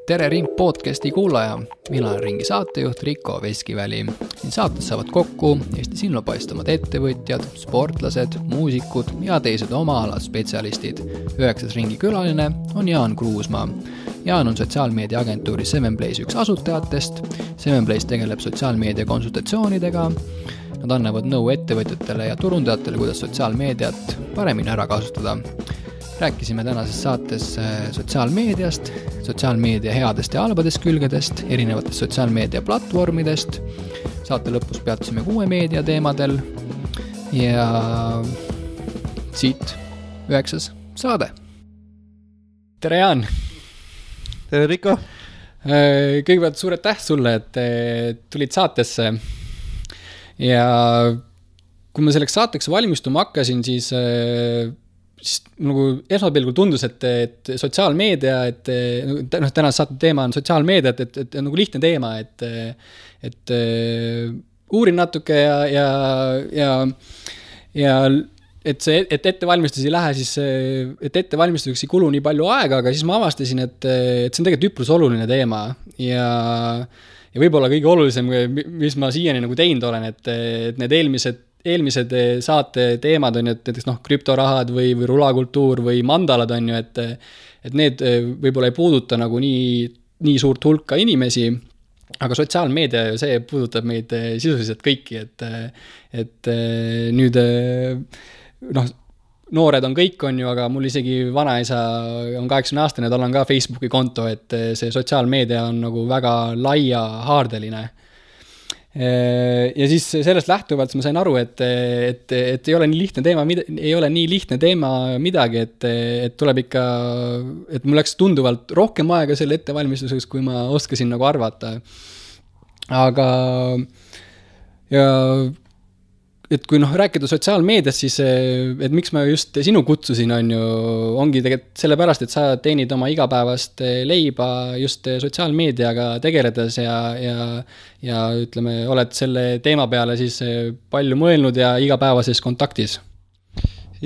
Tere Ring podcasti kuulaja, mina olen Ringi saatejuht Riko Veskiväli. Siin saates saavad kokku Eesti silmapaistvad ettevõtjad, sportlased, muusikud ja teised oma ala spetsialistid. 9. Ringi külaline on Jaan Kruusmaa. Jaan on sotsiaalmeedia agentuuri 7Place üks asutajatest. 7Place tegeleb sotsiaalmeedia konsultatsioonidega. Nad annavad nõu ettevõtjatele ja turundajatele, kuidas sotsiaalmeediat paremini ära kasutada. Rääkisime tänases saates sotsiaalmeediast, sotsiaalmeedia headest ja halbadest külgedest, erinevatest sotsiaalmeedia platvormidest. Saate lõpus peatusime 6 meedia teemadel ja siit 9. saade. Tere Jaan! Tere Riko! Kõigepealt suured täht sulle, et tulid saatesse ja kui ma selleks saateks valmistuma hakkasin, siis nagu esmapilgul tundus, et sotsiaalmeedia, tänase saate teema on sotsiaalmeedia, et nagu lihtne teema, et uurin natuke ja et ettevalmistus ei lähe, siis et ettevalmistuseks ei kulu nii palju aega, aga siis ma avastasin, et see on tegelikult üprus oluline teema ja võib-olla kõige olulisem, mis ma siiani nagu teinud olen, et need eelmised saate teemad on, et krüptorahad või rulakultuur või mandalad on ju, et need võib-olla ei puuduta nagu nii suurt hulka inimesi, aga sotsiaalmeedia ju see puudutab meid sisuliselt kõiki, et nüüd noored on kõik on ju, aga mul isegi vanaisa on 80-aastane, tal on ka Facebooki konto, et see sotsiaalmeedia on nagu väga laia haardeline. Ja siis sellest lähtuvalt ma sain aru, et ei ole nii lihtne teema midagi, et tuleb ikka, et mul läks tunduvalt rohkem aega selle ettevalmistuseks, kui ma oskasin nagu arvata. Aga ja et kui rääkida sotsiaalmeediast, siis et miks ma just sinu kutsusin on ju, ongi tegelikult sellepärast, et sa teenid oma igapäevast leiba just sotsiaalmeediaga tegeledes ja ütleme, oled selle teema peale siis palju mõelnud ja igapäevases kontaktis.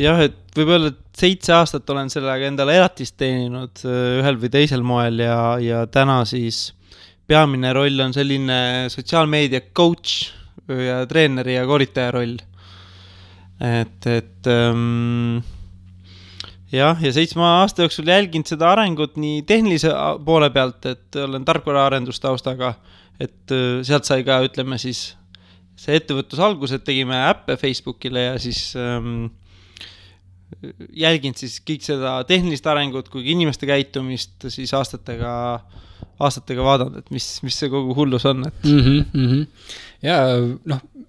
Jah, et võib-olla 7 aastat olen sellega endale elatist teeninud ühel või teisel moel ja täna siis peamine roll on selline sotsiaalmeedia coach ja treeneri ja koolitaja roll. Ja 7 aasta jooksul jälginud seda arengut nii tehnilise poole pealt, et olen tarkvaraarendustaustaga, et sealt sai ka, ütleme siis, see ettevõtlus algus, et tegime äppe Facebookile ja siis jälginud siis kõik seda tehnilist arengut kui inimeste käitumist siis aastatega vaadanud, et mis see kogu hullus on. Ja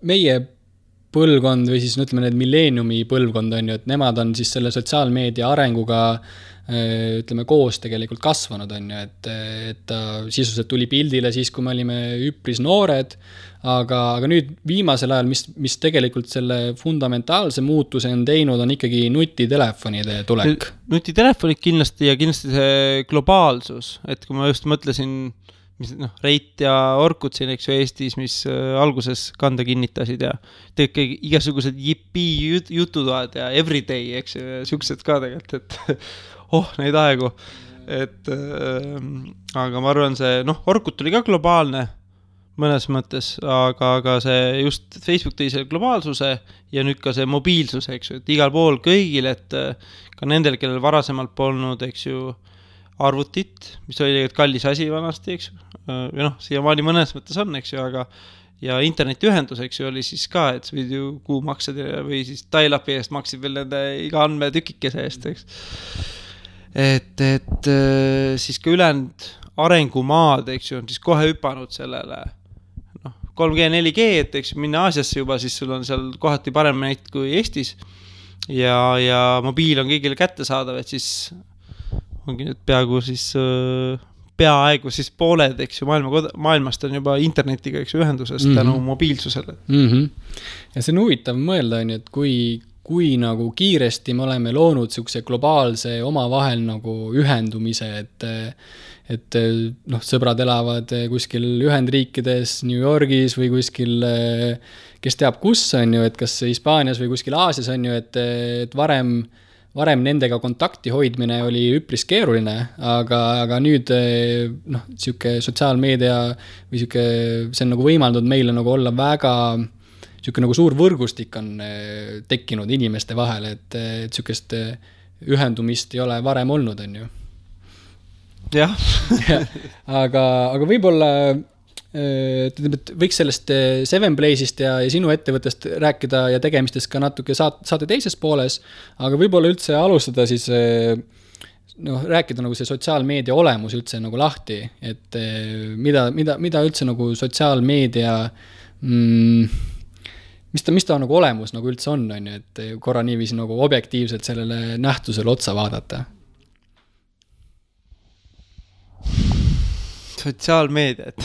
meie põlvkond või siis ütleme need milleeniumi põlvkond on ju, et nemad on siis selle sotsiaalmeedia arenguga ütleme koos tegelikult kasvanud on ju, et ta sisuliselt tuli pildile siis, kui me olime üpris noored, aga nüüd viimasel ajal, mis tegelikult selle fundamentaalse muutuse on teinud, on ikkagi nutitelefonide tulek. Nutitelefonid kindlasti ja kindlasti see globaalsus, et kui ma just mõtlesin Reit ja Orkut siin, eks ju, Eestis, mis alguses kanda kinnitasid ja tegelikult igasugused jippii jututoad ja everyday, eks ju, siuksed ka tegelikult, et neid aegu. Aga ma arvan, see, Orkut oli ka globaalne mõnes mõttes, aga see just Facebook tõi selle globaalsuse ja nüüd ka see mobiilsus, eks ju, et igal pool kõigil, et ka nendel, kellel varasemalt polnud, eks ju, arvutit, mis oli tegelikult kallis asi vanasti, eks ju, ja siiamaani mõnes mõttes on, eks ju, aga ja internetiühendus, eks ju, oli siis ka, et võid ju kuumaksed või siis dial-upi eest maksid veel nende iga andme tükikese eest, eks. Et siis ka ülejäänud arengumaad, eks ju, on siis kohe hüpanud sellele 3G, 4G, et eks minna Aasiasse juba, siis sul on seal kohati parem näit kui Eestis ja mobiil on kõigile kätte saadav, et siis ongi nüüd peaaegu siis pooled, eks ju, maailmast on juba internetiga, eks ju, ühendusest tänu mobiilsusele. Ja see on huvitav mõelda, et kui nagu kiiresti me oleme loonud siukse globaalse omavahel nagu ühendumise, et sõbrad elavad kuskil Ühendriikides, New Yorgis või kuskil, kes teab kus on ju, et kas Hispaanias või kuskil Aasias on ju, et varem varem nendega kontakti hoidmine oli üpris keeruline, aga nüüd noh, sihuke sotsiaalmeedia või sihuke, see on nagu võimaldanud meile nagu olla väga sihuke nagu suur võrgustik on tekkinud inimeste vahel, et sihukest ühendumist ei ole varem olnud, on ju. Jah. aga võib-olla võiks sellest Seven Place'ist ja sinu ettevõttest rääkida ja tegemistest ka natuke saate teises pooles, aga võib-olla üldse alustada siis rääkida nagu see sotsiaalmeedia olemus üldse nagu lahti, et mida üldse nagu sotsiaalmeedia mis ta nagu olemus nagu üldse on ju, et korra niiviisi nagu objektiivselt sellele nähtusele otsa vaadata. Sotsiaalmeedia, et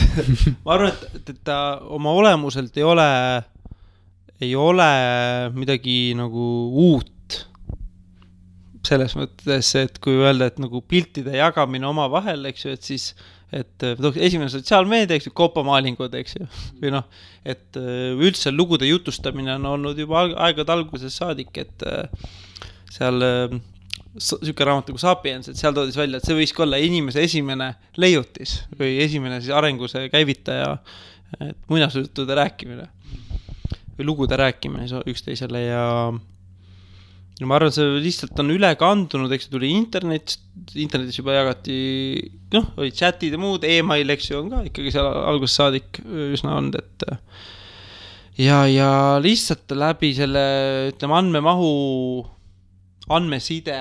ma arvan, et ta oma olemuselt ei ole midagi nagu uut selles mõttes, et kui öelda, et nagu piltide jagamine oma vahel, eks ju, et siis esimene sotsiaalmeedia, eks ju, koopamaalingud, eks ju, või noh, et üldse lugude jutustamine on olnud juba aegade alguses saadik, et seal siuke raamat nagu Sapiens, et seal toodis välja, et see võiski olla inimese esimene leiutis või esimene siis arenguse käivitaja, et muinasjutude rääkimine või lugude rääkimine üksteisele ja ma arvan, see lihtsalt on üle kandunud, eks tuli internetis juba jagati, noh, oli chatid ja muud, email, eks ju, on ka ikkagi seal alguses saadik üsna olnud, et ja lihtsalt läbi selle, ütleme, andmeside,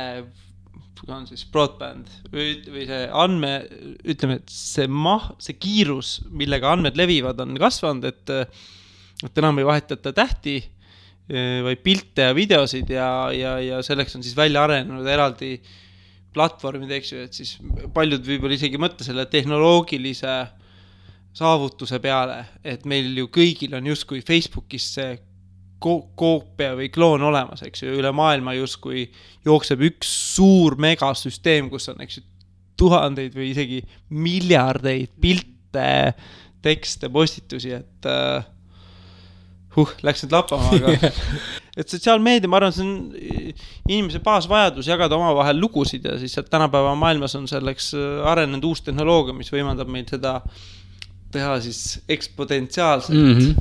on siis broadband või see ütleme, et see kiirus, millega andmed levivad, on kasvanud, et enam ei vahetata tähti, vaid pilte ja videosid ja selleks on siis välja arenenud eraldi platvormid, eks ju, et siis paljud võib-olla isegi mõtle selle tehnoloogilise saavutuse peale, et meil ju kõigil on justkui Facebookis see koopia või kloon olemas, eks ju, üle maailma justkui jookseb üks suur megasüsteem, kus on, eks ju, tuhandeid või isegi miljardeid pilte, tekste, postitusi, et läks nüüd lappama, aga et sotsiaalmeedia, ma arvan, see on inimese baasvajadus jagada oma vahel lugusid ja siis tänapäeva maailmas on selleks arenenud uus tehnoloogia, mis võimaldab meil seda teha siis eksponentsiaalselt.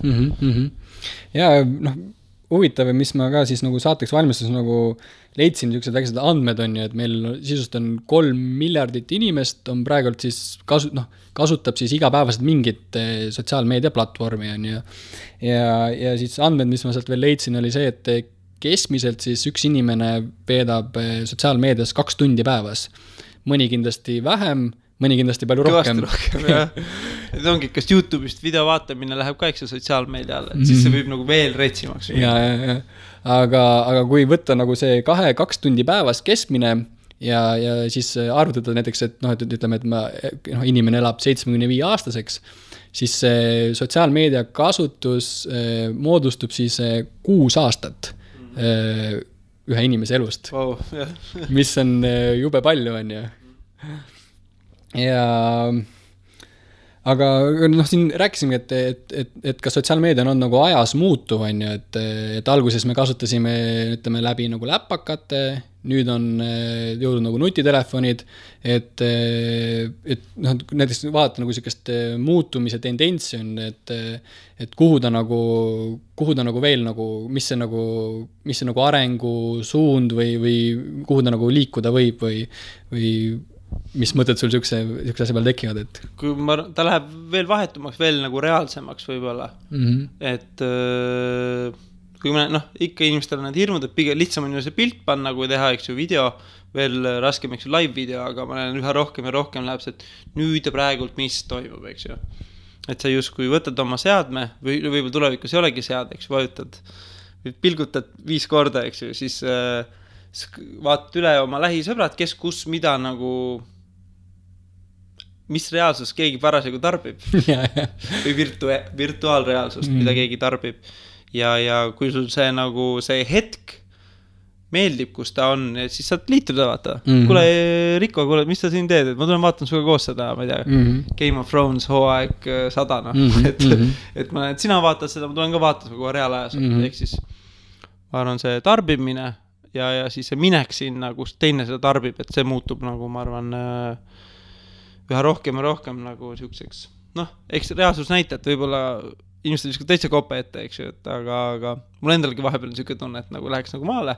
Ja noh, huvitav, mis ma ka siis nagu saateks valmistus nagu leidsin niisugused väikesed andmed on ju, et meil sisust on 3 miljardit inimest on praegult siis kasutab siis igapäevaselt mingit sotsiaalmeedia platvormi on ju. Ja siis andmed, mis ma sealt veel leidsin, oli see, et keskmiselt siis üks inimene veedab sotsiaalmeedias 2 tundi päevas. Mõni kindlasti vähem, mõni kindlasti palju rohkem. Jah. Et ongi, kas YouTube'ist video vaatamine läheb ka eks sotsiaalmeedia alla, et siis see võib nagu veel retsimaks. Ja. Aga kui võtta nagu see 2 tundi päevas keskmine ja siis arvutada näiteks, et noh, et ütleme, et inimene elab 75 aastaseks, siis sotsiaalmeedia kasutus moodustub siis 6 aastat ühe inimese elust. Wow, mis on jube palju, on ju. Aga noh, siin rääkisime, et ka sotsiaalmeedia on nagu ajas muutuv, on ju, et alguses me kasutasime, ütleme, läbi nagu läppakate, nüüd on jõudnud nagu nutitelefonid, et noh, näiteks vaadata nagu sellist muutumise tendentsi on, et kuhu ta nagu veel nagu, mis see nagu arengu suund või kuhu ta nagu liikuda võib või mis mõtted sul siukse asja peal tekivad, et kui ta läheb veel vahetumaks, veel nagu reaalsemaks võibolla, et kui me, ikka inimestel on need hirmud, et pigem lihtsam on ju see pilt panna, kui teha, eks ju, video, veel raskem, eks ju, live video, aga ma näen üha rohkem ja rohkem läheb see, et nüüd ja praegult mis toimub, eks ju. Et sa justkui võtad oma seadme või võib-olla tulevikus ei olegi sead, eks vajutad, pilgutad 5 korda, eks ju, siis vaatad üle oma lähisõbrad, kes kus mida nagu mis reaalsus keegi parasjagu tarbib või virtuaalreaalsust, mida keegi tarbib ja kui sul see nagu see hetk meeldib, kus ta on, siis saad liituda vaata. Kuule, Riko, mis sa siin teed? Et ma tulen vaatan suga koos seda, ma ei tea, Game of Thrones hooaeg 100, et sina vaatad seda, ma tulen ka vaatan suga reaalajas, ehk siis ma arvan see tarbimine ja siis see minek sinna, kus teine seda tarbib, et see muutub nagu, ma arvan, üha rohkem ja rohkem nagu siukseks, eks reaalsus näita, et võib-olla inimesed viskavad täitsa kope ette, eks ju, et aga mul endalgi vahepeal on siuke tunne, et nagu läheks nagu maale,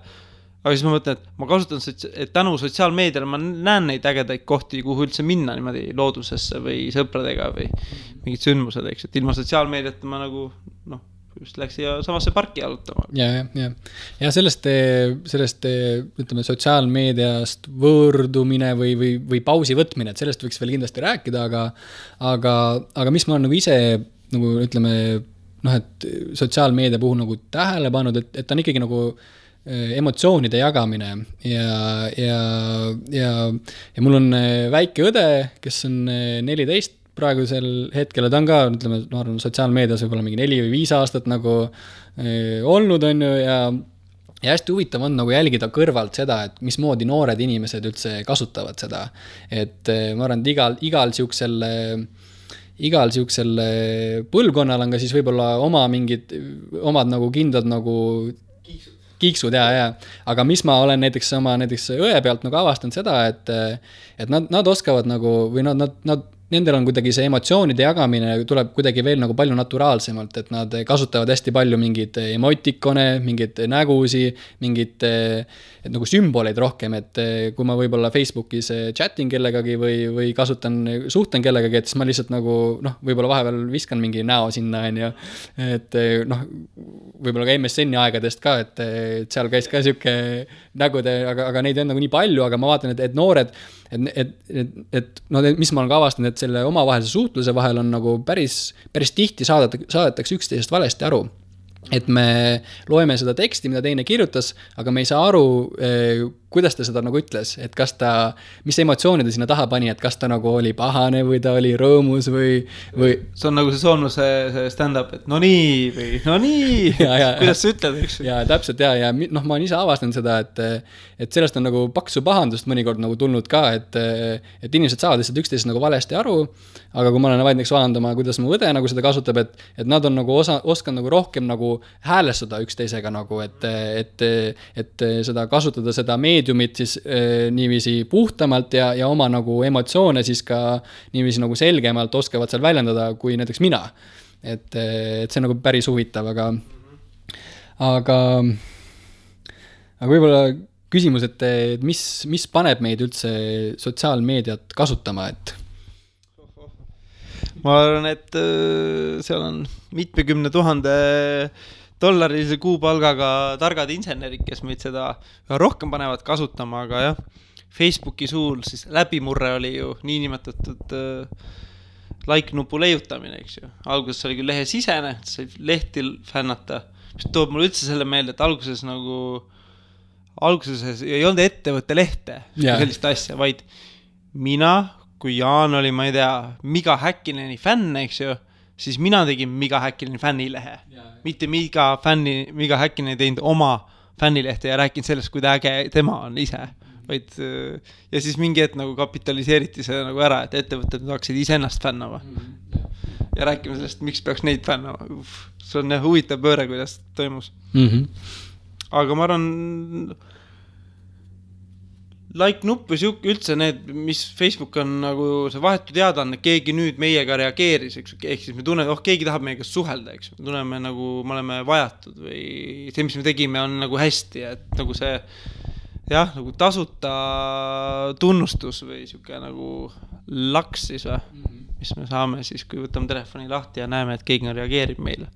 aga siis ma mõtlen, et ma kasutan, et tänu sotsiaalmeediale ma näen neid ägedaid kohti, kuhu üldse minna niimoodi loodusesse või sõpradega või mingid sündmused, eks, et ilma sotsiaalmeediat ma nagu, just läks siia samasse parki jalutama. Ja sellest, ütleme, sotsiaalmeediast võõrdumine või pausi võtmine, et sellest võiks veel kindlasti rääkida, aga mis ma olen nagu ise, nagu ütleme, et sotsiaalmeedia puhul nagu tähele pannud, et ta on ikkagi nagu emotsioonide jagamine ja mul on väike õde, kes on 14 praegusel hetkel, ta on ka, ütleme, ma arvan, sotsiaalmeedias võib-olla mingi 4 või 5 aastat nagu olnud on ju ja hästi huvitav on nagu jälgida kõrvalt seda, et mismoodi noored inimesed üldse kasutavad seda. Et ma arvan, et igal siuksel põlvkonnal on ka siis võib-olla omad nagu kindlad nagu kiiksud ja. Aga mis ma olen näiteks õe pealt nagu avastanud seda, et nad oskavad nagu, või nendel on kuidagi see emotsioonide jagamine tuleb kuidagi veel nagu palju naturaalsemalt, et nad kasutavad hästi palju mingid emotikone, mingid nägusi, mingid nagu sümboleid rohkem, et kui ma võib-olla Facebookis chatin kellegagi või suhtlen kellegagi, et siis ma lihtsalt nagu, võib-olla vahepeal viskan mingi näo sinna, et võib-olla ka MSN-i aegadest ka, et seal käis ka siuke nägude, aga neid on nagu nii palju, aga ma vaatan, et noored, mis ma olen ka avastanud, et selle omavahelise suhtluse vahel on nagu päris tihti saadetakse üksteisest valesti aru. Et me loeme seda teksti, mida teine kirjutas, aga me ei saa aru, kuidas ta seda nagu ütles, et mis emotsiooni ta sinna taha pani, et kas ta nagu oli pahane või ta oli rõõmus või... See on nagu see soomlase stand-up, et no nii, kuidas sa ütled, eks? Ja täpselt ja ma olen ise avastanud seda, et sellest on nagu paksu pahandust mõnikord nagu tulnud ka, et inimesed saavad lihtsalt üksteisest nagu valesti aru, aga kui ma olen näiteks vaadandama, kuidas mu õde nagu seda kasutab, et nad on nagu oskan nagu rohkem nagu häälestada üksteisega nagu, et seda kasutada seda meediumit siis niiviisi puhtamalt ja oma nagu emotsioone siis ka niiviisi nagu selgemalt oskavad seal väljendada kui näiteks mina. Et see on nagu päris huvitav, aga võib-olla küsimus, et mis paneb meid üldse sotsiaalmeediat kasutama, et ma arvan, et seal on mitmekümne $1000 kuupalgaga targad insenerid, kes meid seda rohkem panevad kasutama, aga jah, Facebooki suul siis läbimurre oli ju niinimetatud like-nupu leiutamine, eks ju. Alguses oli küll lehe sisene, sai lehti fännata, mis toob mulle üldse selle meelde, et alguses ei olnud ettevõtte lehte, sellist asja, vaid mina, kui Jaan oli, ma ei tea, Miga Häkkineni fänn, eks ju, siis mina tegin Miga Häkkineni fännilehe. Mitte Miga Häkkinen ei teinud oma fännilehte ja rääkinud sellest, kui äge tema on ise. Ja siis mingi hetk nagu kapitaliseeriti see nagu ära, et ettevõtted hakkasid ise ennast fännama. Ja rääkime sellest, miks peaks neid fännama. See on huvitav pööre, kuidas toimus. Aga ma arvan... like-nupp või üldse need, mis Facebook on nagu see vahetu teadaanne, keegi nüüd meiega reageeris, ehk siis me tunneme, keegi tahab meiega suhelda, eks. Me tunneme nagu, me oleme vajatud või see, mis me tegime, on nagu hästi, et nagu see, jah, nagu tasuta tunnustus või siuke nagu laks siis või, mis me saame siis, kui võtame telefoni lahti ja näeme, et keegi reageerib meile.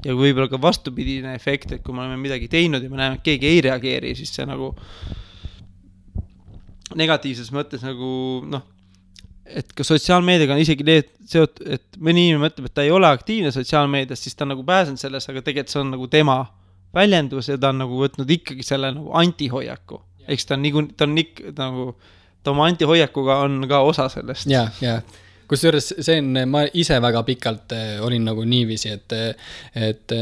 Ja kui võib-olla ka vastupidine efekt, et kui me oleme midagi teinud ja me näeme, et keegi ei reageeri, siis see nagu negatiivses mõttes nagu, et ka sotsiaalmeediaga on isegi seotud, et mõni inimene mõtleb, et ta ei ole aktiivne sotsiaalmeedias, siis ta on nagu pääsenud selles, aga tegelikult see on nagu tema väljendus ja ta on nagu võtnud ikkagi selle nagu antihoiaku. Eks ta on nagu, ta oma antihoiakuga on ka osa sellest. Ja kusjuures see on, ma ise väga pikalt olin nagu niiviisi, et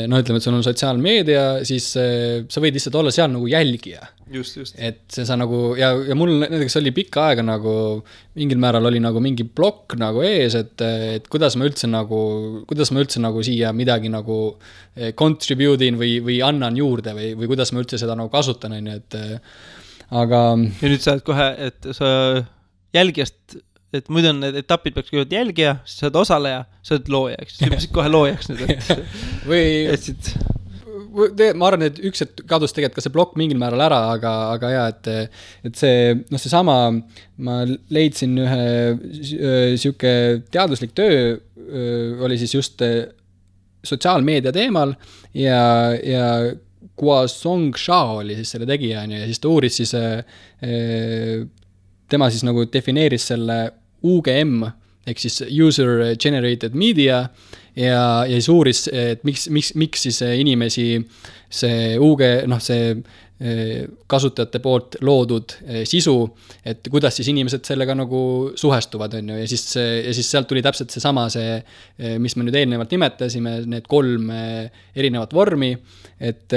no ütleme, et sul on sotsiaalmeedia, siis sa võid lihtsalt olla seal nagu jälgija. Just. Et see sa nagu, ja mul näiteks oli pikka aega nagu, mingil määral oli nagu mingi blokk nagu ees, et kuidas ma üldse nagu siia midagi nagu contribute'in või annan juurde või kuidas ma üldse seda nagu kasutan, et aga... Ja nüüd sa oled kohe, et sa jälgijast, et muidu on need etapid peaks kõigepealt jälgija, siis sa oled osaleja, sa oled looja, eks. Sa peaksid kohe loojaks nüüd, et... Ma arvan, et üks hetk kadus tegelikult ka see blokk mingil määral ära, aga ja, et see, noh, see sama, ma leidsin ühe siuke teaduslik töö, oli siis just sotsiaalmeedia teemal ja Guosong Shao oli siis selle tegija, ja siis ta uuris siis, tema siis nagu defineeris selle UGM, ehk siis User Generated Media, ja siis uuris, et miks siis inimesi see see kasutajate poolt loodud sisu, et kuidas siis inimesed sellega nagu suhestuvad, on ju, ja siis sealt tuli täpselt seesama mis me nüüd eelnevalt nimetasime, need 3 erinevat vormi, et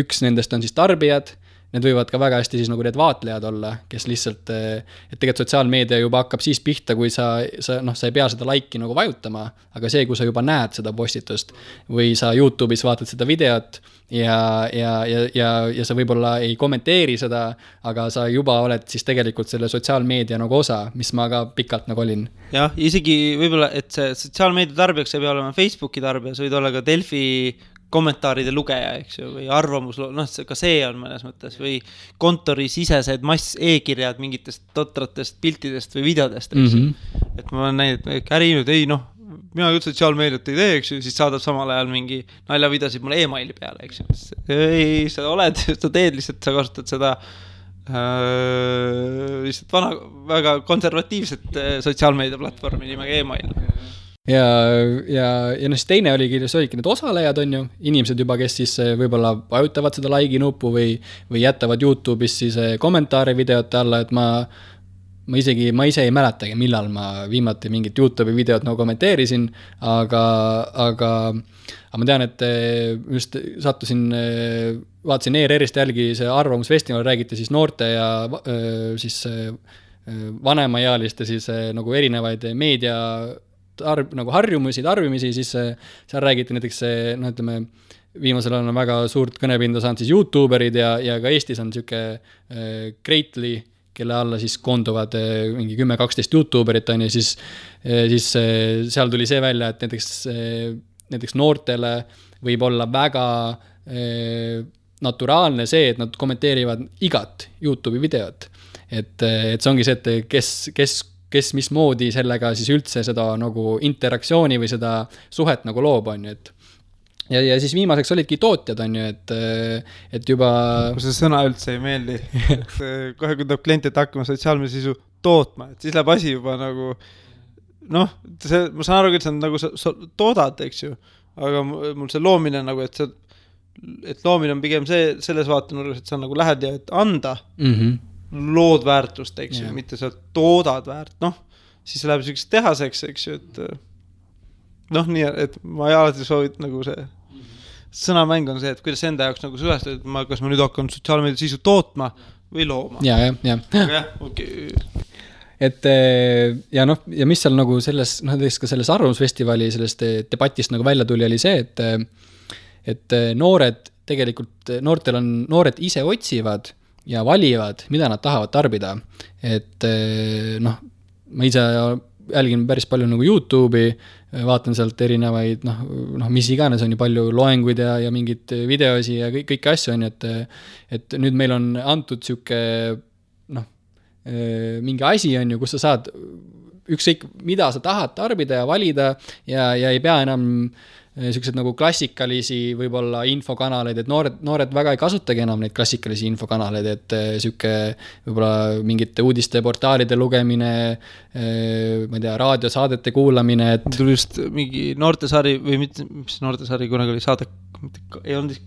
üks nendest on siis tarbijad, need võivad ka väga hästi siis nagu need vaatlejad olla, kes lihtsalt, et tegelikult sotsiaalmeedia juba hakkab siis pihta, kui sa ei pea seda like'i nagu vajutama, aga see, kui sa juba näed seda postitust või sa YouTube'is vaatad seda videot ja sa võib-olla ei kommenteeri seda, aga sa juba oled siis tegelikult selle sotsiaalmeedia nagu osa, mis ma ka pikalt nagu olin. Jah, isegi võib-olla, et see sotsiaalmeedia tarbijaks ei pea olema Facebooki tarbija, sa võid olla ka Delfi kommentaaride lugeja, eks ju, või arvamus, ka see on mõnes mõttes, või kontori sisesed mass e-kirjad mingitest totratest piltidest või videodest, eks ju. Et ma olen näinud, et äri nüüd, mina küll sotsiaalmeediat ei tee, eks ju, siis saadab samal ajal mingi naljavidasid mulle e-maili peale, eks ju. Ei, sa oled, sa teed lihtsalt, sa kasutad seda lihtsalt väga konservatiivset sotsiaalmeedia platvormi nimega e-mail. Ja siis teine oligi need osalejad, on ju, inimesed juba, kes siis võib-olla vajutavad seda like nuppu või jätavad YouTube'is siis kommentaare videote alla, et ma ise ei mäletagi, millal ma viimati mingit YouTube'i videot nagu kommenteerisin, aga ma tean, et just sattusin, vaatasin ERR-ist jälgi see arvamusfestival, räägiti siis noorte ja siis vanemaealiste siis nagu erinevaid meedia nagu harjumisi, tarbimisi, siis seal räägiti näiteks ütleme, viimasel on väga suurt kõnepinda saanud siis YouTuberid ja ka Eestis on siuke Greatly, kelle alla siis koonduvad mingi 10-12 YouTuberit on ja siis seal tuli see välja, et näiteks noortele võib olla väga naturaalne see, et nad kommenteerivad igat YouTube'i videot. Et see ongi see, et kes mismoodi sellega siis üldse seda nagu interaktsiooni või seda suhet nagu loob, on ju, et ja siis viimaseks olidki tootjad, on ju, et juba... Kui see sõna üldse ei meeldi, et kohe kui tuleb klient, et hakkama sotsiaalmeedia sisu tootma, et siis läheb asi juba nagu ma saan aru, et see on nagu sa toodad, eks ju, aga mul see loomine nagu, et loomine on pigem selles vaatenurgas, et sa nagu lähed ja et anda lood väärtust, eks ju, mitte sa toodad väärt, siis läheb selliseks tehaseks, eks ju, et nii, et ma alati soovit nagu see sõnamäng on see, et kuidas enda jaoks nagu suhestada, et kas ma nüüd hakkan sotsiaalmeedia sisu tootma või looma. Ja. Okay. Et ja mis seal nagu selles, ka selles arvamusfestivali sellest debatist nagu välja tuli, oli see, et noored ise otsivad ja valivad, mida nad tahavad tarbida. Et ma ise jälgin päris palju nagu YouTube'i, vaatan sealt erinevaid, mis iganes on ju palju loenguid ja mingid videosi ja kõiki asju on, et nüüd meil on antud siuke, mingi asi on ju, kus sa saad ükskõik, mida sa tahad tarbida ja valida ja ei pea enam sellised nagu klassikalisi võib-olla infokanaleid, et noored väga ei kasutagi enam neid klassikalisi infokanaleid, et siuke võib-olla mingite uudisteportaalide lugemine, ma ei tea, raadiosaadete kuulamine, et... Tuli just mingi noortesari või mis noortesari kunagi oli saade, ei olnud,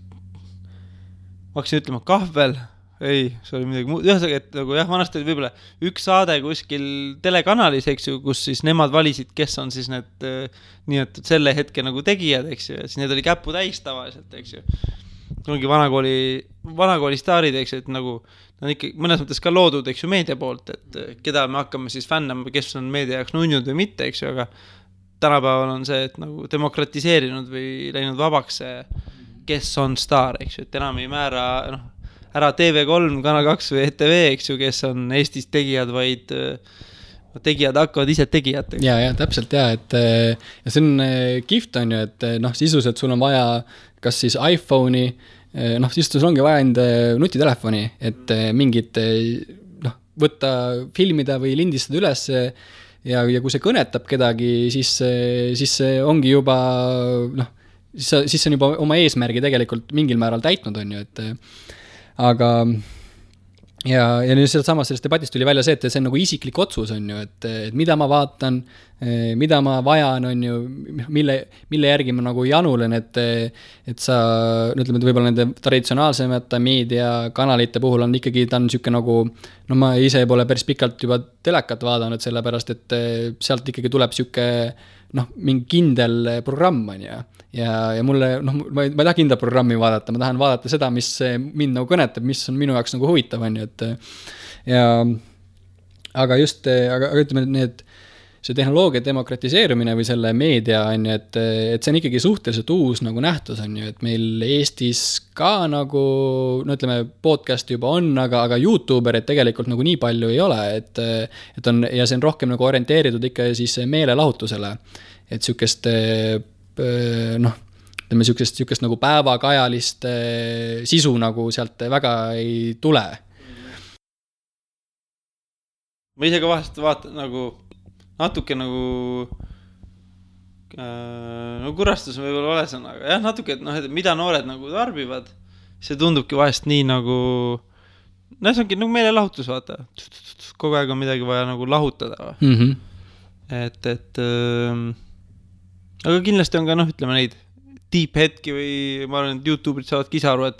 ma hakkasin ütlema kahvel, ei, see oli midagi muud, ühesõnaga, et nagu jah, vanasti oli võib-olla üks saade kuskil telekanalis, eks ju, kus siis nemad valisid, kes on siis need nii-et selle hetke nagu tegijad, eks ju, ja siis need oli käpu täis tavaliselt, eks ju. Ongi vanakooli staarid, eks ju, et nagu nad ikka mõnes mõttes ka loodud, eks ju, meedia poolt, et keda me hakkame siis fännama, kes on meedia jaoks nunnud või mitte, eks ju, aga tänapäeval on see, et nagu demokratiseerinud või läinud vabaks see, kes on staar, eks ju, et enam ei määra, ära TV3, Kanal 2 või ETV, eks ju, kes on Eestis tegijad, vaid tegijad hakkavad ise tegijateks. Ja, täpselt et ja see on kihvt on ju, et sisuliselt sul on vaja kas siis iPhone'i, siis sul ongi vaja enda nutitelefoni, et mingit võtta, filmida või lindistada üles ja kui see kõnetab kedagi, siis see ongi juba, siis see on juba oma eesmärgi tegelikult mingil määral täitnud, on ju, et aga ja nüüd sellest debatist tuli välja see, et see on nagu isiklik otsus, on ju, et mida ma vaatan, mida ma vajan, on ju, mille järgi ma nagu janulen, et sa, ütleme, et võib-olla nende traditsionaalsemate meediakanalite puhul on ikkagi, ta on niisugune nagu, ma ise pole päris pikalt juba telekat vaadanud, sellepärast, et sealt ikkagi tuleb niisugune mingi kindel programm, on ju. Ja mulle, ma ei taha kindla programmi vaadata, ma tahan vaadata seda, mis mind nagu kõnetab, mis on minu jaoks nagu huvitav, on ju, et ja aga ütleme, see tehnoloogia demokratiseerumine või selle meedia, on ju, et see on ikkagi suhteliselt uus nagu nähtus, on ju, et meil Eestis ka nagu, ütleme, podcast juba on, aga YouTuberid tegelikult nagu nii palju ei ole, et on, ja see on rohkem nagu orienteeritud ikka siis meelelahutusele, et niisugust ütleme, niisugust nagu päevakajalist sisu nagu sealt väga ei tule. Ma ise ka vahest vaatan nagu natuke nagu kurastus võib-olla ole sõna, aga jah, natuke, et mida noored nagu tarbivad, see tundubki vahest nii nagu, see ongi nagu meelelahutus, vaata, kogu aeg on midagi vaja nagu lahutada. Et aga kindlasti on ka, ütleme neid deep hetki või ma arvan, et YouTube'id saavad kisa aru, et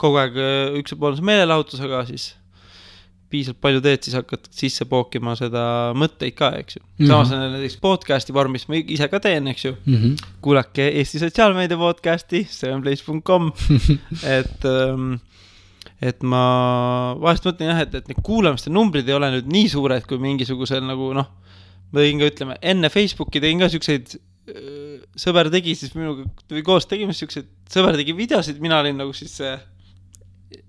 kogu aeg üks pool on see meelelahutus, aga siis piisalt palju teed, siis hakkad sisse pookima seda mõtteid ka, eks ju. Samas on näiteks podcasti vormis, ma ise ka teen, eks ju. Kuulake Eesti sotsiaalmeedia podcasti, sevenplace.com, et ma vahest mõtlen jah, et need kuulamiste numbrid ei ole nüüd nii suured, kui mingisugusel nagu, ma tegin ka, ütleme, enne Facebooki tegin ka siukseid sõber tegi siis minuga, või koos tegime siukseid, sõber tegi videosid, mina olin nagu siis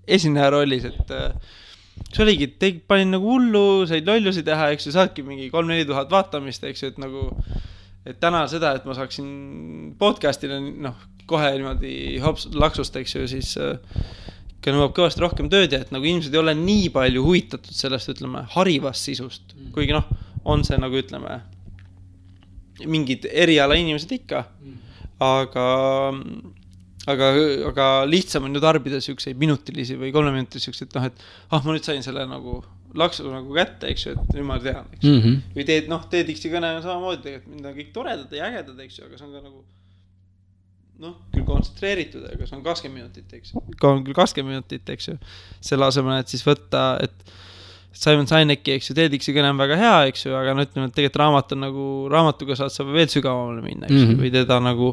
esineja rollis, et see oligi, panin nagu hullu, said lollusi teha, eks ju, saadki mingi 3-4 tuhat vaatamist, eks ju, et nagu, et täna seda, et ma saaksin podcastile, kohe niimoodi laksust, eks ju, siis ka nõuab kõvasti rohkem tööd ja et nagu inimesed ei ole nii palju huvitatud sellest, ütleme, harivast sisust, kuigi on see nagu, ütleme, mingid eriala inimesed ikka, aga lihtsam on ju tarbida siukseid minutilisi või 3 minutilisi siukseid, et ma nüüd sain selle nagu laksu nagu kätte, eks ju, et nüüd ma tean, eks ju. Või teed X-i kõne on samamoodi, et mind on kõik toredad ja ägedad, eks ju, aga see on ka nagu küll kontsentreeritud, aga see on 20 minutit, eks ju. On küll 20 minutit, eks ju. Selle asemel, et siis võtta, et Simon Sineki, eks ju, TEDx'i kõne on väga hea, eks ju, aga ütleme, et tegelikult raamat on nagu, raamatuga saad sa veel sügavamale minna, eks ju, või teda nagu,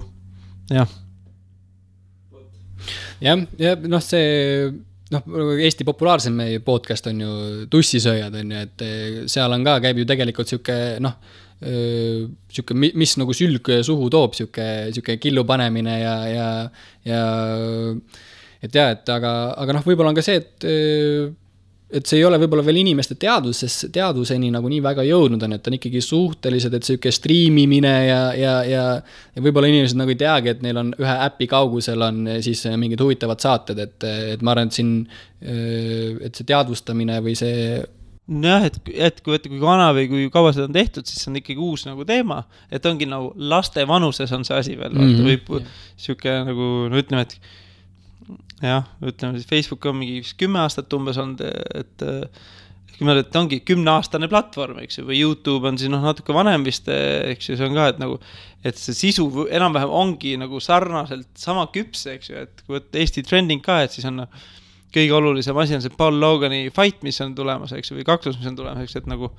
jah. Ja see, Eesti populaarsem podcast on ju Tussisööjad, on ju, et seal on ka, käib ju tegelikult siuke, mis nagu sülg suhu toob, siuke killu panemine ja et jah, et aga võib-olla on ka see, et see ei ole võib-olla veel inimeste teaduseni nagu nii väga jõudnud on, et on ikkagi suhteliselt, et siuke striimimine ja võib-olla inimesed nagu ei teagi, et neil on ühe äpi kaugusel on siis mingid huvitavad saated, et ma arvan, et siin, et see teadvustamine või see jah, et kui vana või kui kaua seda on tehtud, siis on ikkagi uus nagu teema, et ongi nagu laste vanuses on see asi veel, võib siuke nagu, ütleme, et jah, ütleme siis Facebook on mingi 10 aastat umbes olnud, et ongi 10-aastane platvorm, eks ju, või YouTube on siis natuke vanem vist, eks ju, see on ka, et nagu, et see sisu enam-vähem ongi nagu sarnaselt sama küps, eks ju, et kui võtta Eesti trending ka, et siis on kõige olulisem asi on see Paul Logani fight, mis on tulemas, eks, või kaklus, mis on tulemas, eks, et nagu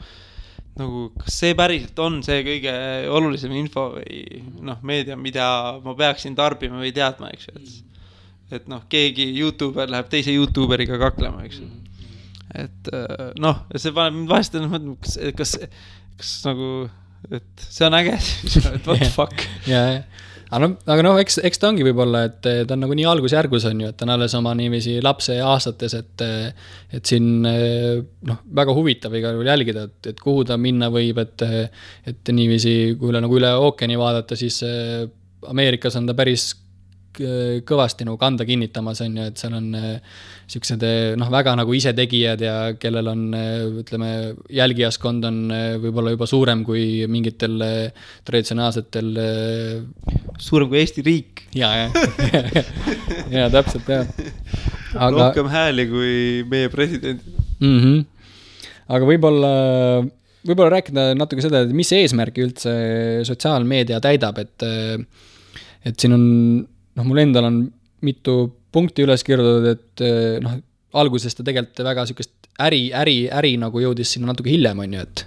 kas see päriselt on see kõige olulisem info või meedia, mida ma peaksin tarbima või teadma, eks, et keegi YouTuber läheb teise YouTuberiga kaklema, eks. Et see paneb mind vahest, kas nagu, et see on äge, et what the fuck. Aga eks ta ongi võib-olla, et ta on nagu nii algusjärgus on ju, et ta on alles oma niiviisi lapse aastates, et siin väga huvitav igal juhul jälgida, et kuhu ta minna võib, et niiviisi, kui üle ookeani vaadata, siis Ameerikas on ta päris kõvasti nagu kanda kinnitamas on ju, et seal on siuksed väga nagu isetegijad ja kellel on, ütleme, jälgijaskond on võib-olla juba suurem kui mingitel traditsionaalsetel suurem kui Eesti riik. Ja täpselt, jah. Rohkem hääli kui meie president. Aga võib-olla rääkida natuke seda, et mis eesmärki üldse sotsiaalmeedia täidab, et siin on mul endal on mitu punkti üles kirjutatud, et alguses ta tegelikult väga sükest äri nagu jõudis sinna natuke hiljem, on ju, et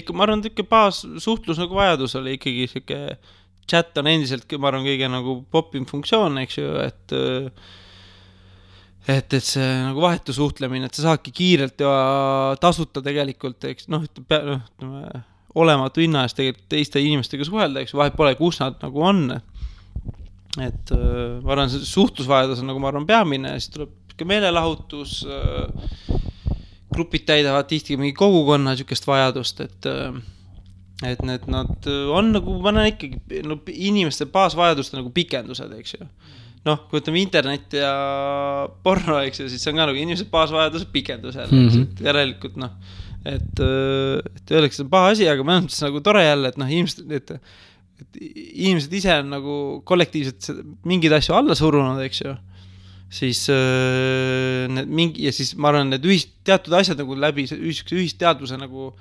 ikka, ma arvan, et baas suhtlus nagu vajadus oli ikkagi siuke chat on endiselt, ma arvan, kõige nagu popim funktsioon, eks ju, et see nagu vahetu suhtlemine, et sa saadki kiirelt ja tasuta tegelikult, eks, olematu hinna eest tegelikult teiste inimestega suhelda, eks, vahet pole, kus nad nagu on. Et ma arvan, see suhtlusvajadus on nagu ma arvan peamine, siis tuleb ka meelelahutus, grupid täidavad tihti mingi kogukonna sükest vajadust, et nad on nagu, ma näen ikkagi inimeste baasvajaduste nagu pikendused, eks ju. Kui ütleme internet ja porno, eks ju, siis see on ka nagu inimeste baasvajaduse pikendused, eks, järelikult et öeldakse, see on paha asi, aga ma olen nagu tore jälle, et inimesed ise on nagu kollektiivselt mingeid asju alla surunud, eks ju, siis ja siis ma arvan, need teatud asjad nagu läbi ühisteadvuse nagu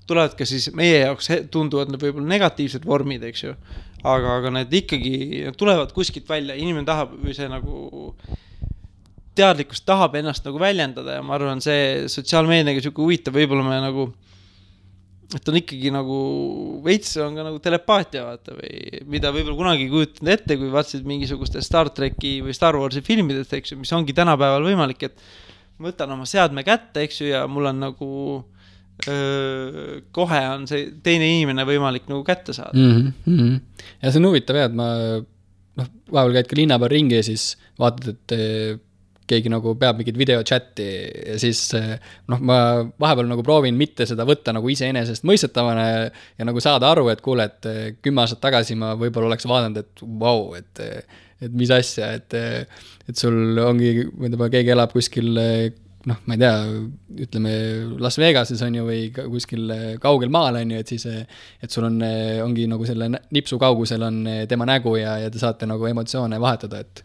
tulevad ka siis meie jaoks tunduvad võib-olla negatiivsed vormid, eks ju, aga need ikkagi tulevad kuskilt välja, inimene tahab või see nagu teadlikkust tahab ennast nagu väljendada ja ma arvan, see sotsiaalmeediaga siuke huvitav, võib-olla me nagu et on ikkagi nagu veits on ka nagu telepaatia vaata või mida võib-olla kunagi kujutanud ette, kui vaatasid mingisuguste Star Treki või Star Warsi filmidest, eks ju, mis ongi tänapäeval võimalik, et võtan oma seadme kätte, eks ju, ja mul on nagu kohe on see teine inimene võimalik nagu kätte saada. Ja see on huvitav, et ma vahepeal käid ka linna peal ringi ja siis vaatad, et keegi nagu peab mingit videochatti ja siis ma vahepeal nagu proovin mitte seda võtta nagu iseenesest mõistetavana ja nagu saada aru, et kuule, et 10 aastat tagasi ma võib-olla oleks vaadanud, et vau, et mis asja, et sul ongi, keegi elab kuskil, ma ei tea, ütleme Las Vegases on ju või kuskil kaugel maal on ju, et siis, et sul ongi nagu selle nipsu kaugusel on tema nägu ja te saate nagu emotsioone vahetada, et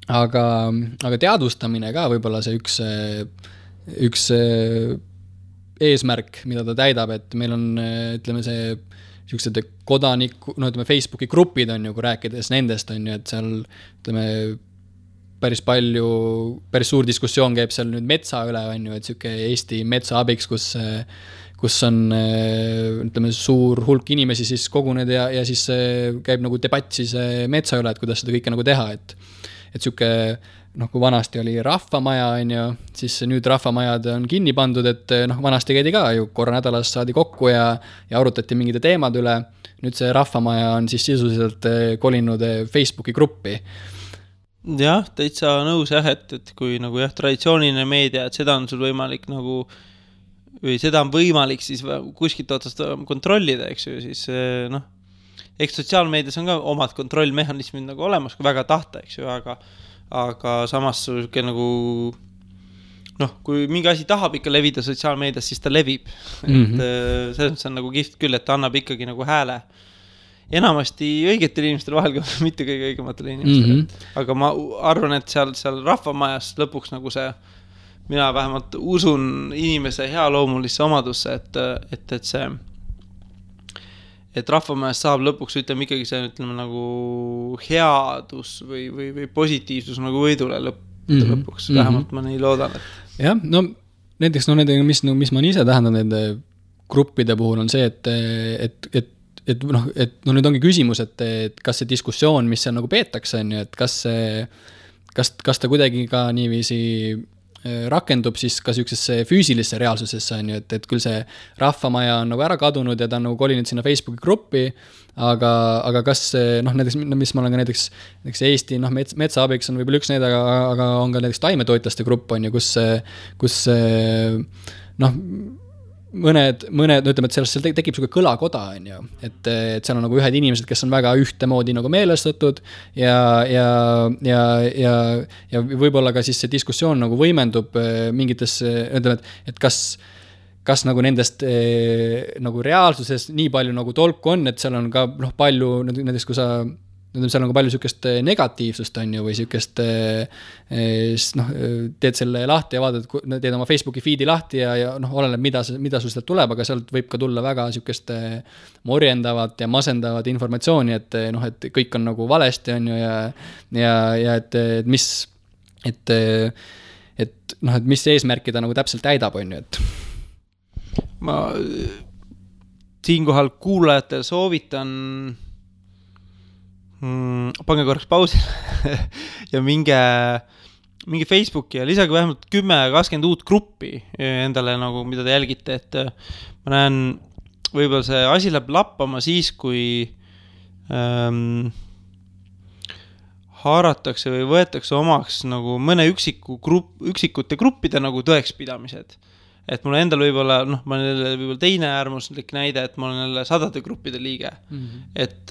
aga teadvustamine ka võib-olla see üks eesmärk, mida ta täidab, et meil on, ütleme, see siuksed kodaniku, ütleme, Facebooki grupid on ju, kui rääkides nendest on ju, et seal, ütleme, päris suur diskussioon käib seal nüüd metsa üle, on ju, et siuke Eesti metsa abiks, kus on, ütleme, suur hulk inimesi siis koguned ja siis käib nagu debatt siis metsa üle, et kuidas seda kõike nagu teha, et siuke, kui vanasti oli rahvamaja, on ju, siis nüüd rahvamajad on kinni pandud, et vanasti käidi ka ju korra nädalas saadi kokku ja arutati mingide teemad üle. Nüüd see rahvamaja on siis sisuliselt kolinud Facebooki gruppi. Jah, täitsa nõus jah, et kui nagu jah, traditsiooniline meedia, et seda on sul võimalik nagu, või seda on võimalik siis kuskilt otsast kontrollida, eks ju, siis eks sotsiaalmeedias on ka omad kontrollmehhanismid nagu olemas, kui väga tahta, eks ju, aga samas nagu, kui mingi asi tahab ikka levida sotsiaalmeedias, siis ta levib. Et selles on nagu kihvt küll, et ta annab ikkagi nagu hääle enamasti õigetel inimestel vahel ka mitte kõige õigematele inimestele. Aga ma arvan, et seal rahvamajas lõpuks nagu see, mina vähemalt usun inimese hea loomulisse omadusse, et see et rahvamajas saab lõpuks, ütleme ikkagi see, ütleme nagu headus või positiivsus nagu võidule lõpuks, vähemalt ma nii loodan, et jah, no näiteks, mis ma ise tähendan nende gruppide puhul on see, et nüüd ongi küsimus, et kas see diskussioon, mis seal nagu peetakse, on ju, et kas ta kuidagi ka niiviisi rakendub siis ka sihukesesse füüsilisse reaalsusesse, on ju, et küll see rahvamaja on nagu ära kadunud ja ta on nagu kolinud sinna Facebooki gruppi, aga kas näiteks, mis ma olen ka näiteks Eesti, metsaabiks on võib-olla üks need, aga on ka näiteks taimetoitlaste grupp, on ju, kus mõned, ütleme, et seal tekib selline kõlakoda, on ju, et seal on nagu ühed inimesed, kes on väga ühtemoodi nagu meelestatud ja võib-olla ka siis see diskussioon nagu võimendub mingites, ütleme, et kas nagu nendest nagu reaalsuses nii palju nagu tolku on, et seal on ka palju, näiteks kui sa seal on ka palju sükest negatiivsust, on ju, või sükest teed selle lahti ja vaatad, teed oma Facebooki feedi lahti ja oleneb, mida sul sealt tuleb, aga sealt võib ka tulla väga sükest morjendavat ja masendavat informatsiooni, et kõik on nagu valesti, on ju, ja et mis eesmärki ta nagu täpselt täidab, on ju, et ma siinkohal kuulajatel soovitan pange korraks pausile ja minge Facebooki ja lisage vähemalt 10-20 uut gruppi endale nagu, mida te jälgite, et ma näen, võib-olla see asi läheb lappama siis, kui haaratakse või võetakse omaks nagu mõne üksikute gruppide nagu tõekspidamised. Et mul endal võib-olla, ma olen võib-olla teine äärmuslik näide, et ma olen jälle 100 gruppide liige. Et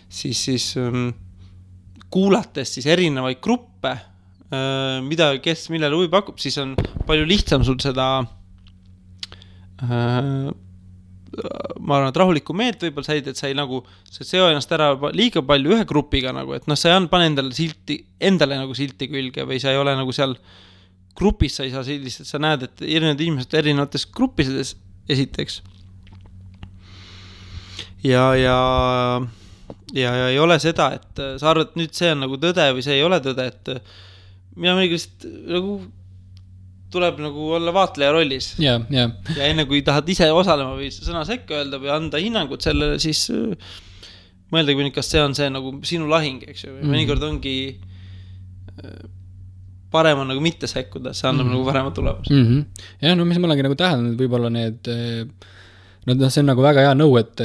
siis kuulates siis erinevaid gruppe, kes millele huvi pakub, siis on palju lihtsam sul seda ma arvan, et rahulikku meelt võib-olla säid, et sa ei nagu seo ennast ära liiga palju ühe grupiga nagu, et sa ei pane endale nagu silti külge või sa ei ole nagu seal grupis, sa ei saa sellist, et sa näed, et erinevad inimesed erinevates gruppides esiteks ja ei ole seda, et sa arvad, et nüüd see on nagu tõde või see ei ole tõde, et mina mõnikest nagu tuleb nagu olla vaatleja rollis. Ja enne kui tahad ise osalema või sõna sekka öelda või anda hinnangut sellele, siis mõeldagi, kas see on see nagu sinu lahing, eks ju. Mõnikord ongi parem on nagu mitte sekkuda, see annab nagu parema tulemus. Ja mis ma olengi nagu tähendanud, võib-olla need see on nagu väga hea nõu, et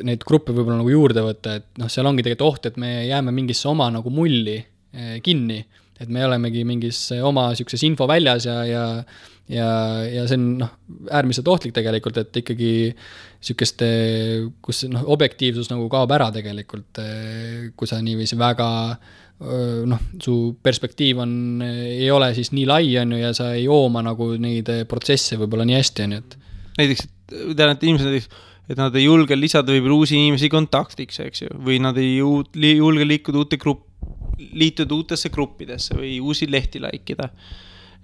neid gruppe võib-olla nagu juurde võtta, et seal ongi tegelikult oht, et me jääme mingisse oma nagu mulli kinni, et me olemegi mingis oma sükses info väljas ja see on äärmiselt ohtlik tegelikult, et ikkagi sükest, kus objektiivsus nagu kaob ära tegelikult, kui sa niiviisi väga su perspektiiv ei ole siis nii lai, on ju, ja sa ei jooma nagu neid protsesse võib-olla nii hästi, on ju, et näiteks, tean, et inimesed näiteks, et nad ei julge lisada võib-olla uusi inimesi kontaktiks, eks ju, või nad ei julge liituda uutesse gruppidesse või uusi lehti laikida.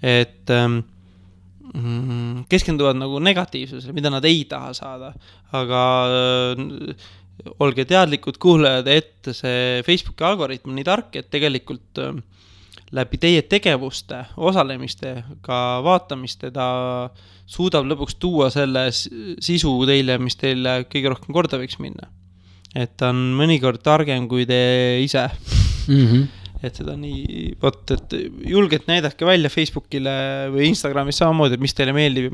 Et keskenduvad nagu negatiivsusele, mida nad ei taha saada. Aga olge teadlikud kuulajad, et see Facebooki algoritm on nii tark, et tegelikult läbi teie tegevuste, osalemiste, ka vaatamiste ta suudab lõpuks tuua selle sisu teile, mis teile kõige rohkem korda võiks minna. Et ta on mõnikord targem kui te ise. Et seda nii, et julgelt näidake välja Facebookile või Instagramis samamoodi, et mis teile meeldib,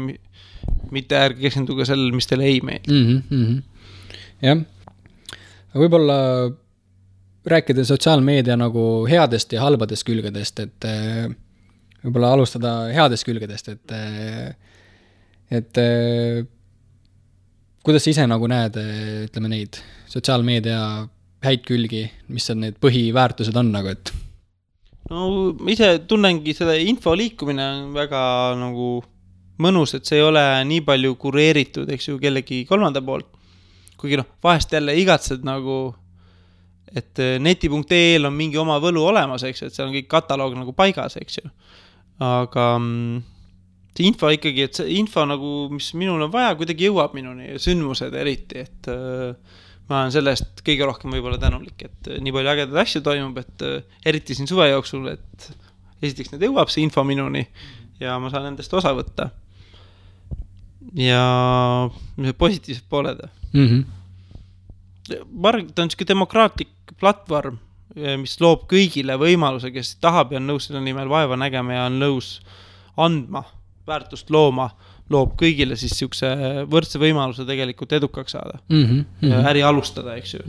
mitte ärge keskenduge sellele, mis teile ei meeldib. Jah, võib-olla rääkida sotsiaalmeedia nagu headest ja halbadest külgedest, et võib-olla alustada headest külgedest, et kuidas sa ise nagu näed, ütleme neid sotsiaalmeedia häid külgi, mis on need põhiväärtused on nagu, et no ise tunnengi seda info liikumine on väga nagu mõnus, et see ei ole nii palju kureeritud, eks ju, kellegi kolmanda poolt, kuigi vahest jälle igatsed nagu, et neti.ee on mingi oma võlu olemas, eks ju, et seal on kõik kataloog nagu paigas, eks ju, aga see info ikkagi, et see info nagu, mis minul on vaja, kuidagi jõuab minuni, sündmused eriti, et ma olen sellest kõige rohkem võib-olla tänulik, et nii palju ägedaid asju toimub, et eriti siin suve jooksul, et esiteks need jõuab see info minuni ja ma saan nendest osa võtta. Ja positiivsed pooled. Ma arvan, ta on selline demokraatlik platvorm, mis loob kõigile võimaluse, kes tahab ja on nõus selle nimel vaeva nägema ja on nõus andma, väärtust looma, loob kõigile siis siukse võrdse võimaluse tegelikult edukaks saada ja äri alustada, eks ju.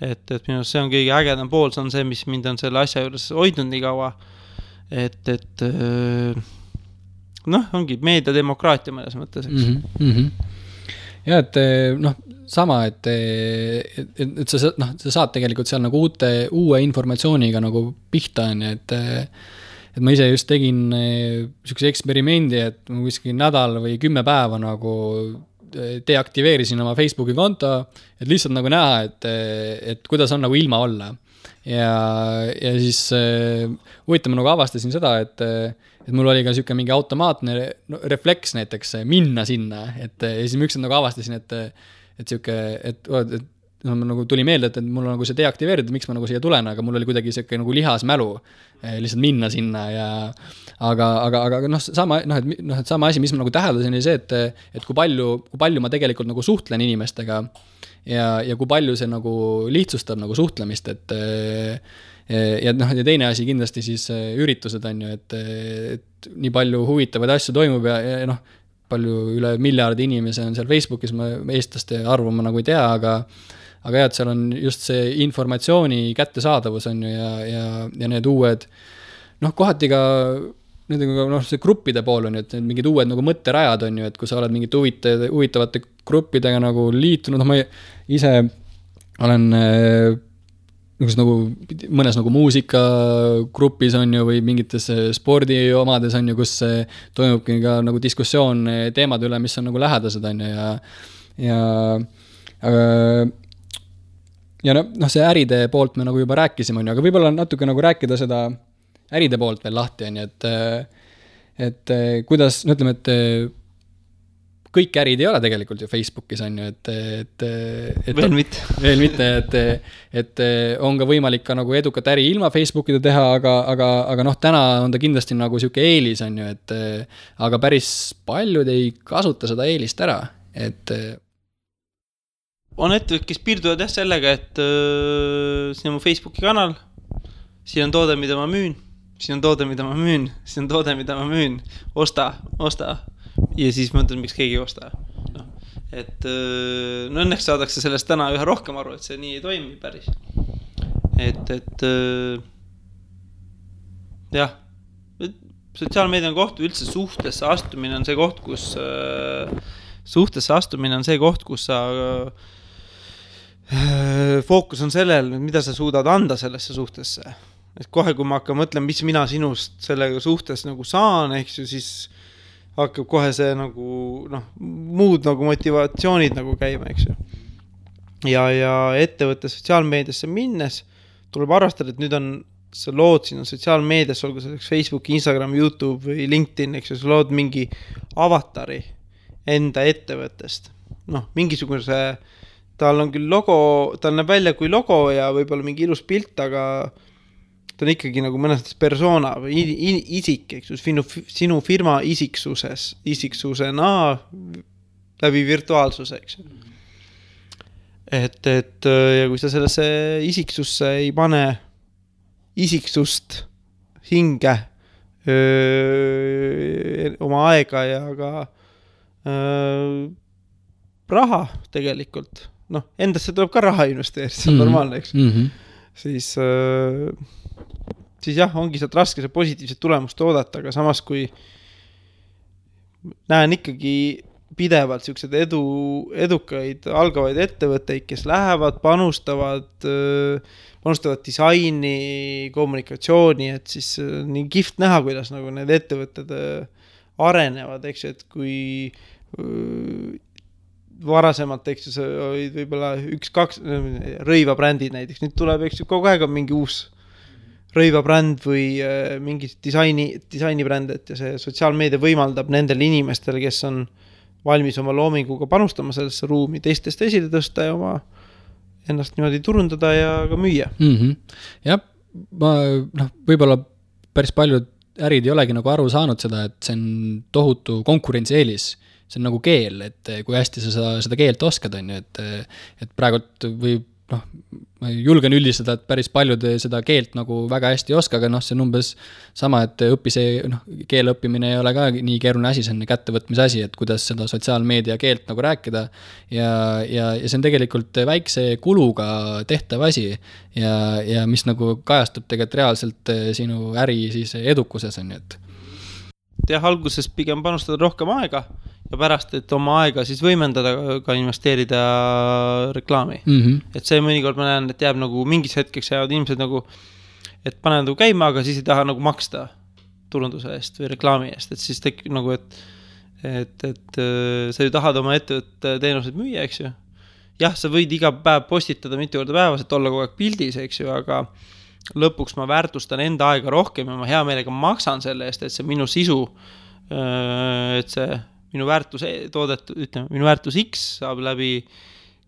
Et minu see on kõige ägedam pool, see on see, mis mind on selle asja juures hoidnud nii kaua, et ongi meediademokraatia mõnes mõttes, eks. Ja, et sama, et sa saad tegelikult seal nagu uue informatsiooniga nagu pihta on, et ma ise just tegin sellise eksperimendi, et ma kuskil nädal või 10 päeva nagu deaktiveerisin oma Facebooki konto, et lihtsalt nagu näha, et kuidas on nagu ilma olla. Ja siis huvitav ma nagu avastasin seda, et mul oli ka siuke mingi automaatne refleks näiteks minna sinna, ja siis ma ükskord nagu avastasin, et siuke, et nagu tuli meelde, et mul on nagu see deaktiveeritud, miks ma nagu siia tulen, aga mul oli kuidagi siuke nagu lihasmälu lihtsalt minna sinna ja aga sama asi, mis ma nagu täheldasin, oli see, et kui palju ma tegelikult nagu suhtlen inimestega ja kui palju see nagu lihtsustab nagu suhtlemist, ja teine asi kindlasti siis üritused on ju, et nii palju huvitavaid asju toimub ja palju üle miljardi inimese on seal Facebookis, ma eestlaste arvu ma nagu ei tea, aga jah, et seal on just see informatsiooni kättesaadavus on ju ja need uued, kohati ka see gruppide pool on ju, et mingid uued nagu mõtterajad on ju, et kui sa oled mingite huvitavate gruppidega nagu liitunud, ma ise olen nagu mõnes nagu muusikagrupis on ju või mingites spordi omades on ju, kus toimubki ka nagu diskussioon teemade üle, mis on nagu lähedased on ju ja see äride poolt me nagu juba rääkisime on ju, aga võib-olla natuke nagu rääkida seda äride poolt veel lahti on ju, et kuidas, ütleme, et kõik ärid ei ole tegelikult ju Facebookis on ju, et veel mitte, et on ka võimalik ka nagu edukat äri ilma Facebookida teha, aga täna on ta kindlasti nagu siuke eelis on ju, et aga päris paljud ei kasuta seda eelist ära, et on ettevõtted, kes piirduvad sellega, et siin on mu Facebooki kanal, siin on toode, mida ma müün, siin on toode, mida ma müün, siin on toode, mida ma müün, osta. Ja siis mõtlen, miks keegi ei osta. Et õnneks saadakse sellest täna üha rohkem aru, et see nii ei toimi päris. Et jah, sotsiaalmeedia on koht, üldse suhtesse astumine on see koht, kus sa fookus on sellel, mida sa suudad anda sellesse suhtesse. Et kohe, kui ma hakkan mõtlema, mis mina sinust sellega suhtes nagu saan, ehk siis hakkab kohe see nagu, muud nagu motivatsioonid nagu käima, eks ju. Ja ettevõtte sotsiaalmeediasse minnes tuleb arvestada, et nüüd on sa lood siin sotsiaalmeedias, olgu selleks Facebook, Instagram, YouTube või LinkedIn, eks ju, sa lood mingi avatari enda ettevõttest. Mingisuguse, tal on küll logo, tal näeb välja kui logo ja võib-olla mingi ilus pilt, aga ta on ikkagi nagu mõnes persona või isik, eks ju, sinu firma isiksusena läbi virtuaalsuse, eks ju. Et ja kui sa sellesse isiksusse ei pane isiksust hinge oma aega ja ka raha tegelikult, endasse tuleb ka raha investeerida, see on normaalne, eks. Siis jah, ongi sealt raske see positiivset tulemust oodata, aga samas kui näen ikkagi pidevalt siuksed edukaid algavaid ettevõtteid, kes lähevad, panustavad disaini, kommunikatsiooni, et siis nii kihvt näha, kuidas nagu need ettevõtted arenevad, eks ju, et kui varasemalt, eks ju, see oli võib-olla 1-2 rõivabrändid näiteks, nüüd tuleb, eks ju, kogu aeg on mingi uus rõivabränd või mingi disainibränd, et ja see sotsiaalmeedia võimaldab nendel inimestel, kes on valmis oma loominguga panustama sellesse ruumi, teistest esile tõsta ja oma ennast niimoodi turundada ja ka müüa. Jah, ma võib-olla päris paljud ärid ei olegi nagu aru saanud seda, et see on tohutu konkurentsieelis. See on nagu keel, et kui hästi sa seda keelt oskad, on ju, et praegult või ma julgen üldistada, et päris paljud seda keelt nagu väga hästi ei oska, aga see on umbes sama, et keele õppimine ei ole ka nii keeruline asi, see on kättevõtmise asi, et kuidas seda sotsiaalmeedia keelt nagu rääkida ja see on tegelikult väikse kuluga tehtav asi ja mis nagu kajastub tegelikult reaalselt sinu äri siis edukuses, on ju, et jah, alguses pigem panustada rohkem aega ja pärast, et oma aega siis võimendada, ka investeerida reklaami. Et see mõnikord ma näen, et jääb nagu mingis hetkeks jäävad inimesed nagu, et panevad nagu käima, aga siis ei taha nagu maksta turunduse eest või reklaami eest, et siis tekib nagu, et sa ju tahad oma ettevõtte teenused müüa, eks ju. Jah, sa võid iga päev postitada mitu korda päevas, et olla kogu aeg pildis, eks ju, aga lõpuks ma väärtustan enda aega rohkem ja ma hea meelega maksan selle eest, et see minu sisu, et see minu väärtus toodetud, ütleme, minu väärtus X saab läbi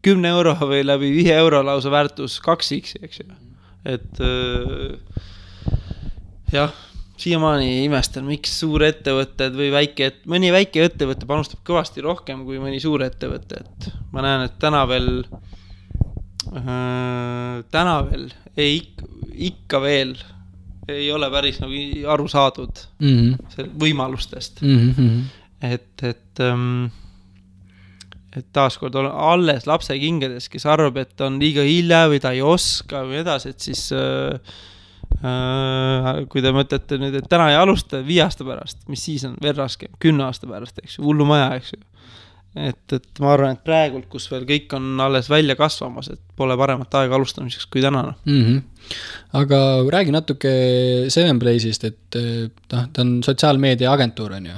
10 euro või läbi 5 euro lausa väärtus 2X, eks ju. Et jah, siiamaani imestan, miks suurettevõtted või mõni väike ettevõte panustab kõvasti rohkem kui mõni suur ettevõte, et ma näen, et täna veel ikka veel ei ole päris nagu aru saadud võimalustest. Et taaskord on alles lapse kingades, kes arvab, et on liiga hilja või ta ei oska või edasi, et siis kui te mõtlete nüüd, et täna ei alusta 5 aasta pärast, mis siis on veel raskem, 10 aasta pärast, eks ju, hullu maja, eks ju. Et ma arvan, et praegult, kus veel kõik on alles välja kasvamas, et pole paremat aega alustamiseks kui tänane. Aga räägi natuke 7Blaze'ist, et ta on sotsiaalmeedia agentuur, on ju?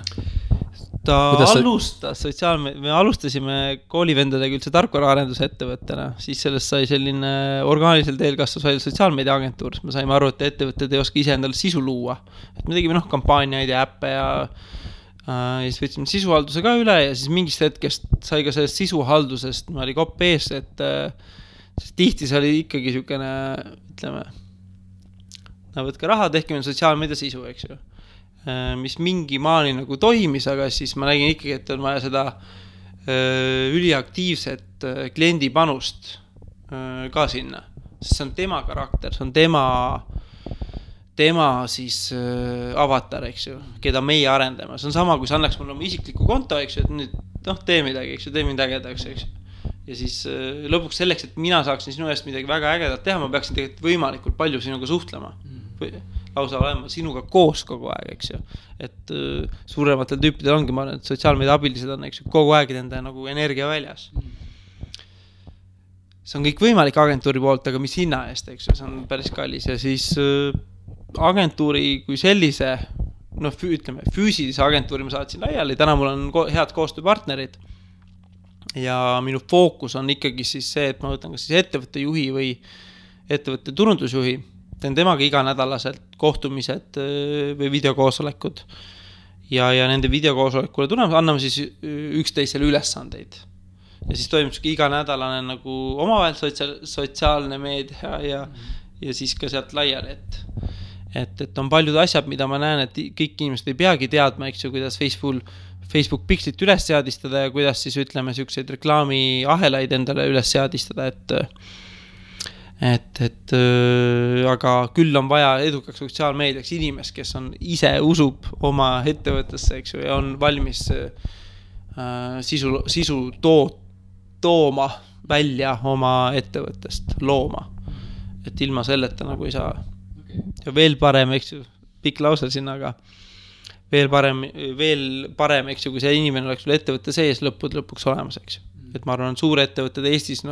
Me alustasime koolivendadega üldse tarkvaraarenduse-ettevõttena, siis sellest sai selline orgaanilisel teel kasvas välja sotsiaalmeedia agentuur, me saime aru, et ettevõtted ei oska ise endale sisu luua. Et me tegime kampaaniaid ja äppe ja siis võtsime sisuhalduse ka üle ja siis mingist hetkest sai ka sellest sisuhaldusest, ma oli kopp ees, et tihti see oli ikkagi siukene, ütleme, võtke raha, tehke meil sotsiaalmeedia sisu, eks ju. Mis mingi maani nagu toimis, aga siis ma nägin ikkagi, et on vaja seda üliaktiivset kliendi panust ka sinna. Sest see on tema karakter, see on tema siis avatar, eks ju, keda meie arendame. See on sama, kui sa annaks mulle oma isikliku konto, eks ju, et nüüd tee midagi, eks ju, tee mind ägedaks, eks ju. Ja siis lõpuks selleks, et mina saaksin sinu eest midagi väga ägedat teha, ma peaksin tegelikult võimalikult palju sinuga suhtlema. Lausa olema sinuga koos kogu aeg, eks ju. Et suurematel tüüpidel ongi, ma arvan, et sotsiaalmeedia abilised on, eks ju, kogu aeg nende nagu energia väljas. See on kõik võimalik agentuuri poolt, aga mis hinna eest, eks ju, see on päris kallis. Ja siis agentuuri kui sellise, ütleme, füüsilise agentuuri ma saatsin laiali, täna mul on head koostööpartnerid ja minu fookus on ikkagi siis see, et ma võtan kas siis ettevõtte juhi või ettevõtte turundusjuhi, teen temaga iganädalaselt kohtumised või videokoosolekud ja nende videokoosolekule tuleme, anname siis üksteisele ülesandeid ja siis toimub iganädalane nagu omavahel sotsiaalne meedia ja siis ka sealt laiali, et on paljud asjad, mida ma näen, et kõik inimesed ei peagi teadma, eks ju, kuidas Facebook pikslit üles seadistada ja kuidas siis ütleme siukseid reklaami ahelaid endale üles seadistada, aga küll on vaja edukaks sotsiaalmeediaks inimest, kes on ise usub oma ettevõttesse, eks ju, ja on valmis sisu tooma välja oma ettevõttest, looma. Et ilma selleta nagu ei saa. Ja veel parem, eks ju, pikk lause sinna, aga veel parem, eks ju, kui see inimene oleks sul ettevõtte sees lõpuks olemas, eks ju. Et ma arvan, suur ettevõtted Eestis,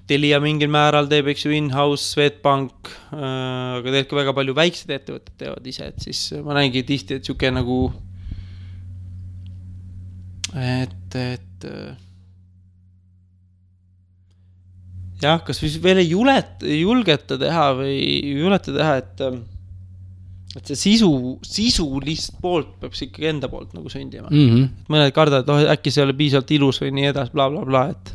Telia mingil määral teeb, eks ju, in-house, Swedbank, aga tegelikult ka väga palju väiksed ettevõtted teevad ise, et siis ma näingi tihti, et siuke nagu jah, kas veel ei julgeta teha või juleta teha, et see sisulist poolt peab ikkagi enda poolt nagu sündima. Et mõned kardavad, et äkki see ei ole piisavalt ilus või nii edas, bla, bla, bla, et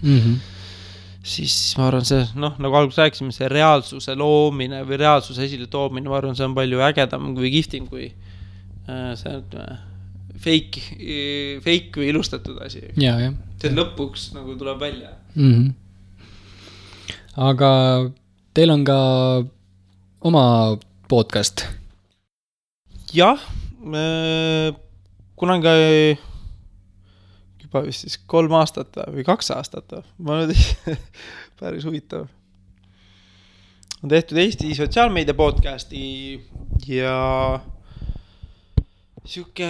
siis ma arvan, see, noh, nagu alguses rääkisime, see reaalsuse loomine või reaalsuse esile toomine, ma arvan, see on palju ägedam või kihvtim kui see fake või ilustatud asi. See lõpuks nagu tuleb välja. Aga teil on ka oma podcast? Jah, kunagi juba vist siis 3 aastat või 2 aastat. Ma nüüd päris huvitav. On tehtud Eesti sotsiaalmeedia podcasti ja siuke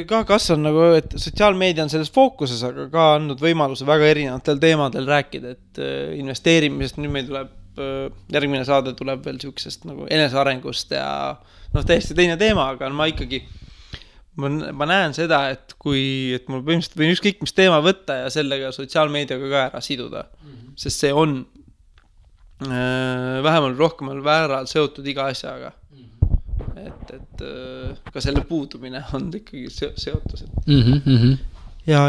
ka kasvan nagu, et sotsiaalmeedia on selles fookuses, aga ka andnud võimaluse väga erinevatel teemadel rääkida, et investeerimisest nüüd meil tuleb, järgmine saade tuleb veel siuksest nagu enesearengust ja täiesti teine teema, aga ma ikkagi ma näen seda, et et mul põhimõtteliselt võin ükskõik mis teema võtta ja sellega sotsiaalmeediaga ka ära siduda, sest see on vähemal rohkemal vääral seotud iga asjaga. Et ka selle puudumine on ikkagi seotus. Ja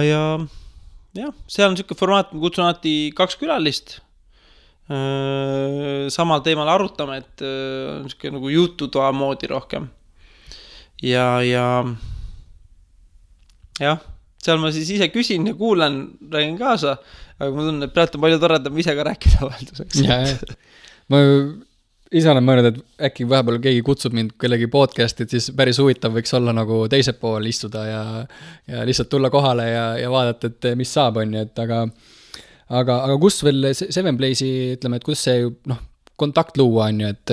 seal on siuke formaat, ma kutsun alati 2 külalist samal teemal arutame, et on siuke nagu jututoa moodi rohkem. Ja seal ma siis ise küsin ja kuulan, räägin kaasa, aga ma tunnen, et praegu on palju toredam ise ka rääkida vahelduseks. Ma ise olen mõelnud, et äkki vahepeal keegi kutsub mind kellegi podcasti, et siis päris huvitav võiks olla nagu teise pool istuda ja lihtsalt tulla kohale ja vaadata, et mis saab, on ju, et aga kus veel Seven Blaze'i, ütleme, et kus see kontakt luua, on ju, et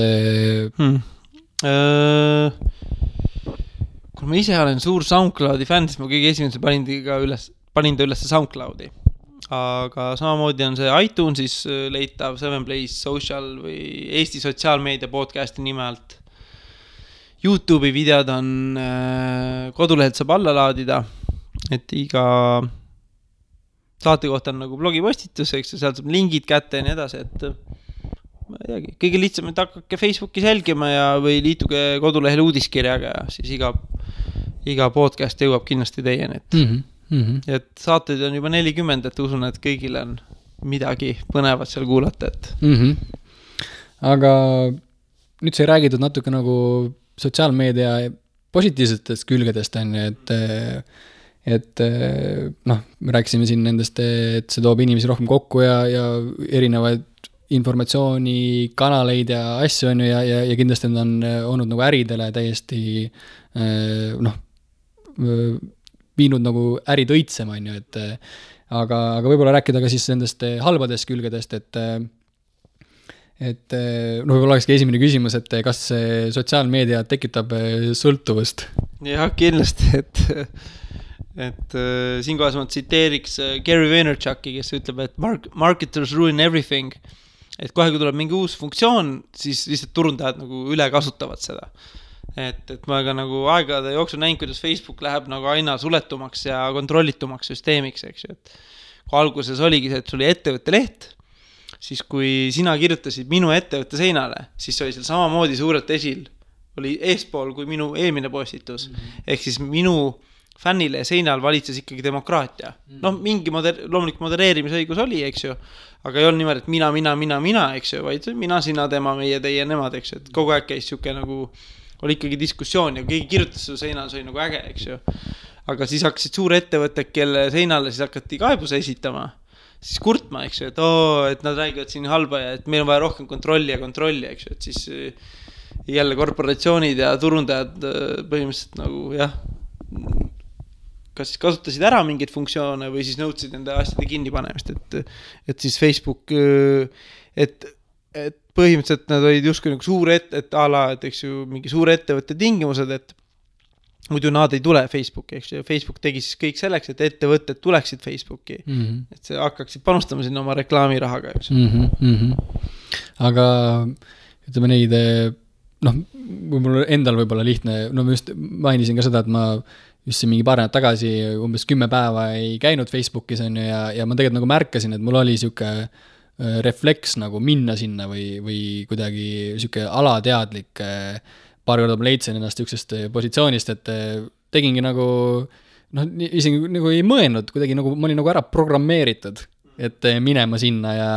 kui ma ise olen suur SoundCloudi fänn, siis ma kõige esimese panin ta üles SoundCloudi. Aga samamoodi on see iTunesis leitav Seven Blaze Social või Eesti sotsiaalmeedia podcasti nime alt. YouTube'i videod on kodulehelt saab alla laadida, et iga saate kohta on nagu blogipostitus, eks sealt saab lingid kätte ja nii edasi, et ma ei teagi, kõige lihtsam, et hakkake Facebookis jälgima või liituge kodulehel uudiskirjaga ja siis iga podcast jõuab kindlasti teieni, et saateid on juba 40, et usun, et kõigil on midagi põnevat seal kuulata, et Aga nüüd sai räägitud natuke nagu sotsiaalmeedia positiivsetest külgedest, et me rääkisime siin nendest, et see toob inimesi rohkem kokku ja erinevaid informatsioonikanaleid ja asju on ju ja kindlasti need on olnud nagu äridele täiesti viinud nagu ärid õitsema, on ju, et aga võib-olla rääkida ka siis nendest halbadest külgedest, et võib-olla olekski esimene küsimus, et kas sotsiaalmeedia tekitab sõltuvust? Jah, kindlasti, et siinkohas ma tsiteeriks Gary Vaynerchuki, kes ütleb, et marketers ruin everything, et kohe, kui tuleb mingi uus funktsioon, siis lihtsalt turundajad nagu üle kasutavad seda. Et ma ka nagu aegade jooksul näin, kuidas Facebook läheb nagu aina suletumaks ja kontrollitumaks süsteemiks, eks ju, et kui alguses oligi see, et sul oli ettevõtte leht, siis kui sina kirjutasid minu ettevõtte seinale, siis oli seal samamoodi suurelt esil, oli eespool kui minu eelmine postitus, ehk siis minu fännile seinal valitses ikkagi demokraatia. Mingi loomulik modereerimisõigus oli, eks ju, aga ei olnud niimoodi, et mina, eks ju, vaid mina, sina, tema, meie, teie, nemad, eks ju, et kogu aeg käis siuke nagu oli ikkagi diskussioon ja keegi kirjutas su seinal, see oli nagu äge, eks ju. Aga siis hakkasid suure ettevõtted, kelle seinale siis hakati kaebuse esitama, siis kurtma, eks ju, et nad räägivad siin halba ja et meil on vaja rohkem kontrolli, eks ju, et siis jälle korporatsioonid ja turundajad põhimõtteliselt nagu kas siis kasutasid ära mingeid funktsioone või siis nõudsid nende asjade kinnipanemist, et siis Facebook, et põhimõtteliselt nad olid justkui nagu suure et eks ju mingi suure ettevõtte tingimused, et muidu nad ei tule Facebooki, eks ju, Facebook tegi siis kõik selleks, et ettevõtted tuleksid Facebooki, et see hakkaksid panustama sinna oma reklaamirahaga, eks ju. Aga ütleme neid, võib-olla endal võib-olla lihtne, ma just mainisin ka seda, et ma just siin mingi paar nädalat tagasi umbes 10 päeva ei käinud Facebookis on ju, ja ma tegelikult nagu märkasin, et mul oli siuke refleks nagu minna sinna või kuidagi siuke alateadlik paar korda ma leidsin ennast üksteist positsioonist, et tegingi nagu isegi nagu ei mõelnud kuidagi nagu ma olin nagu ära programmeeritud, et minema sinna ja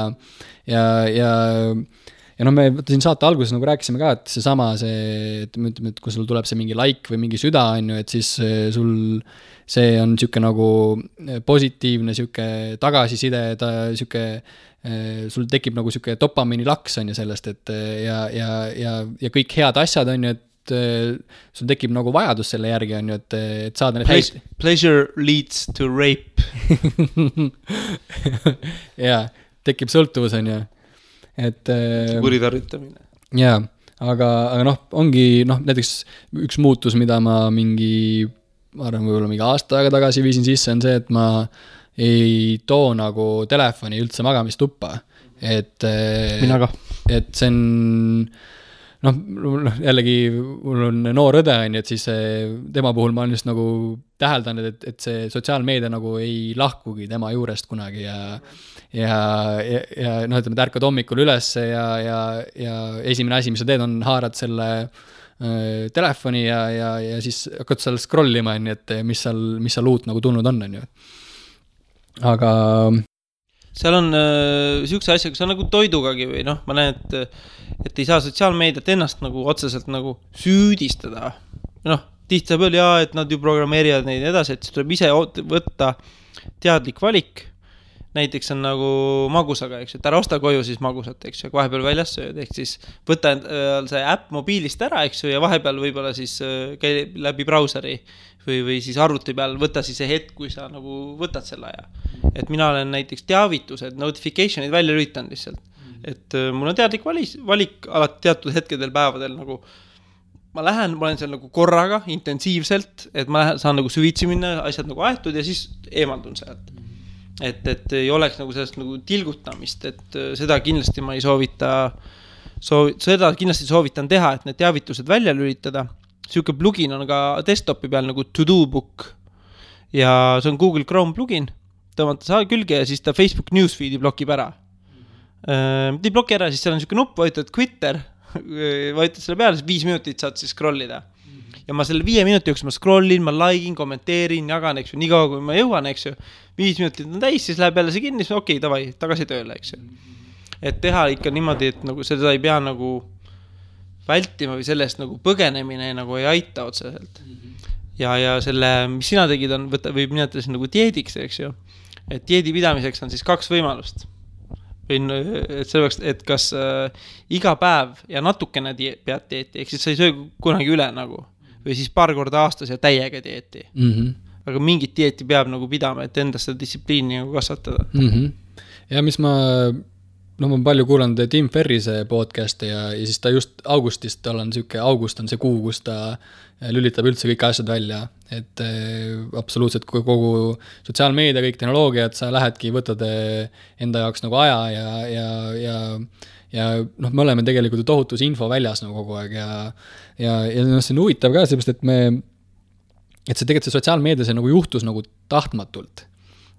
noh, me siin saate alguses nagu rääkisime ka, et seesama et kui sul tuleb see mingi like või mingi süda, on ju, et siis sul see on siuke nagu positiivne siuke tagasiside, siuke sul tekib nagu siuke dopamiini laks on ju sellest, et ja kõik head asjad on ju, et sul tekib nagu vajadus selle järgi on ju, et saada need Pleasure leads to rape. jaa, tekib sõltuvus on ju. Et kuritarvitamine. Jaa, aga noh, ongi näiteks üks muutus, mida ma ma arvan, võib-olla mingi aasta aega tagasi viisin sisse, on see, et ma ei too nagu telefoni üldse magamistuppa. Mina ka. Et see on jällegi mul on noor õde on, et siis tema puhul ma olen just nagu täheldanud, et see sotsiaalmeedia nagu ei lahkugi tema juurest kunagi ja ütleme, ärkad hommikul üles ja esimene asi, mis sa teed, on haarad selle telefoni ja siis hakkad seal scrollima, et mis seal uut nagu tulnud on ju. Aga seal on siukse asjaga, see on nagu toidugagi või ma näen, et ei saa sotsiaalmeediat ennast nagu otseselt nagu süüdistada. Tihti saab öelda, et nad ju programmeerivad neid edasi, et siis tuleb ise võtta teadlik valik. Näiteks on nagu magusaga, eks ju, et ära osta koju siis magusat, eks ju, vahepeal väljas sööd, ehk siis võtta see äpp mobiilist ära, eks ju, ja vahepeal võib-olla siis käi läbi brauseri või siis arvuti peal võtta siis see hetk, kui sa nagu võtad selle aja. Et mina olen näiteks teavitused, notificationid välja lülitanud lihtsalt. Et mul on teadlik valik alati teatud hetkedel päevadel nagu ma olen seal nagu korraga intensiivselt, et ma saan nagu süvitsi minna, asjad nagu aetud ja siis eemaldun sealt. Et ei oleks nagu sellest nagu tilgutamist, et seda kindlasti ma ei seda kindlasti soovitan teha, et need teavitused välja lülitada. Siuke plugin on ka desktopi peal nagu To-Do Book ja see on Google Chrome plugin, tõmmata saa külge ja siis ta Facebook Newsfeedi blokib ära. Ei bloki ära, siis seal on siuke nupp, vajutad Twitter, vajutad selle peale, siis 5 minutit saad siis scrollida. Ja ma selle 5 minuti jooksul ma scrollin, ma likein, kommenteerin, jagan, eks ju, nii kaua kui ma jõuan, eks ju. 5 minutit on täis, siis läheb jälle see kinni, siis okei, davai, tagasi tööle, eks ju. Et teha ikka niimoodi, et nagu seda ei pea nagu vältima või sellest nagu põgenemine nagu ei aita otseselt. Ja selle, mis sina tegid, on võib nimetada nagu dieediks, eks ju. Et dieedi pidamiseks on siis 2 võimalust. Et selleks, et kas iga päev ja natukene pead dieeti, ehk siis sa ei söö kunagi üle nagu, või siis paar korda aastas ja täiega dieeti. Aga mingit dieeti peab nagu pidama, et endast seda distsipliini nagu kasvatada. Ja mis ma palju kuulanud Tim Ferrise podcasti ja siis ta just augustist, august on see kuu, kus ta lülitab üldse kõik asjad välja, et absoluutselt kogu sotsiaalmeedia, kõik tehnoloogiad, sa lähedki, võtad enda jaoks nagu aja ja me oleme tegelikult tohutus info väljas nagu kogu aeg ja see on huvitav ka, seepärast, et see tegelikult see sotsiaalmeedia see nagu juhtus nagu tahtmatult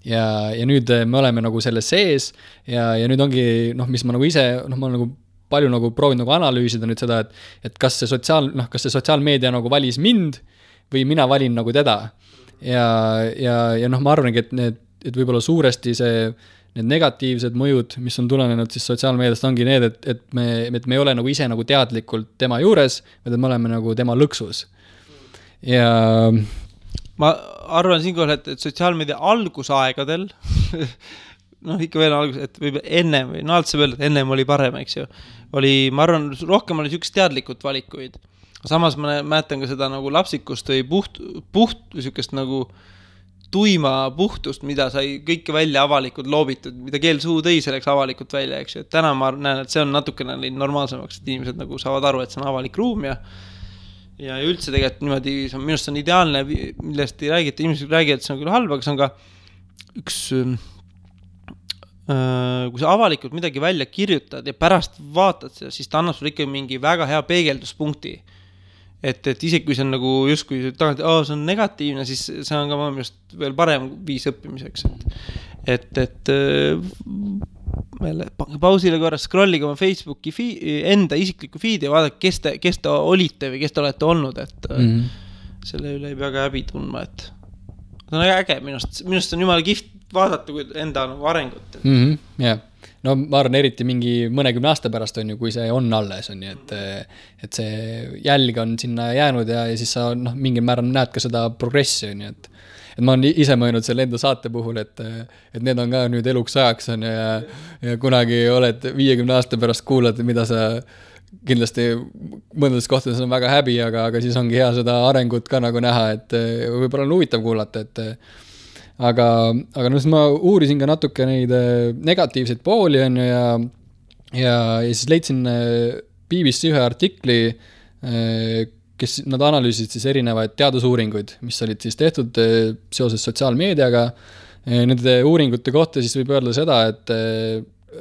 ja nüüd me oleme nagu selles sees ja nüüd ongi, mis ma nagu ise, ma olen nagu palju nagu proovin nagu analüüsida nüüd seda, et kas see sotsiaalmeedia nagu valis mind või mina valin nagu teda. Ja ma arvangi, et võib-olla suuresti need negatiivsed mõjud, mis on tulenenud siis sotsiaalmeediast, ongi need, et me ei ole nagu ise nagu teadlikult tema juures, vaid me oleme nagu tema lõksus. Ja ma arvan siinkohal, et sotsiaalmeedia algusaegadel ikka veel algus, et võib ennem või alati saab öelda, et ennem oli parem, eks ju. Ma arvan, rohkem oli siukest teadlikud valikuid. Samas ma mäletan ka seda nagu lapsikust või puht siukest nagu tuima puhtust, mida sai kõike välja avalikult loobitud, mida keel suu tõi selleks avalikult välja, eks ju. Et täna ma näen, et see on natukene normaalsemaks, et inimesed nagu saavad aru, et see on avalik ruum ja üldse tegelikult niimoodi, minust on ideaalne, millest ei räägi, et inimesed räägivad, et see on küll halb, aga see on ka üks kui sa avalikult midagi välja kirjutad ja pärast vaatad seda, siis ta annab sulle ikka mingi väga hea peegelduspunkti. Et isegi kui see on nagu justkui tagant, see on negatiivne, siis see on ka just veel parem viis õppimiseks. Et pausile korra scrolliga oma Facebooki enda isikliku feedi ja vaadake, kes te olite või kes te olete olnud, et selle üle ei pea ka häbi tundma, et see on äge, minust on jumala vaadata kui enda nagu arengut. Jah. No ma arvan, eriti mingi mõnekümne aasta pärast on ju, kui see on alles, on ju, et see jälg on sinna jäänud ja siis sa mingil määral näed ka seda progressi, on ju, et ma olen ise mõelnud selle enda saate puhul, et need on ka nüüd eluks ajaks on ja kunagi oled 50 aasta pärast kuulad, mida sa kindlasti mõnedest kohtades on väga häbi, aga siis ongi hea seda arengut ka nagu näha, et võib-olla on huvitav kuulata, et aga siis ma uurisin ka natuke neid negatiivseid pooli on ju ja siis leidsin BBC ühe artikli, kes nad analüüsid siis erinevaid teadusuuringuid, mis olid siis tehtud seoses sotsiaalmeediaga. Nende uuringute kohta siis võib öelda seda, et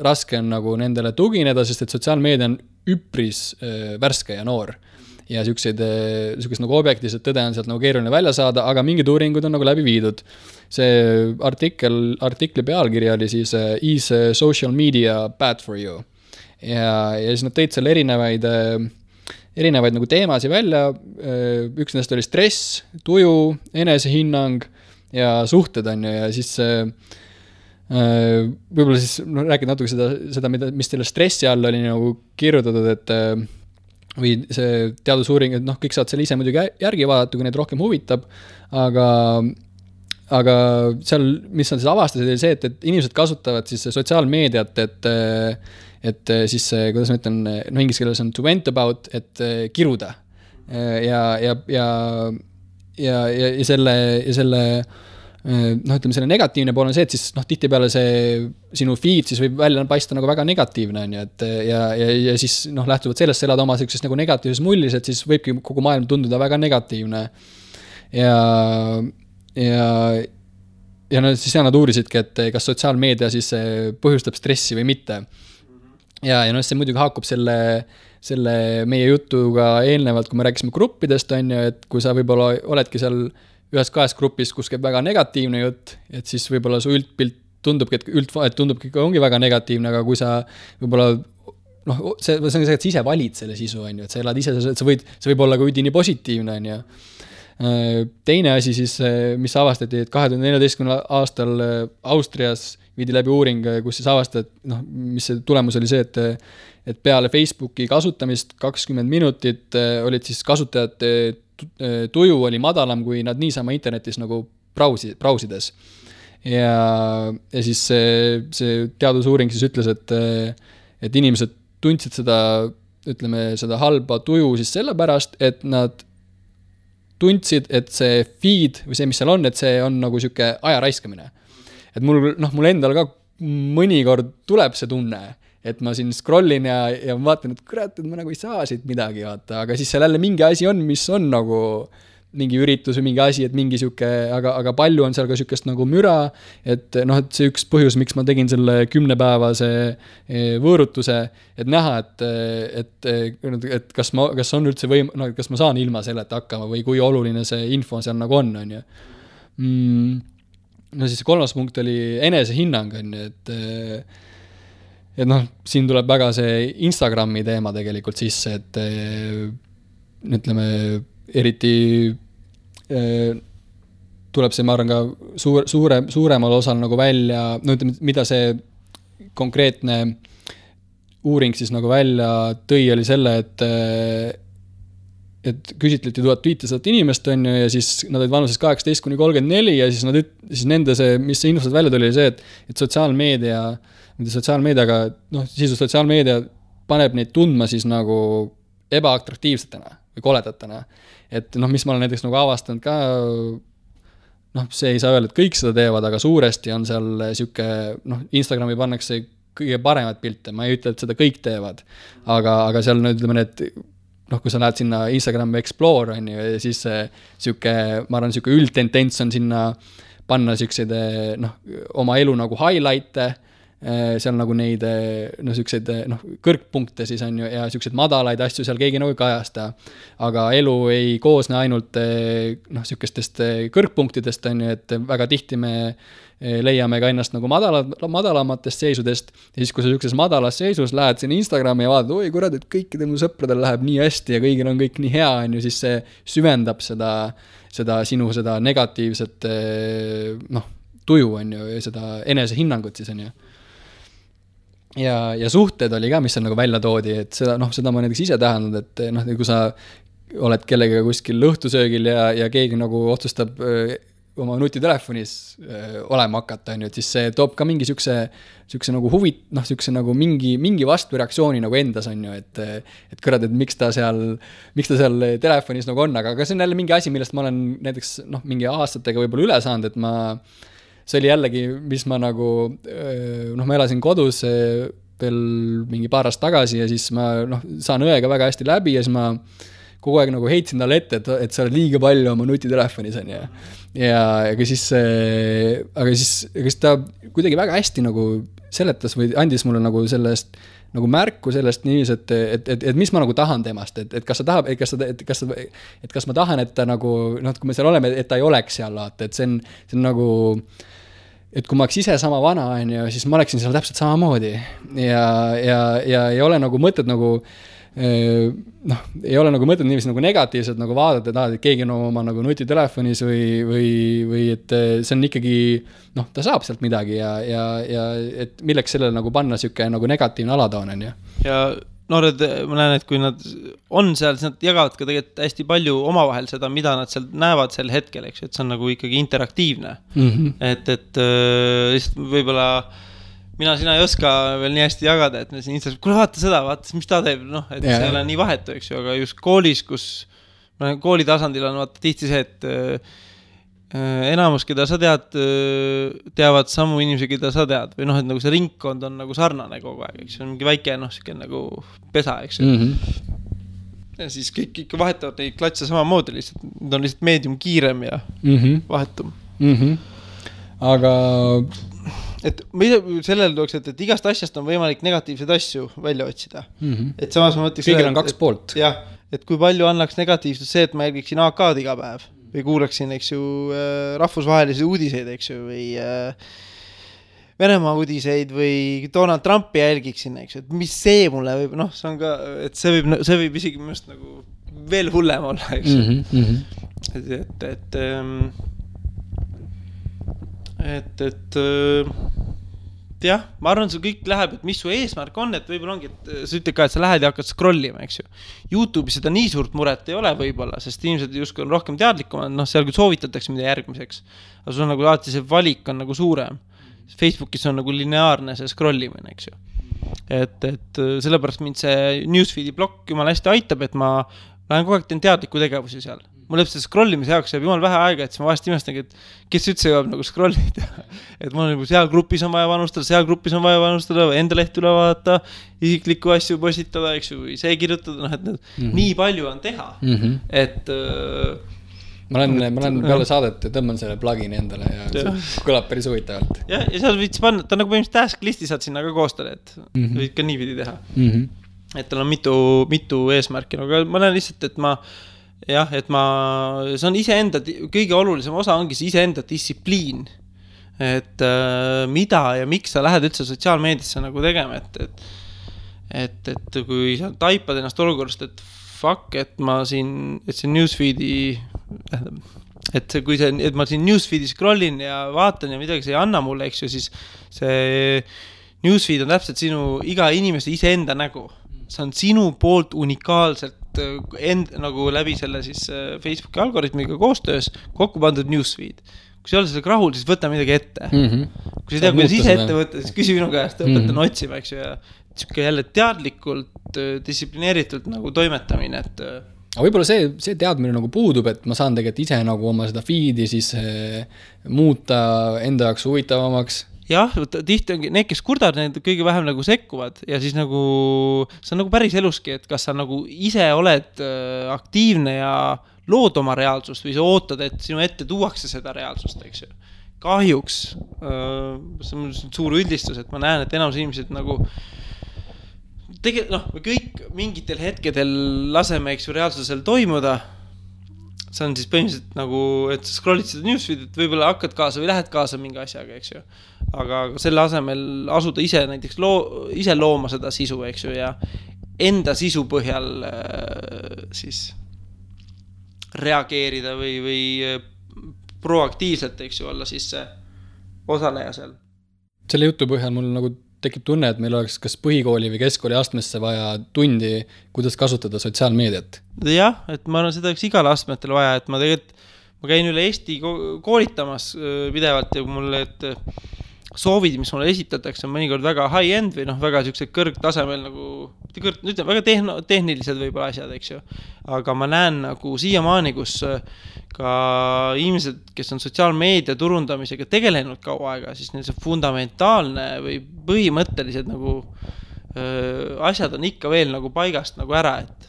raske on nagu nendele tugineda, sest et sotsiaalmeedia on üpris värske ja noor. Ja sükest nagu objektiivset tõde on sealt nagu keeruline välja saada, aga mingid uuringud on nagu läbi viidud. See artikli pealkiri oli siis Is social media bad for you? Ja siis nad tõid seal erinevaid nagu teemasid välja. Üks nendest oli stress, tuju, enesehinnang ja suhted on ju, ja siis võib-olla siis rääkida natuke seda, mis teile stressi all oli nagu kirjutatud, et või see teadusuuring, et kõik saad selle ise muidugi järgi vaadata, kui neid rohkem huvitab, aga seal, mis nad siis avastasid, oli see, et inimesed kasutavad siis sotsiaalmeediat, et siis, kuidas ma ütlen, inglise keeles on to vent about, et kiruda. Ja selle ütleme, selle negatiivne pool on see, et siis tihtipeale see sinu feed siis võib välja paista nagu väga negatiivne on ju, et ja siis lähtuvalt sellest elada oma sellisest nagu negatiivses mullis, et siis võibki kogu maailm tunduda väga negatiivne ja siis nad uurisidki, et kas sotsiaalmeedia siis põhjustab stressi või mitte ja see muidugi haakub selle meie jutuga eelnevalt, kui me rääkisime gruppidest on ju, et kui sa võib-olla oledki seal ühes kahes grupis, kus käib väga negatiivne jutt, et siis võib-olla su üldpilt tundubki, et ongi väga negatiivne, aga kui sa võib-olla, see on see, et sa ise valid selle sisu, on ju, et sa elad ise, see võib olla ka üdini positiivne, on ju. Teine asi siis, mis avastati, et 2014. aastal Austrias viidi läbi uuring, kus siis avastati, mis see tulemus oli see, et peale Facebooki kasutamist 20 minutit olid siis kasutajad tuju oli madalam, kui nad niisama internetis nagu brausides. Ja siis see teadusuuring siis ütles, et inimesed tundsid seda halba tuju siis sellepärast, et nad tundsid, et see feed või see, mis seal on, et see on nagu siuke aja raiskamine. Et mul endal ka mõnikord tuleb see tunne, et ma siin scrollin ja vaatan, et kurat, et ma nagu ei saa siit midagi vaata, aga siis seal jälle mingi asi on, mis on nagu mingi üritus või mingi asi, et mingi siuke, aga palju on seal ka siukest nagu müra, et et see üks põhjus, miks ma tegin selle 10-päevase võõrutuse, et näha, et kas on üldse kas ma saan ilma selleta hakkama või kui oluline see info seal nagu on ju. Siis 3. punkt oli enesehinnang on ju, et siin tuleb väga see Instagrami teema tegelikult sisse, et ütleme, eriti tuleb see, ma arvan, ka suuremal osal nagu välja, ütleme, mida see konkreetne uuring siis nagu välja tõi, oli selle, et küsitleti 1500 inimest on ju, ja siis nad olid vanuses 18–34 ja siis nende see, mis see infosed välja tuli, oli see, et sotsiaalmeediaga, sisu sotsiaalmeedia paneb neid tundma siis nagu ebaatraktiivsetena või koledatena. Et mis ma olen näiteks nagu avastanud ka, see ei saa öelda, et kõik seda teevad, aga suuresti on seal siuke, Instagrami pannakse kõige paremat pilte, ma ei ütle, et seda kõik teevad, aga seal ütleme need, kui sa lähed sinna Instagrami Explore on ju, ja siis siuke, ma arvan, siuke üldtendents on sinna panna siukseid oma elu nagu highlight'e, seal nagu neid siukseid kõrgpunkte siis on ju, ja siukseid madalaid asju seal keegi nagu ei kajasta, aga elu ei koosne ainult siukestest kõrgpunktidest on ju, et väga tihti me leiame ka ennast nagu madalamatest seisudest ja siis, kui sa siukses madalas seisus lähed sinna Instagrami ja vaatad, oi kurat, et kõikidel mu sõpradel läheb nii hästi ja kõigil on kõik nii hea on ju, siis see süvendab seda sinu seda negatiivset tuju, on ju, ja seda enesehinnangut siis, on ju. Ja suhted oli ka, mis seal nagu välja toodi, et seda ma näiteks ise tähendanud, et noh, kui sa oled kellegagi kuskil lõhtusöögil ja keegi nagu otsustab oma nutitelefonis olema hakata, on ju, et siis see toob ka mingi siukse nagu siukse nagu mingi vastureaktsiooni nagu endas, on ju, et kõrvad, et miks ta seal telefonis nagu on, aga see on jälle mingi asi, millest ma olen näiteks mingi aastatega võib-olla üle saanud, et see oli jällegi, mis ma nagu, ma elasin kodus veel mingi paar aastat tagasi ja siis ma saan õega väga hästi läbi ja siis ma kogu aeg nagu heitsin talle ette, et sa oled liiga palju oma nutitelefonis, on ju. Aga siis ta kuidagi väga hästi nagu seletas või andis mulle nagu sellest nagu märku sellest niivis, et mis ma nagu tahan temast, et kas ta tahab, kas ma tahan, et ta nagu, kui me seal oleme, et ta ei oleks seal, et see on nagu, et kui ma oleks ise sama vana, on ju, siis ma oleksin seal täpselt samamoodi ja ei ole nagu mõtet nagu ei ole nagu mõtet niiviisi nagu negatiivselt nagu vaadata, et keegi on oma nagu nutitelefonis või et see on ikkagi, ta saab sealt midagi ja et milleks sellele nagu panna siuke nagu negatiivne alatoon, on ju. Ja noored, ma näen, et kui nad on seal, siis nad jagavad ka tegelikult hästi palju omavahel seda, mida nad seal näevad sel hetkel, eks, et see on nagu ikkagi interaktiivne. Et lihtsalt võib-olla sina ei oska veel nii hästi jagada, et me siin Instas, kuule vaata seda, vaata, mis ta teeb, et see ei ole nii vahetu, eks ju, aga just koolis, kus kooli tasandil on vaata tihti see, et enamus, keda sa teavad samu inimesi, keda sa tead, või et nagu see ringkond on nagu sarnane kogu aeg, eks see on mingi väike, siuke nagu pesa, eks ju. Ja siis kõik ikka vahetavad neid klatse samamoodi lihtsalt, need on lihtsalt meedium kiirem ja vahetum. Aga et sellele tooks, et igast asjast on võimalik negatiivseid asju välja otsida. Et samas ma mõtleks kõigil on kaks poolt. Jah, et kui palju annaks negatiivsust see, et ma jälgiksin AK-d iga päev või kuulaksin, eks ju, rahvusvahelisi uudiseid, eks ju, või Venemaa uudiseid või Donald Trumpi jälgiksin, eks ju, et mis see mulle võib, see on ka, et see võib isegi minust nagu veel hullem olla, eks ju. Et jah, ma arvan, see kõik läheb, et mis su eesmärk on, et võib-olla ongi, et sa ütled ka, et sa lähed ja hakkad scrollima, eks ju. YouTube'is seda nii suurt muret ei ole võib-olla, sest inimesed justkui on rohkem teadlikumad, seal küll soovitatakse mida järgmiseks, aga sul on nagu alati see valik on nagu suurem. Facebookis on nagu lineaarne see scrollimine, eks ju. Et sellepärast mind see newsfeedi blokk jumala hästi aitab, et ma lähen kogu aeg teen teadliku tegevusi seal. Mul lõpselt scrollimise jaoks jääb jumal vähe aega, et siis ma vahest imestangi, et kes üldse jõuab nagu scrollida. Et mul on seal grupis on vaja panustada, enda leht üle vaadata, isiklikku asju postitada, eks ju, või see kirjutada, et nii palju on teha. Et ma olen peale saadet ja tõmban selle plugini endale ja see kõlab päris huvitavalt. Ja seal võiks panna, ta on nagu põhimõtteliselt task listi saad sinna ka koostada, et võid ka niipidi teha. Et tal on mitu eesmärki, aga ma näen lihtsalt, et see on iseenda, kõige olulisem osa ongi see iseenda distsipliin, et mida ja miks sa lähed üldse sotsiaalmeediasse nagu tegema, et kui sa taipad ennast olukorrast, et fuck, et see newsfeedi, et ma siin newsfeedi scrollin ja vaatan ja midagi see ei anna mulle, eks ju, siis see newsfeed on täpselt sinu iga inimese iseenda nägu. See on sinu poolt unikaalselt nagu läbi selle siis Facebooki algoritmiga koostöös kokku pandud newsfeed. Kui sa ei ole sellega rahul, siis võta midagi ette. Kui sa ei tea, kuidas ise ette võtta, siis küsi minu käest, õpetan otsima, eks ju, ja siuke jälle teadlikult, distsiplineeritult nagu toimetamine, et aga võib-olla see teadmine nagu puudub, et ma saan tegelikult ise nagu oma seda feedi siis muuta enda jaoks huvitavamaks. Jah, tihti ongi need, kes kurdavad, need kõige vähem nagu sekkuvad ja siis nagu see on nagu päris eluski, et kas sa nagu ise oled aktiivne ja lood oma reaalsust või sa ootad, et sinu ette tuuakse seda reaalsust, eks ju. Kahjuks, see on suur üldistus, et ma näen, et enamus inimesed nagu kõik mingitel hetkedel laseme, eks ju, reaalsusel toimuda. See on siis põhimõtteliselt nagu, et scrollid seda newsfeed, et võib-olla hakkad kaasa või lähed kaasa mingi asjaga, eks ju. Aga selle asemel asuda ise näiteks ise looma seda sisu, eks ju, ja enda sisu põhjal siis reageerida või proaktiivselt, eks ju, olla siis see osaleja seal. Selle jutu põhjal mul nagu tekib tunne, et meil oleks kas põhikooli või keskkooli astmesse vaja tundi, kuidas kasutada sotsiaalmeediat. Jah, et ma arvan, seda oleks igal astmetel vaja, et ma käin üle Eesti koolitamas pidevalt ja mulle, et soovid, mis mulle esitatakse, on mõnikord väga high-end või väga siuksed kõrgtasemel väga tehnilised võib-olla asjad, eks ju. Aga ma näen nagu siiamaani, kus ka inimesed, kes on sotsiaalmeedia turundamisega tegelenud kaua aega, siis neil see fundamentaalne või põhimõttelised asjad on ikka veel nagu paigast nagu ära, et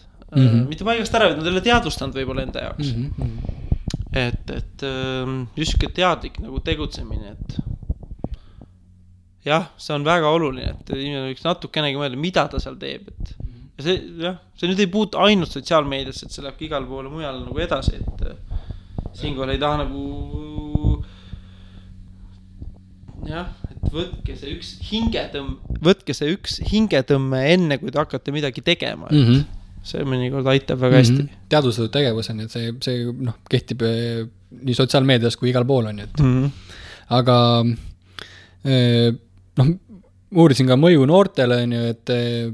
mitte paigast ära, et nad ei ole teadvustanud võib-olla enda jaoks. Et just teadlik nagu tegutsemine, et jah, see on väga oluline, et inimene võiks natukenegi mõelda, mida ta seal teeb, et ja see nüüd ei puutu ainult sotsiaalmeediasse, et see läheb igal poole mujal nagu edasi, et siinkohal ei taha nagu et võtke see üks hingetõmme enne, kui te hakkate midagi tegema, et see mõnikord aitab väga hästi. Teadvustatud tegevus on, et see kehtib nii sotsiaalmeedias kui igal pool on, et aga uurisin ka mõju noortele, et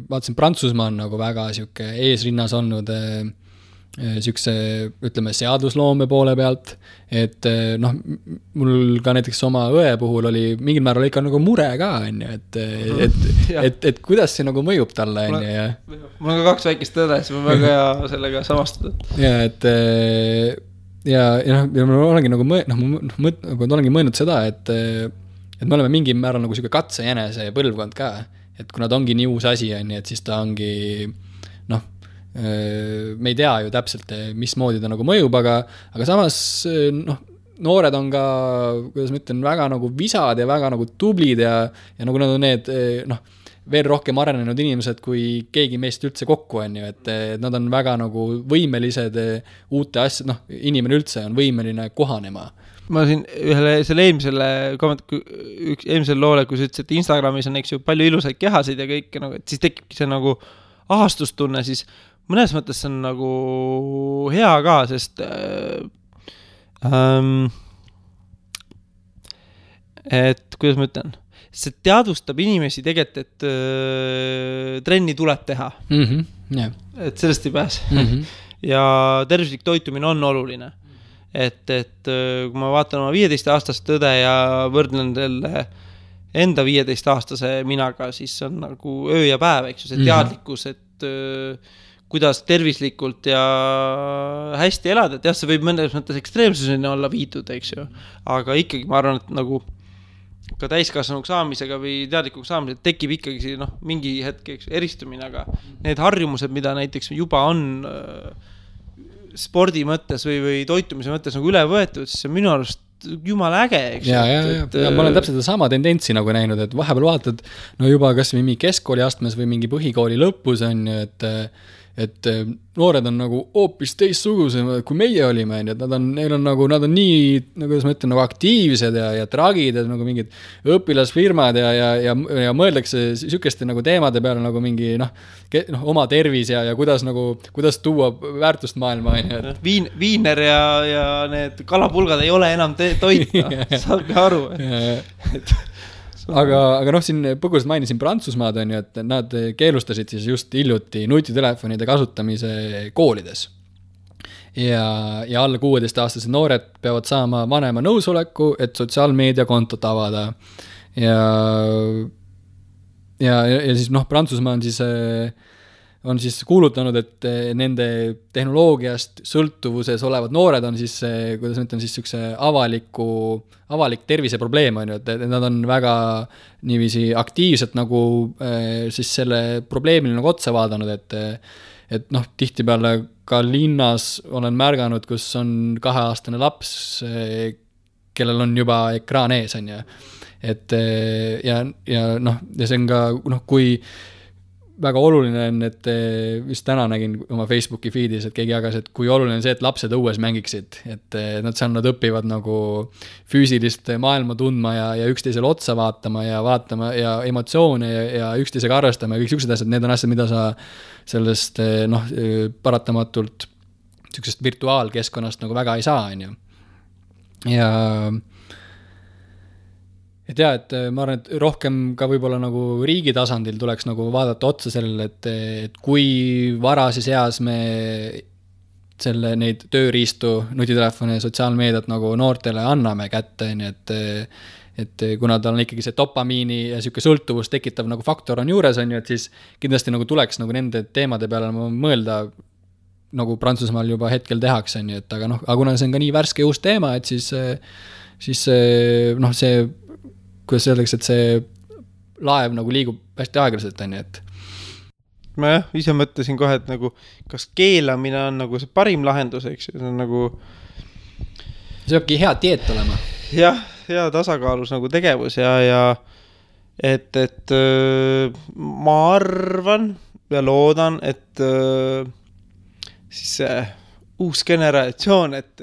vaatasin, Prantsusmaa on nagu väga siuke eesrinnas olnud siukse, ütleme, seadusloome poole pealt, et mul ka näiteks oma õe puhul oli mingil määral ikka nagu mure ka, et kuidas see nagu mõjub talle, ja mul on ka 2 väikest õde, siis ma väga hea sellega samastada. Ja ma olengi nagu mõelnud seda, et me oleme mingi määral nagu siuke katsejänese põlvkond ka, et kui nad ongi nii uus asi, et siis ta ongi me ei tea ju täpselt, mismoodi ta nagu mõjub, aga samas noored on ka, kuidas ma ütlen, väga nagu visad ja väga nagu tublid ja nagu nad on need veel rohkem arenenud inimesed, kui keegi meist üldse kokku on ju, et nad on väga nagu võimelised uute asjad, inimene üldse on võimeline kohanema. Ma siin selle eelmisel loole, kui sa ütlesid, et Instagramis on eks ju palju ilusaid kehasid ja kõik, et siis tekibki see nagu ahastustunne, siis mõnes mõttes see on nagu hea ka, sest et kuidas ma ütlen, see teadvustab inimesi tegelikult, et trenni tuleb teha. Et sellest ei pääse. Ja tervislik toitumine on oluline. Et kui ma vaatan oma 15-aastast tõde ja võrdlen selle enda 15-aastase minaga, siis on nagu öö ja päev, eks ju, see teadlikkus, et kuidas tervislikult ja hästi elada, et jah, see võib mõnes mõttes ekstreemsuseni olla viidud, eks ju, aga ikkagi ma arvan, et nagu ka täiskasvanuks saamisega või teadlikuks saamisega tekib ikkagi mingi hetk eristumine, aga need harjumused, mida näiteks juba on spordi mõttes või toitumise mõttes nagu üle võetud, siis see on minu arust jumala äge, eks. Ja ma olen täpselt sama tendentsi nagu näinud, et vahepeal vaatad, juba kas või mingi keskkooli astmes või mingi põhikooli lõpus on, et noored on nagu hoopis teistsugused, kui meie olime, et nad on nii, kuidas ma ütlen, nagu aktiivsed ja tragid, et nagu mingid õpilasfirmad ja mõeldakse sükeste nagu teemade peale nagu mingi oma tervis ja kuidas tuua väärtust maailma. Viiner ja need kalapulgad ei ole enam toita, saabki aru. Aga siin põgusalt mainisin Prantsusmaad on ju, et nad keelustasid siis just hiljuti nutitelefonide kasutamise koolides. Ja alla 16-aastased noored peavad saama vanema nõusoleku, et sotsiaalmeediakontot avada. Ja siis Prantsusmaa on siis kuulutanud, et nende tehnoloogiast sõltuvuses olevad noored on siis, kuidas ma ütlen, siis sükse avalik terviseprobleem on ju, et nad on väga niiviisi aktiivselt nagu siis selle probleemile nagu otsa vaadanud, et tihtipeale ka linnas olen märganud, kus on 2-aastane laps, kellel on juba ekraan ees on ju, et ja see on ka, kui väga oluline on, et vist täna nägin oma Facebooki feedis, et keegi jagas, et kui oluline on see, et lapsed õues mängiksid, et nad õpivad nagu füüsilist maailma tundma ja üksteisele otsa vaatama ja emotsioone ja üksteisega arvestama ja kõik siuksed asjad, need on asjad, mida sa sellest paratamatult siuksest virtuaalkeskkonnast nagu väga ei saa, on ju. Ja et jaa, et ma arvan, et rohkem ka võib-olla nagu riigi tasandil tuleks nagu vaadata otsa sellele, et kui varases eas me neid tööriistu, nutitelefone ja sotsiaalmeediat nagu noortele anname kätte, nii et kuna tal on ikkagi see dopamiini ja siuke sõltuvus tekitav nagu faktor on juures, on ju, et siis kindlasti nagu tuleks nagu nende teemade peale mõelda, nagu Prantsusmaal juba hetkel tehakse, on ju, et aga kuna see on ka nii värske uus teema, et siis see kuidas öeldakse, et see laev nagu liigub hästi aeglaselt, on ju, et ma ise mõtlesin kohe, et nagu kas keelamine on nagu see parim lahendus, eks see on nagu see peabki hea dieet olema. Jah, hea tasakaalus nagu tegevus ja et ma arvan ja loodan, et siis see uus generatsioon, et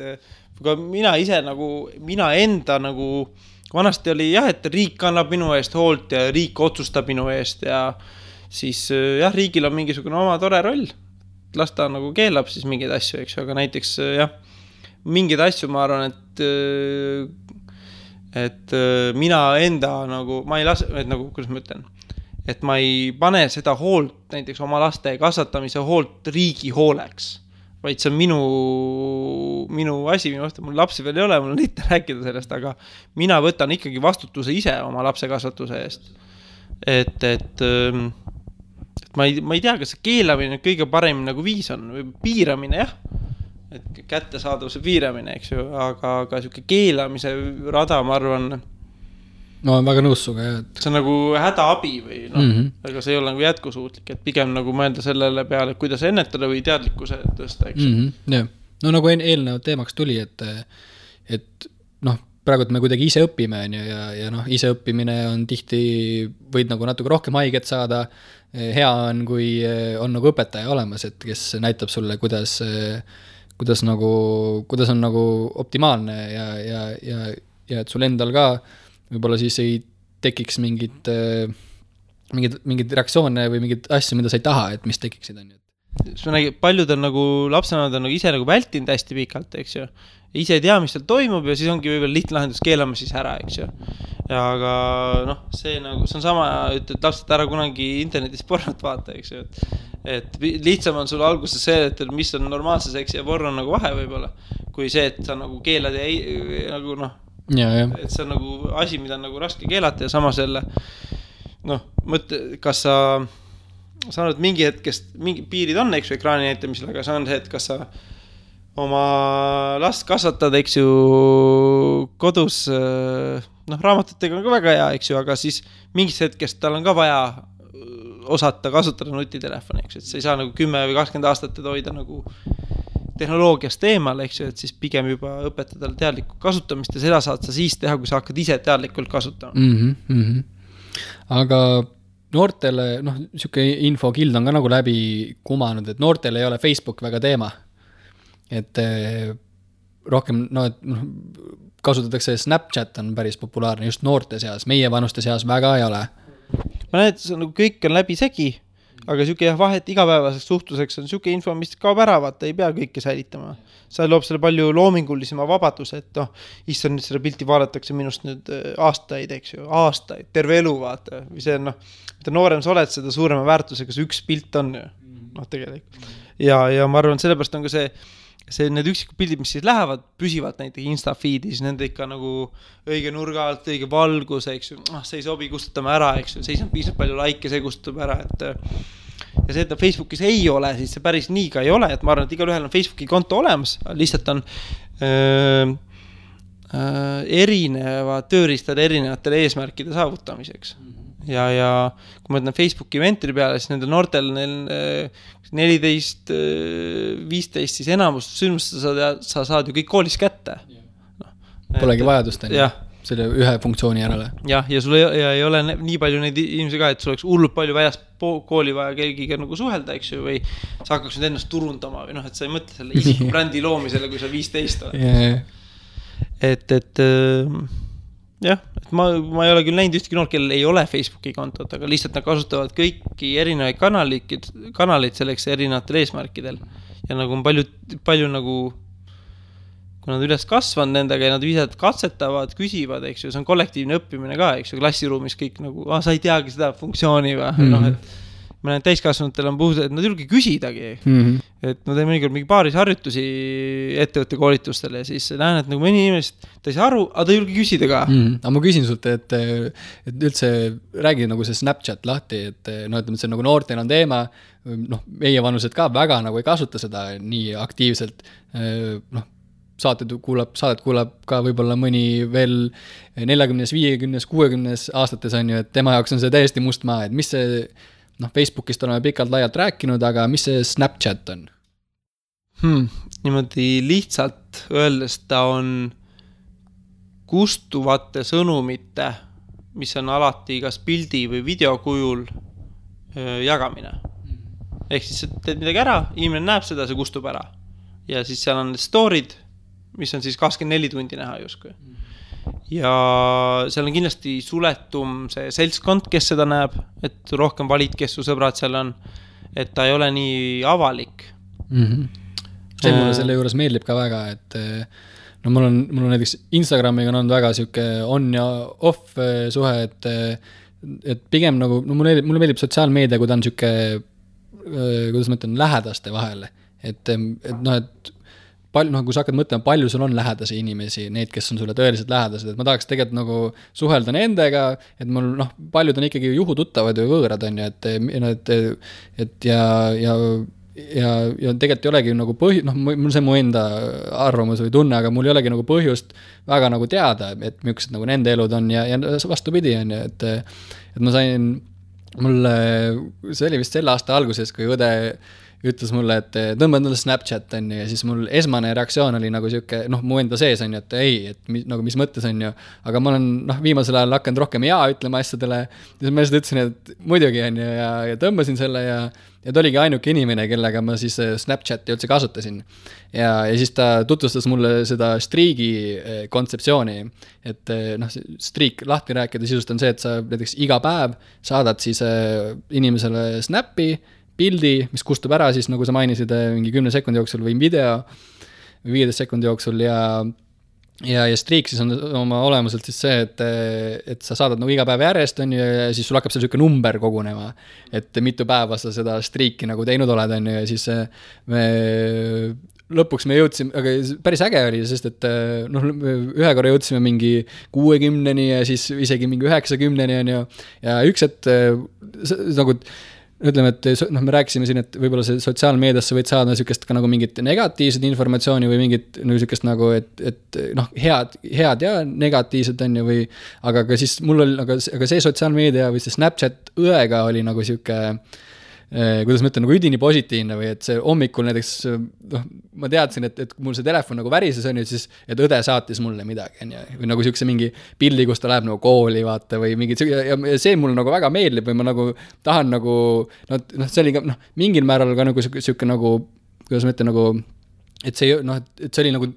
mina ise nagu, mina enda nagu vanasti oli jah, et riik kannab minu eest hoolt ja riik otsustab minu eest ja siis jah, riigil on mingisugune oma tore roll. Las ta nagu keelab siis mingeid asju, eks ju, aga näiteks jah, mingeid asju ma arvan, et mina enda nagu, ma ei lase, et nagu, kuidas ma ütlen, et ma ei pane seda hoolt, näiteks oma laste kasvatamise hoolt riigi hooleks, vaid see on minu asi, mul lapsi veel ei ole, mul on lihtne rääkida sellest, aga mina võtan ikkagi vastutuse ise oma lapse kasvatuse eest. Et ma ei tea, kas see keelamine kõige parem nagu viis on või piiramine, jah, et kättesaadavuse piiramine, eks ju, aga siuke keelamise rada, ma arvan, no on väga nõus suga, jah, et see on nagu hädaabi või aga see ei ole nagu jätkusuutlik, et pigem nagu mõelda sellele peale, kuidas ennetada või teadlikkuse tõsta, eks jah. No nagu eelnevad teemaks tuli, et praegu me kuidagi ise õpime ja ise õppimine on tihti, võid nagu natuke rohkem haiget saada, hea on, kui on nagu õpetaja olemas, et kes näitab sulle, kuidas on nagu optimaalne ja et sul endal ka võib-olla siis ei tekiks mingid reaktsioone või mingid asju, mida sa ei taha, et mis tekiksid, on ju. Paljud on nagu, lapsenemad on nagu ise nagu vältinud hästi pikalt, eks ju. Ise ei tea, mis seal toimub ja siis ongi võib-olla lihtne lahendus keelama siis ära, eks ju. Ja aga see on sama, et lapsed ära kunagi internetis pornot vaata, eks ju. Et lihtsam on sul alguses see, et mis on normaalse seksi ja porno nagu vahe võib-olla, kui see, et sa nagu keelad ja nagu et see on nagu asi, mida on nagu raske keelata ja samas jälle mõtle, kas sa saanud mingi hetkest, mingi piirid on, eks ju, ekraani näitamisel, aga see on see, et kas sa oma last kasvatad, eks ju, kodus, raamatutega on ka väga hea, eks ju, aga siis mingis hetkest tal on ka vaja osata kasutada nutitelefoni, eks ju, et sa ei saa nagu 10 või 20 aastat hoida nagu tehnoloogiast eemal, eks ju, et siis pigem juba õpetada teadlikku kasutamist ja seda saad sa siis teha, kui sa hakkad ise teadlikult kasutama. Aga noortele, siuke infokild on ka nagu läbi kumanud, et noortele ei ole Facebook väga teema. Et rohkem, kasutatakse Snapchat on päris populaarne just noorte seas, meie vanuste seas väga ei ole. Ma näed, nagu kõik on läbi segi, aga siuke vahet igapäevaseks suhtluseks on siuke info, mis kaob ära, vaata, ei pea kõike säilitama. See loob selle palju loomingulisema vabaduse, et issand, nüüd selle pilti vaadatakse minust nüüd aastaid, eks ju, aastaid, terve elu, vaata. Või see on, mida noorem sa oled, seda suurema väärtusega see üks pilt on ju, tegelikult. Ja ma arvan, sellepärast on ka see need üksikud pildid, mis siis lähevad, püsivad näiteks Insta-feedis, nende ikka nagu õige nurga alt, õige valgus, eks ju, see ei sobi, kustutame ära, eks ju, see ei saa piisavalt palju laike, see kustutab ära, et ja see, et Facebookis ei ole, siis see päris nii ka ei ole, et ma arvan, et igal ühel on Facebooki konto olemas, lihtsalt on erineva tööriistad erinevatele eesmärkide saavutamiseks. Ja kui ma ütlen Facebooki eventide peale, siis nendel noortel 14, 15, siis enamus sündmust sa saad ju kõik koolis kätte. Polegi vajadust selle ühe funktsiooni järele. Ja sul ei ole nii palju neid inimesi ka, et sul oleks hullult palju väljast kooli vaja kelgiga nagu suhelda, eks ju, või sa hakkaks nüüd ennast turundama või et sa ei mõtle selle isiku brändi loomisele, kui sa 15 oled. Et jah, et ma ei ole küll näinud ühtegi noort, kellel ei ole Facebooki kontot, aga lihtsalt nad kasutavad kõiki erinevaid kanaleid selleks erinevatel eesmärkidel. Ja nagu on palju nagu kui nad üles kasvanud nendega ja nad viisad katsetavad, küsivad, eks ju, see on kollektiivne õppimine ka, eks ju, klassiruumis kõik nagu, sa ei teagi seda funktsiooni või, et ma näen, täiskasvanutel on puhus, et nad ei julge küsidagi. Et ma teen mõnikord mingi paaris harjutusi ettevõtte koolitustele ja siis näen, et nagu mõni inimesed, ta ei saa aru, aga ta ei julge küsida ka. Aga ma küsin sult, et üldse räägi nagu see Snapchat lahti, et ütleme, et see nagu noortel on teema, meie vanused ka väga nagu ei kasuta seda nii aktiivselt, saadet kuulab ka võib-olla mõni veel 40, 50, 60 aastates on ju, et tema jaoks on see täiesti must maa, et mis see Facebookist oleme pikalt laialt rääkinud, aga mis see Snapchat on? Niimoodi lihtsalt öeldes ta on kustuvate sõnumite, mis on alati kas pildi või videokujul jagamine. Ehk siis teed midagi ära, inimene näeb seda, see kustub ära. Ja siis seal on story'd, mis on siis 24 tundi näha justkui. Ja seal on kindlasti suletum see seltskond, kes seda näeb, et rohkem valid, kes su sõbrad seal on, et ta ei ole nii avalik. See mulle selle juures meeldib ka väga, et mul on näiteks Instagramiga on väga siuke on ja off suhe, et pigem nagu, mulle meeldib sotsiaalmeedia, kui ta on siuke, kuidas ma ütlen, lähedaste vahel, et kui sa hakkad mõtlema, palju sul on lähedasi inimesi, need, kes on sulle tõeliselt lähedased, et ma tahaks tegelikult nagu suhelda nendega, et mul paljud on ikkagi juhututtavad või võõrad on ju, et ja tegelikult ei olegi nagu mul see mu enda arvamus või tunne, aga mul ei olegi nagu põhjust väga nagu teada, et millised nagu nende elud on ja vastupidi on ju, et ma sain, see oli vist selle aasta alguses, kui õde ütles mulle, et tõmbad mulle Snapchat on ju, ja siis mul esmane reaktsioon oli nagu siuke, mu enda sees on ju, et ei, et nagu mis mõttes on ju, aga ma olen viimasel ajal hakanud rohkem jaa ütlema asjadele, ja siis ma lihtsalt ütlesin, et muidugi on ju, ja tõmbasin selle ja ta oligi ainuke inimene, kellega ma siis Snapchati üldse kasutasin. Ja siis ta tutvustas mulle seda striigi kontseptsiooni, et striik lahti rääkida sisust on see, et sa näiteks iga päev saadad siis inimesele snappi, pildi, mis kustub ära siis, nagu sa mainisid, mingi 10 sekundi jooksul või video või 15 sekundi jooksul ja striik siis on oma olemuselt siis see, et sa saadad nagu iga päev järjest on ju, ja siis sul hakkab selline number kogunema, et mitu päeva sa seda striiki nagu teinud oled on ju, ja siis lõpuks me jõudsime, aga päris äge oli, sest et ühe korra jõudsime mingi 60-ni ja siis isegi mingi 90-ni on ju, ja üks, et nagu ütleme, et me rääkisime siin, et võib-olla see sotsiaalmeediasse võid saada niisugust ka nagu mingit negatiivset informatsiooni või mingit niisugust nagu, et head ja negatiivset on ju või, aga ka siis mul oli, aga see sotsiaalmeedia või see Snapchat õega oli nagu siuke, kuidas ma ütlen, nagu üdini positiivne või et see hommikul näiteks, ma teadsin, et mul see telefon nagu värises on ju, siis, et õde saatis mulle midagi, või nagu siukse mingi pildi, kus ta läheb nagu kooli vaata või mingid, ja see mulle nagu väga meeldib või ma nagu tahan nagu, see oli ka, mingil määral ka nagu siuke nagu, kuidas ma ütlen, nagu, et see oli nagu,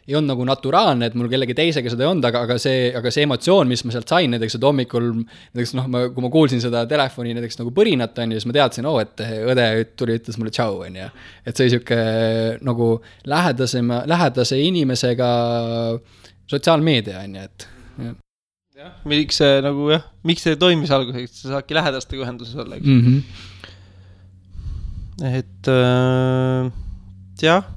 ei olnud nagu naturaalne, et mul kellegi teisega seda ei olnud, aga see emotsioon, mis ma sealt sain, näiteks, et hommikul, näiteks, kui ma kuulsin seda telefoni näiteks nagu põrinat, on ju, siis ma teadsin, et õde ütles mulle tšau, on ju. Et see siuke nagu lähedase inimesega sotsiaalmeedia, on ju, et jah, miks see toimis alguseks, sa saadki lähedastega ühenduses olla, eks? Et jah,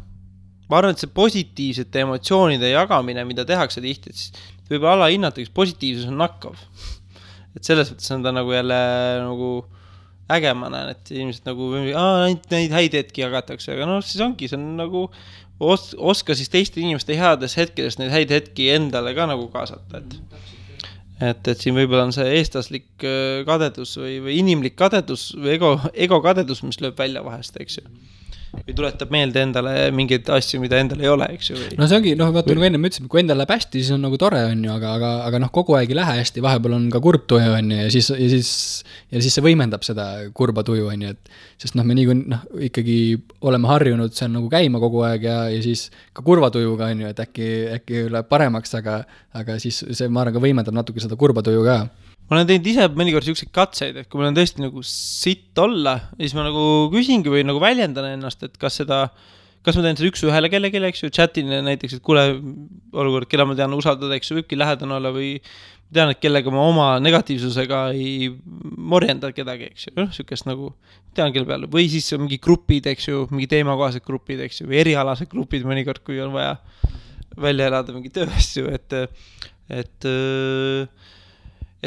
ma arvan, et see positiivsete emotsioonide jagamine, mida tehakse tihti, et siis võib alla hinnata, üks positiivsus on nakkav. Et selles võttes on ta nagu jälle nagu äge, ma näen, et inimesed nagu neid häid hetki jagatakse, aga siis ongi, see on nagu oska siis teiste inimeste heades hetkedest neid häid hetki endale ka nagu kaasata, et siin võib-olla on see eestlaslik kadedus või inimlik kadedus või ego kadedus, mis lööb välja vahest, eks ju. Või tuletab meelde endale mingeid asju, mida endale ei ole, eks ju. No see ongi, vaata nagu enne me ütlesime, kui endal läheb hästi, siis on nagu tore, on ju, aga kogu aeg ei lähe hästi, vahepeal on ka kurb tuju, on ju, ja siis see võimendab seda kurba tuju, on ju, et sest me ikkagi oleme harjunud see on nagu käima kogu aeg ja siis ka kurva tujuga, on ju, et äkki läheb paremaks, aga siis see ma arvan ka võimendab natuke seda kurba tuju ka. Ma olen teinud ise mõnikord selliseid katseid, et kui mul on tõesti nagu sitt olla, siis ma nagu küsingi või nagu väljendan ennast, et kas seda kas ma teen seda üks ühele kellelegi, eks ju, chatin näiteks, et kuule, olukord, keda ma tean usaldada, eks ju, võibki lähedane olla või tean, et kellega ma oma negatiivsusega ei morjenda kedagi, eks ju, sükest nagu tean kelle peale, või siis mingi grupid, eks ju, mingi teemakohased grupid, eks ju, või erialased grupid mõnikord, kui on vaja välja elada mingi tööasju, et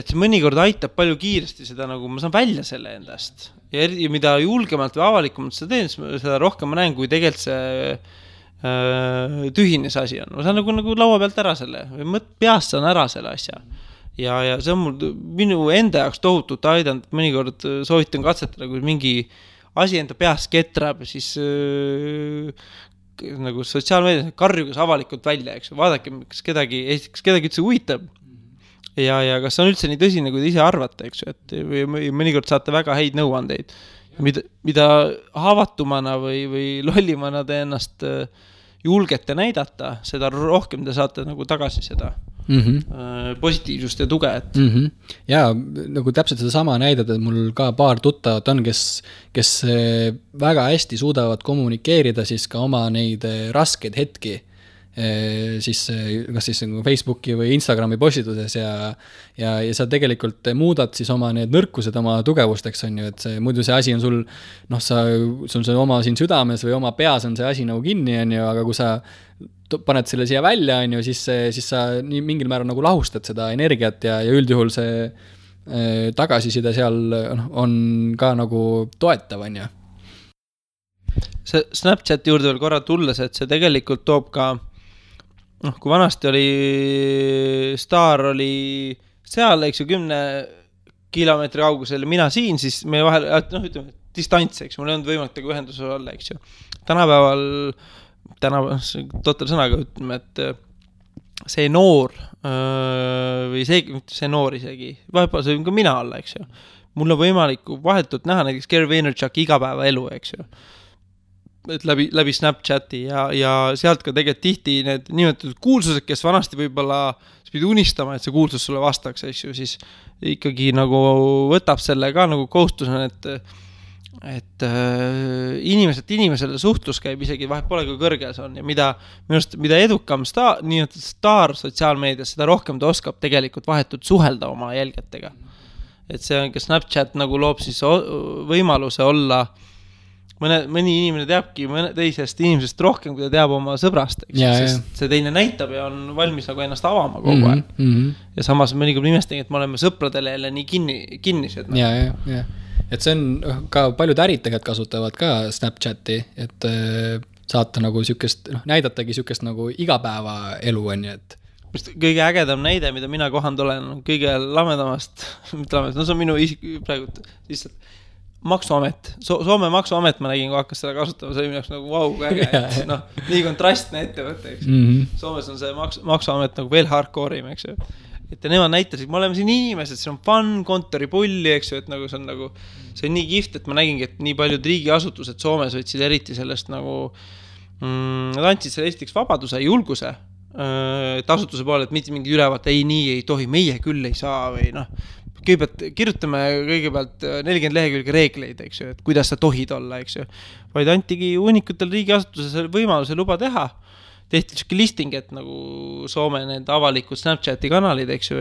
see mõnikord aitab palju kiiresti seda nagu, ma saan välja selle endast ja mida julgemalt või avalikumalt seda teen, seda rohkem ma näen, kui tegelikult see tühine see asi on. Ma saan nagu laua pealt ära selle, või peast saan ära selle asja ja see on minu enda jaoks tohutult aidanud, mõnikord soovitan katsetada, kui mingi asi enda peast ketrab, siis nagu sotsiaalmeedias karjugas avalikult välja, eks vaadake, kas kedagi üldse huvitab ja kas on üldse nii tõsine, kui te ise arvate, eks ju, et või mõnikord saate väga häid nõuandeid, mida haavatumana või lollimana te ennast julgete näidata, seda rohkem te saate nagu tagasi seda positiivsust ja tuge. Ja nagu täpselt seda sama näidata, et mul ka paar tuttavat on, kes väga hästi suudavad kommunikeerida siis ka oma neid raskeid hetki siis kas siis Facebooki või Instagrami postituses ja sa tegelikult muudad siis oma need nõrkused oma tugevusteks on ju, et see, muidu see asi on sul sul see oma siin südames või oma peas on see asi nagu kinni on ju, aga kui sa paned selle siia välja on ju, siis sa nii mingil määral nagu lahustad seda energiat ja üldjuhul see tagasiside seal on ka nagu toetav on ju. See Snapchati juurde veel korra tulles, et see tegelikult toob ka kui vanasti oli Staar oli seal, eks ju, 10 kilomeetri kaugusel mina siin, siis meie vahel, ütleme, distants, eks, mul ei olnud võimalik tegu ühenduse olla, eks ju. Tänapäeval, total sõnaga ütleme, et see noor või see noor isegi, vahepeal see on ka mina olla, eks ju. Mul on võimalik vahetult näha näiteks Gary Vaynerchuk igapäeva elu, eks ju. Et läbi Snapchati ja sealt ka tegelikult tihti need nimetatud kuulsused, kes vanasti võib-olla pidi unistama, et see kuulsus sulle vastaks, siis ikkagi nagu võtab selle ka nagu kohustusena, et inimesele suhtlus käib isegi vahet pole, kui kõrge see on ja mida edukam staar sotsiaalmeedias, seda rohkem ta oskab tegelikult vahetult suhelda oma jälgetega. Et see on ka Snapchat nagu loob siis võimaluse olla mõni inimene teabki teisest inimesest rohkem, kui ta teab oma sõbrast, sest see teine näitab ja on valmis nagu ennast avama kogu aeg. Ja samas mõnikord imestagi, et me oleme sõpradele jälle nii kinnised. Ja. Et see on ka paljud ärid tegelikult kasutavad ka Snapchati, et saata nagu sükest, näidatagi sükest nagu igapäeva elu on ju, et kõige ägedam näide, mida mina kohanud olen, kõige lamedamast, see on minu praegu lihtsalt maksuamet, Soome maksuamet ma nägin, kui hakkas seda kasutama, see oli mineks nagu vau, äge, nii kontrastne ettevõte, eks. Soomes on see maksuamet nagu veel hardcore'im, eks ju. Et nemad näitasid, me oleme siin inimesed, see on fun, kontoripulli, eks ju, et nagu see on nii kift, et ma nägingi, et nii paljud riigiasutused Soomes võtsid eriti sellest nagu, nad andsid selle esiteks vabaduse, julguse, et asutuse poole, et mitte mingi ülevaate, ei nii ei tohi, meie küll ei saa või kõigepealt kirjutame kõigepealt 40 lehekülge reegleid, eks ju, et kuidas sa tohid olla, eks ju. Vaid antigi uunikutel riigiasutuses võimaluse luba teha. Tehti selline listing, et nagu Soome need avalikud Snapchati kanalid, eks ju,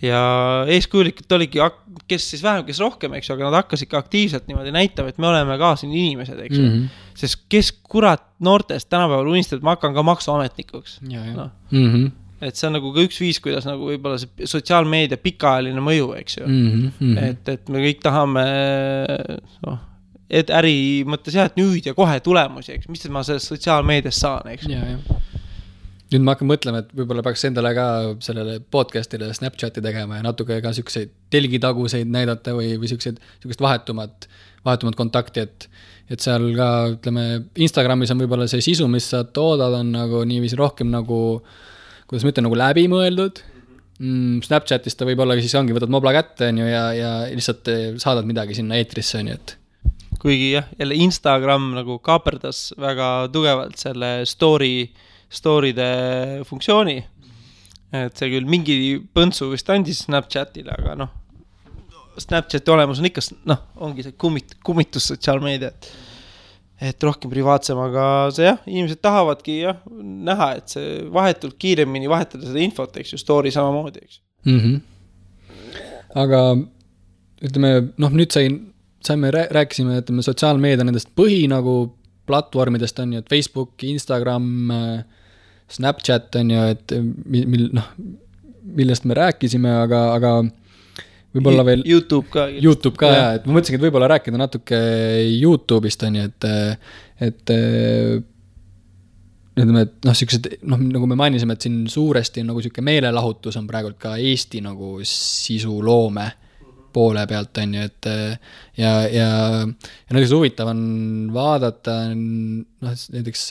ja eeskujulikult oligi, kes siis vähem, kes rohkem, eks ju, aga nad hakkasid ka aktiivselt niimoodi näitama, et me oleme ka siin inimesed, eks ju. Sest kes kurat noortest tänapäeval unistab, et ma hakkan ka maksuametnikuks. Et see on nagu ka üks viis, kuidas nagu võib-olla see sotsiaalmeedia pikaajaline mõju, eks ju. Et me kõik tahame et äri mõttes et nüüd ja kohe tulemusi, eks, mis ma sellest sotsiaalmeedias saan, eks. Nüüd ma hakkan mõtlema, et võib-olla peaks endale ka sellele podcastile Snapchati tegema ja natuke ka selliseid telgitaguseid näidata või sellised vahetumat kontakti, et seal ka, ütleme, Instagramis on võib-olla see sisu, mis sa toodad, on nagu niiviisi rohkem nagu kuidas ma ütlen, nagu läbi mõeldud. Snapchatist ta võib-olla siis ongi, võtad mobla kätte on ju, ja lihtsalt saadad midagi sinna eetrisse on ju, et kuigi jah, jälle Instagram nagu kaaperdas väga tugevalt selle story'de funktsiooni, et see küll mingi põntsu vist andis Snapchatile, aga Snapchati olemus on ikka, ongi see kummitus sotsiaalmeedia, et rohkem privaatsem, aga see jah, inimesed tahavadki jah, näha, et see vahetult kiiremini vahetada seda infot, eks ju, story samamoodi, eks. Aga ütleme, noh, nüüd rääkisime, ütleme, sotsiaalmeedia nendest põhi nagu platvormidest on ju, et Facebook, Instagram, Snapchat on ju, et millest me rääkisime, aga võib-olla veel YouTube ka ja, et ma mõtlesin, et võib-olla rääkida natuke YouTube'ist on ju, et ütleme, et noh, siuksed, noh, nagu me mainisime, et siin suuresti nagu siuke meelelahutus on praegult ka Eesti nagu sisuloome poole pealt on ju, et ja näiteks huvitav on vaadata, noh, näiteks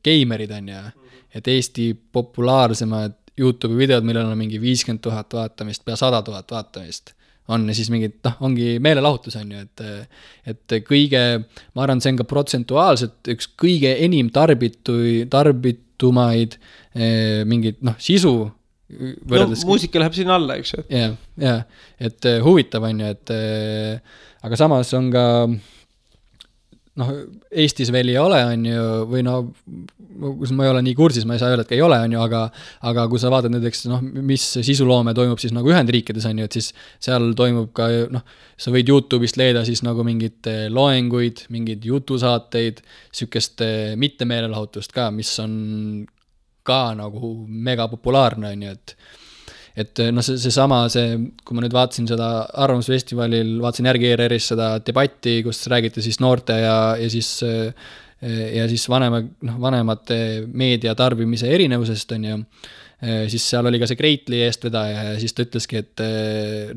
geimerid on ju, et Eesti populaarsemad YouTube'i videod, millel on mingi 50 000 vaatamist, pea 100 000 vaatamist on ja siis mingid, noh, ongi meelelahutus on ju, et kõige, ma arvan, see on ka protsentuaalselt üks kõige enim tarbitumaid mingid, noh, sisu võrreldes. No, muusika läheb sinna alla, eks ju. Ja, et huvitav on ju, et aga samas on ka, noh, Eestis veel ei ole, on ju, või no, kus ma ei ole nii kursis, ma ei saa öelda, et ei ole, on ju, aga kui sa vaatad näiteks, noh, mis sisuloome toimub siis nagu Ühendriikides, on ju, et siis seal toimub ka, noh, sa võid YouTube'ist leida siis nagu mingid loenguid, mingid jutusaateid, sükest mittemeelelahutust ka, mis on ka nagu mega populaarne, on ju, et noh, seesama, kui ma nüüd vaatasin seda Arvamusfestivalil, vaatasin järgi ERR-is seda debatti, kus räägiti siis noorte ja siis vanemate meedia tarbimise erinevusest, on ju, siis seal oli ka see Greatli eestvedaja ja siis ta ütleski, et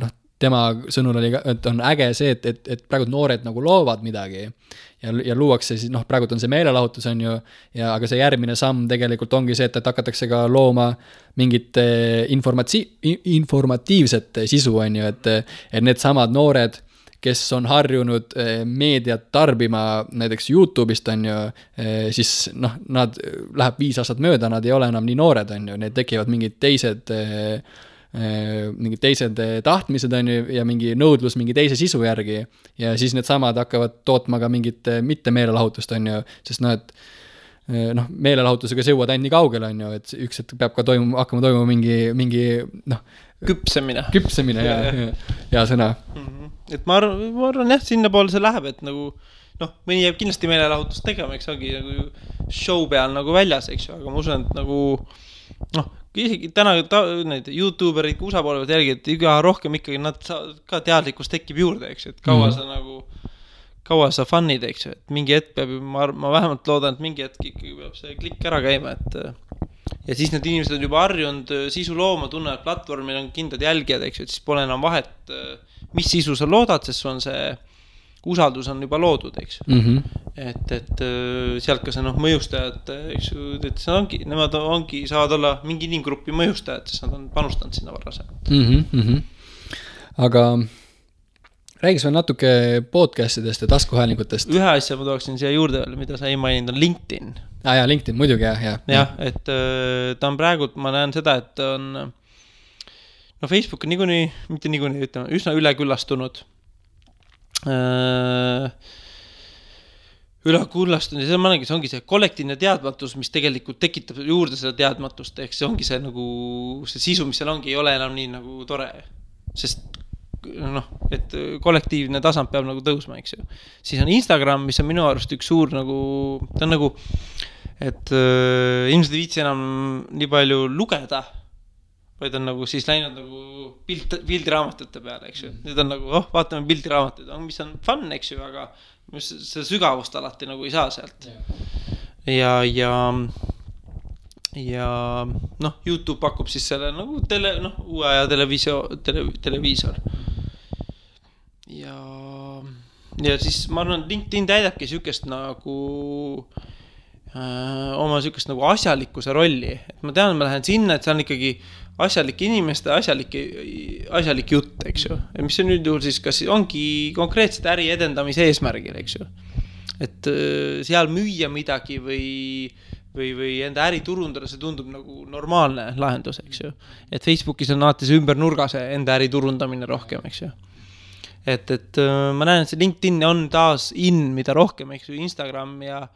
noh, tema sõnul oli, et on äge see, et praegu noored nagu loovad midagi ja luuakse siis, noh, praegu on see meelelahutus, on ju, ja aga see järgmine samm tegelikult ongi see, et hakatakse ka looma mingit informatiivset sisu, on ju, et need samad noored, kes on harjunud meediat tarbima näiteks YouTube'ist, on ju, siis noh, nad läheb 5 aastat mööda, nad ei ole enam nii noored, on ju, need tekivad mingid teised tahtmised on ju ja mingi nõudlus mingi teise sisu järgi ja siis need samad hakkavad tootma ka mingit mittemeelelahutust, on ju, sest noh, et noh, meelelahutusega see jõuad ainult nii kaugele, on ju, et üks hetk peab ka hakkama toimuma mingi noh, küpsemine ja sõna. Et ma arvan jah, sinna poole see läheb, et nagu noh, mõni jääb kindlasti meelelahutust tegema, eks ongi nagu show peal nagu väljas, eks ju, aga ma usun, et nagu noh, isegi täna need YouTuberid USA poole pealt jälgi, et iga rohkem ikkagi nad ka teadlikkus tekib juurde, eks ju, et kaua sa fun'id, eks ju, et mingi hetk peab, ma vähemalt loodan, et mingi hetk ikkagi peab see klikk ära käima, et ja siis need inimesed on juba harjunud sisu looma, tunnevad platvormil on kindlad jälgijad, eks ju, et siis pole enam vahet, mis sisu sa loodad, sest sul on see usaldus on juba loodud, eks ju. Et sealt ka see noh, mõjustajad, eks ju, et nemad saavad olla mingi inimgruppi mõjustajad, sest nad on panustanud sinna varasem. Aga räägis veel natuke podcastidest ja taskuhäälingutest. Ühe asja ma tooksin siia juurde veel, mida sa ei maininud, on LinkedIn. Ja, LinkedIn, muidugi, jah. Jah, et ta on praegult, ma näen seda, et on no Facebook on mitte niikuinii, ütleme, üsna üleküllastunud. Ülekullastunud ja see ongi see kollektiivne teadmatus, mis tegelikult tekitab juurde seda teadmatust, ehk see ongi see nagu see sisu, mis seal ongi, ei ole enam nii nagu tore, sest noh, et kollektiivne tasand peab nagu tõusma, eks ju. Siis on Instagram, mis on minu arust üks suur nagu, ta on nagu, et inimesed ei viitsi enam nii palju lugeda, vaid on nagu siis läinud nagu pildiraamatute peale, eks ju. Nüüd on nagu, vaatame pildiraamatut, mis on fun, eks ju, aga see sügavust alati nagu ei saa sealt. Ja noh, YouTube pakub siis selle nagu uue aja televiisor. Ja siis ma arvan, LinkedIn täidabki sükest nagu oma sükest nagu asjalikkuse rolli. Et ma tean, ma lähen sinna, et see on ikkagi asjalik inimeste, asjalik jutt, eks ju. Ja mis on nüüd juhul siis, kas ongi konkreetselt äri edendamise eesmärgil, eks ju. Et seal müüa midagi või enda äri turundada, see tundub nagu normaalne lahendus, eks ju. Et Facebookis on alati see ümber nurga see enda äri turundamine rohkem, eks ju. et ma näen, et see LinkedIn on taas mida rohkem, eks ju, Instagram ja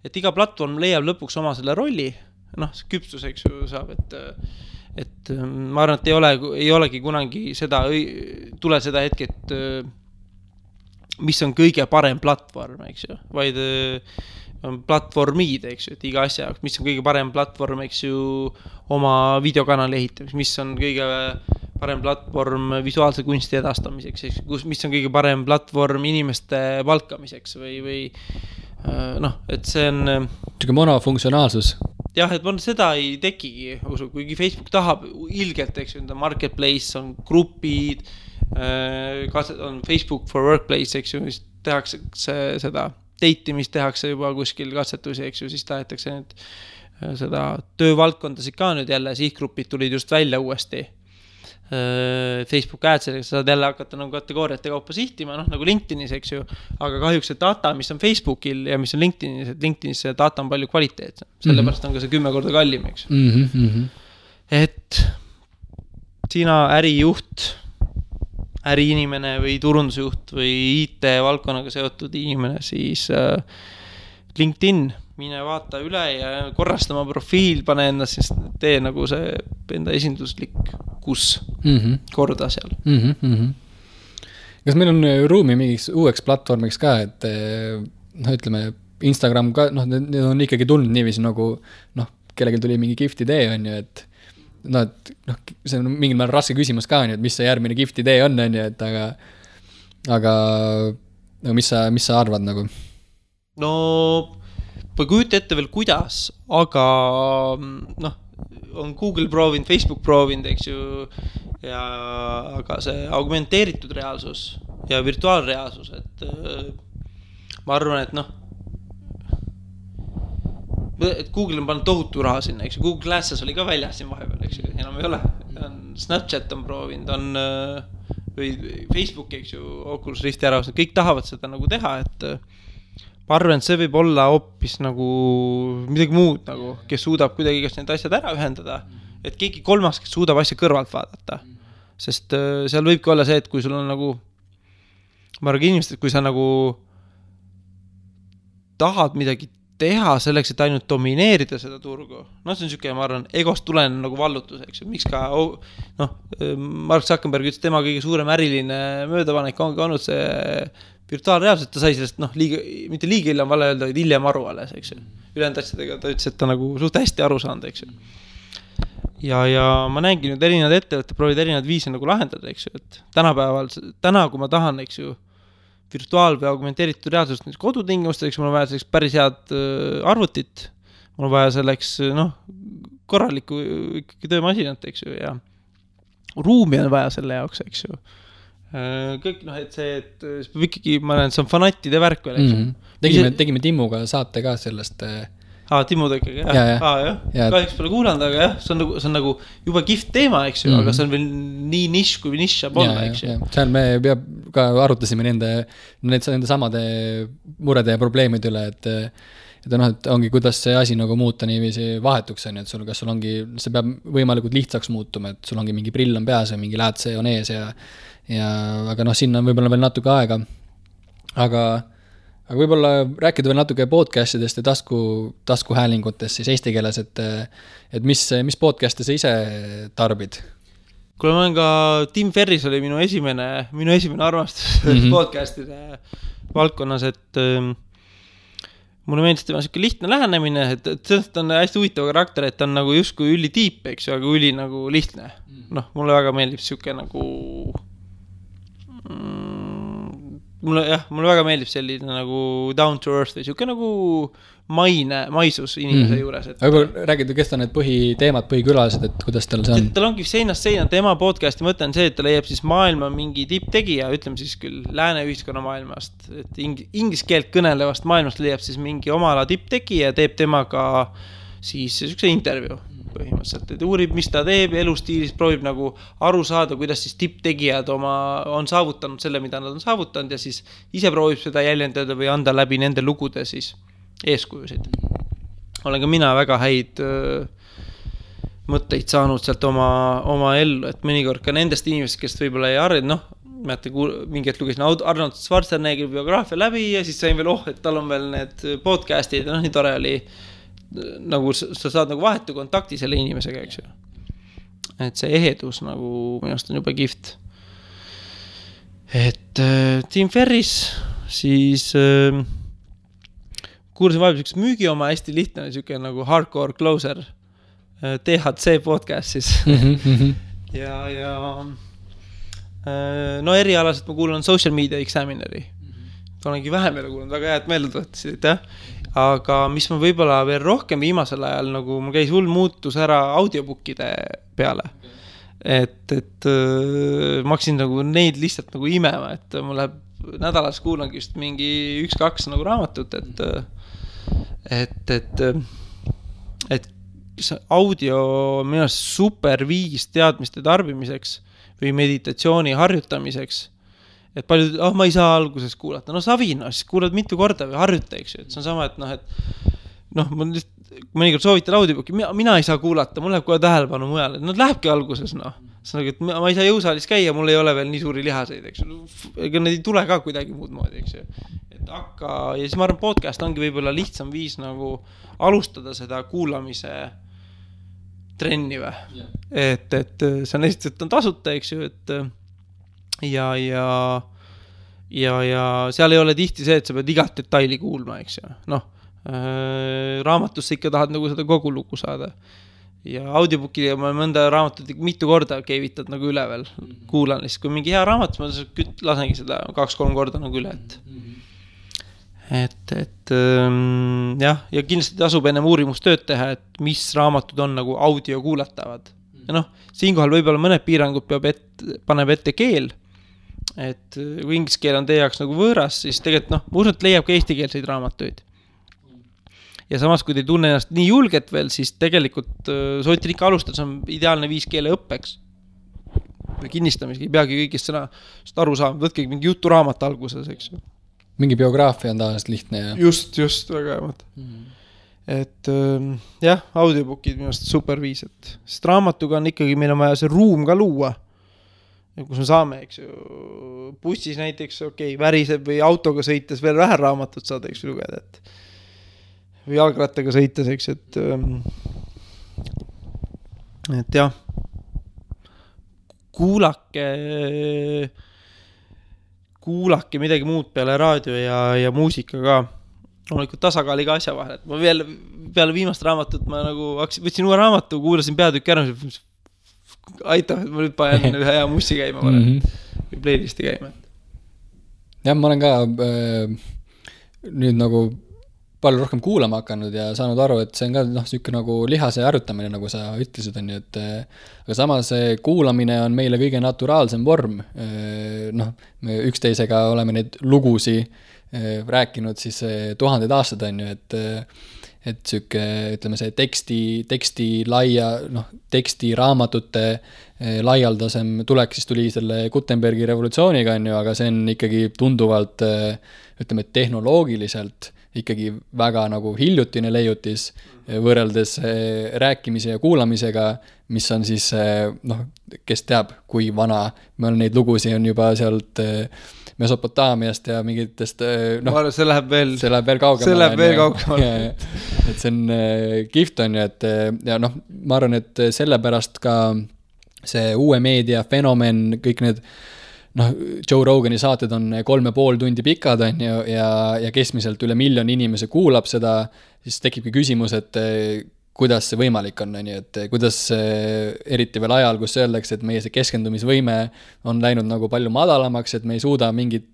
et iga platvorm leiab lõpuks oma selle rolli, noh, see küpsus, eks ju, saab, et ma arvan, et ei olegi kunagi tule seda hetke, et mis on kõige parem platvorm, eks ju, vaid on platvormid, eks ju, et iga asja, mis on kõige parem platvorm, eks ju, oma videokanali ehitamiseks, mis on kõige parem platvorm visuaalse kunsti edastamiseks, mis on kõige parem platvorm inimeste palkamiseks või noh, et see on Siuke monofunktsionaalsus. Jah, et seda ei tekigi, kuigi Facebook tahab ilgelt, eks ju, marketplace, on grupid, on Facebook for Workplace, eks ju, mis tehakse seda dateimist tehakse juba kuskil katsetusi, eks ju, siis tahetakse seda töövaldkondasid ka nüüd jälle, sihtgrupid tulid just välja uuesti Facebook Ads'is, saad jälle hakata nagu kategooriate kaupa sihtima, noh nagu LinkedInis, eks ju, aga kahjuks see data, mis on Facebookil ja mis on LinkedInis, et LinkedInis see data on palju kvaliteetsem, sellepärast on ka see 10 korda kallim, eks ju. Et sina ärijuht, äriinimene või turundusjuht või IT valdkonnaga seotud inimene, siis LinkedIn, mine vaata üle ja korrasta oma profiil, pane enda, siis tee nagu see enda esinduslik korda seal. Kas meil on ruumi mingiks uueks platvormiks ka, et noh, ütleme, Instagram ka, noh, need on ikkagi tulnud niiviisi nagu, noh, kellelgi tuli mingi gift idee, on ju, et noh, see on mingil määral raske küsimus ka, on ju, et mis see järgmine gift idee on ju, et aga mis sa arvad nagu? No, või kujuta ette veel kuidas, aga noh, on Google proovinud, Facebook proovinud, eks ju, aga see augmenteeritud reaalsus ja virtuaalreaalsus, et ma arvan, et noh, et Google on pannud tohutu raha sinna, eks ju, Google Glasses oli ka väljas siin vahepeal, eks ju, enam ei ole, Snapchat on proovinud, või Facebook, eks ju, Oculus Rifti ära, kõik tahavad seda nagu teha, et ma arvan, et see võib olla hoopis nagu midagi muud, nagu, kes suudab kuidagi kas need asjad ära ühendada, et keegi kolmas, kes suudab asja kõrvalt vaadata, sest seal võibki olla see, et kui sul on nagu, ma arvan inimesed, kui sa nagu tahad midagi teha selleks, et ainult domineerida seda turgu, no see on siuke, ma arvan, egost tulen nagu vallutus, eks ju, miks ka, noh, Mark Zuckerberg ütles, tema kõige suurem äriline möödapanek ongi olnud see virtuaalreaalselt, ta sai sellest, noh, mitte liiga hiljem vale öelda, vaid hiljem aru alles, eks ju. Ülejäänud asjadega ta ütles, et ta nagu suht hästi aru saanud, eks ju. Ja ma näengi nüüd erinevad ettevõtted proovid erinevad viisi nagu lahendada, eks ju, et täna, kui ma tahan, eks ju, virtuaal- või augmenteeritud reaalsust kodutingimusteks, mul on vaja selleks päris head arvutit, mul on vaja selleks, noh, korralikku ikkagi töömasinat, eks ju, ja ruumi on vaja selle jaoks, eks ju. Kõik, noh, et see, et peab ikkagi, ma näen, see on fanattide värk veel, eks ju. Tegime Timmuga saate ka sellest. Timmu ikkagi, jah. Kahjuks pole kuulanud, aga jah, see on nagu juba gift teema, eks ju, aga see on veel nii nišš kui nišš saab olla, eks ju. Seal me ka arutasime nende samade murede ja probleemide üle, et noh, et ongi, kuidas see asi nagu muuta niiviisi vahetuks, on, et kas sul ongi, see peab võimalikult lihtsaks muutuma, et sul ongi mingi prill on peas ja mingi läätse on ees aga noh, sinna on võib-olla veel natuke aega, aga võib-olla rääkida veel natuke podcastidest ja taskuhäälingutest siis eesti keeles, et mis podcast'e sa ise tarbid? Kuule, ma olen ka, Tim Ferris oli minu esimene armastus podcast'ide valdkonnas, et mulle meeldis tema siuke lihtne lähenemine, et sellest on hästi huvitav karakter, et ta on nagu justkui üli tiip, eks ju, aga üli nagu lihtne. Noh, mulle väga meeldib siuke nagu mulle väga meeldib selline nagu down to earth või siuke nagu maisus inimese juures. Aga räägid, kes ta need põhiteemad, põhikülalised, et kuidas tal see on? Tal ongi seinast seina, tema podcasti mõte on see, et ta leiab siis maailma mingi tipptegija, ütleme siis küll lääne ühiskonna maailmast, et inglise keelt kõnelevast maailmast leiab siis mingi oma ala tipptegija ja teeb temaga siis siukse intervjuu põhimõtteliselt, et uurib, mis ta teeb elustiilis, proovib nagu aru saada, kuidas siis tipptegijad on saavutanud selle, mida nad on saavutanud ja siis ise proovib seda jäljendada või anda läbi nende lugude siis eeskujusid. Olen ka mina väga häid mõtteid saanud sealt oma ellu, et mõnikord ka nendest inimesest, kes võib-olla ei arva, noh, mingi hetk lugesin Arnold Schwarzeneggi biograafia läbi ja siis sain veel, et tal on veel need podcastid ja nii tore oli, nagu sa saad nagu vahetu kontakti selle inimesega, eks ju. Et see ehedus nagu minust on juba kihvt. Et Tim Ferris, siis kuulsin vahepeal üks müügi oma hästi lihtne, siuke nagu Hardcore Closer, THC podcast siis. ja no erialaselt ma kuulan Social Media Examineri. Olengi vähem jälle kuulanud, väga head meelde tuletasid, jah. Aga mis ma võib-olla veel rohkem viimasel ajal, nagu mul käis hull muutus ära audiobookide peale. Et ma hakkasin nagu neid lihtsalt nagu imema, et mul läheb nädalas kuulangi just mingi 1-2 nagu raamatut, et audio on minu arust super viis teadmiste tarbimiseks või meditatsiooni harjutamiseks, et paljud, ma ei saa alguses kuulata, no savi, siis kuulad mitu korda või harjuta, eks ju, et see on sama, et ma mõnikord soovitan audiobooki, mina ei saa kuulata, mul läheb kohe tähelepanu mujale, lähebki alguses, see on, et ma ei saa jõusaalis käia, mul ei ole veel nii suuri lihaseid, eks ju, ega need ei tule ka kuidagi muud moodi, eks ju, et ja siis ma arvan, podcast ongi võib-olla lihtsam viis nagu alustada seda kuulamise trenni või, et see on esiteks, et on tasuta, eks ju, et ja seal ei ole tihti see, et sa pead igat detaili kuulma, eks ju, raamatusse ikka tahad nagu seda kogu lugu saada ja audiobookide ma mõnda raamatut mitu korda keevitad nagu üle veel, kuulan lihtsalt, kui mingi hea raamat, ma lasengi seda 2-3 korda nagu üle, jah, ja kindlasti tasub ennem uurimustööd teha, et mis raamatud on nagu audio kuulatavad. Ja siinkohal võib-olla mõned piirangud paneb ette keel, et kui inglise keel on teie jaoks nagu võõras, siis tegelikult, ma usun, et leiab ka eestikeelseid raamatuid. Ja samas, kui te ei tunne ennast nii julget veel, siis tegelikult soovitan ikka alustada, see on ideaalne viis keele õppeks. Või kinnistamisega, ei peagi kõigist sõnast aru saama, võtke mingi juturaamat alguses, eks ju. Mingi biograafia on tavaliselt lihtne ja... Just, väga hea. Et jah, audiobookid minu arust super viis, sest raamatuga on ikkagi, meil on vaja see ruum ka luua, kus me saame, eks ju, bussis näiteks, väriseb või autoga sõites veel vähe raamatut saada, eks ju, lugeda, või jalgrattaga sõites, eks, et jah, kuulake midagi muud peale raadio ja muusika ka. Loomulikult tasakaaliga asja vahel, et ma peale viimast raamatut ma nagu võtsin uue raamatu, kuulasin peatükki ära, aitab, et ma nüüd panen ühe hea mussi käima või playlisti käima. Jah, ma olen ka nüüd nagu palju rohkem kuulama hakanud ja saanud aru, et see on ka siuke nagu lihase harjutamine, nagu sa ütlesid, on ju, et aga samas kuulamine on meile kõige naturaalsem vorm. Me üksteisega oleme neid lugusi rääkinud siis 1000 aastad, on ju, et siuke, ütleme see teksti laia, teksti raamatute laialdasem tulek siis tuli selle Gutenbergi revolutsiooniga, on ju, aga see on ikkagi tunduvalt, ütleme, tehnoloogiliselt ikkagi väga nagu hiljutine leiutis võrreldes rääkimise ja kuulamisega, mis on siis, kes teab, kui vana, meil neid lugusi on juba sealt Mesopotaamiast ja mingitest, see läheb veel kaugemale. Et see on kihvt, on ju, et ja ma arvan, et sellepärast ka see uue meedia fenomen, kõik need Joe Rogani saated on 3,5 tundi pikad, on ju, ja keskmiselt üle 1 000 000 inimese kuulab seda, siis tekibki küsimus, et kuidas see võimalik on, et kuidas eriti veel ajal, kus öeldakse, et meie see keskendumisvõime on läinud nagu palju madalamaks, et me ei suuda mingit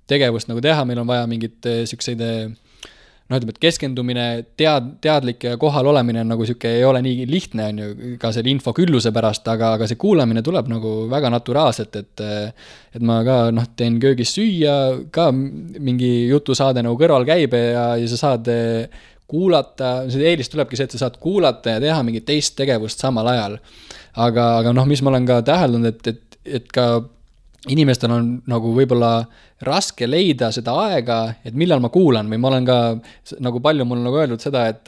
tegevust nagu teha, meil on vaja mingit sükseid, ütleme, et keskendumine, teadlik ja kohal olemine on nagu süke, ei ole nii lihtne, on ju, ka selle info külluse pärast, aga see kuulamine tuleb nagu väga naturaalselt, et ma ka teen köögis süüa, ka mingi jutusaade nagu kõrval käib ja sa saad kuulata, see eelis tulebki see, et sa saad kuulata ja teha mingit teist tegevust samal ajal. Aga mis ma olen ka täheldanud, et ka inimestel on nagu võib-olla raske leida seda aega, et millal ma kuulan, või ma olen ka nagu palju mul nagu öeldud seda, et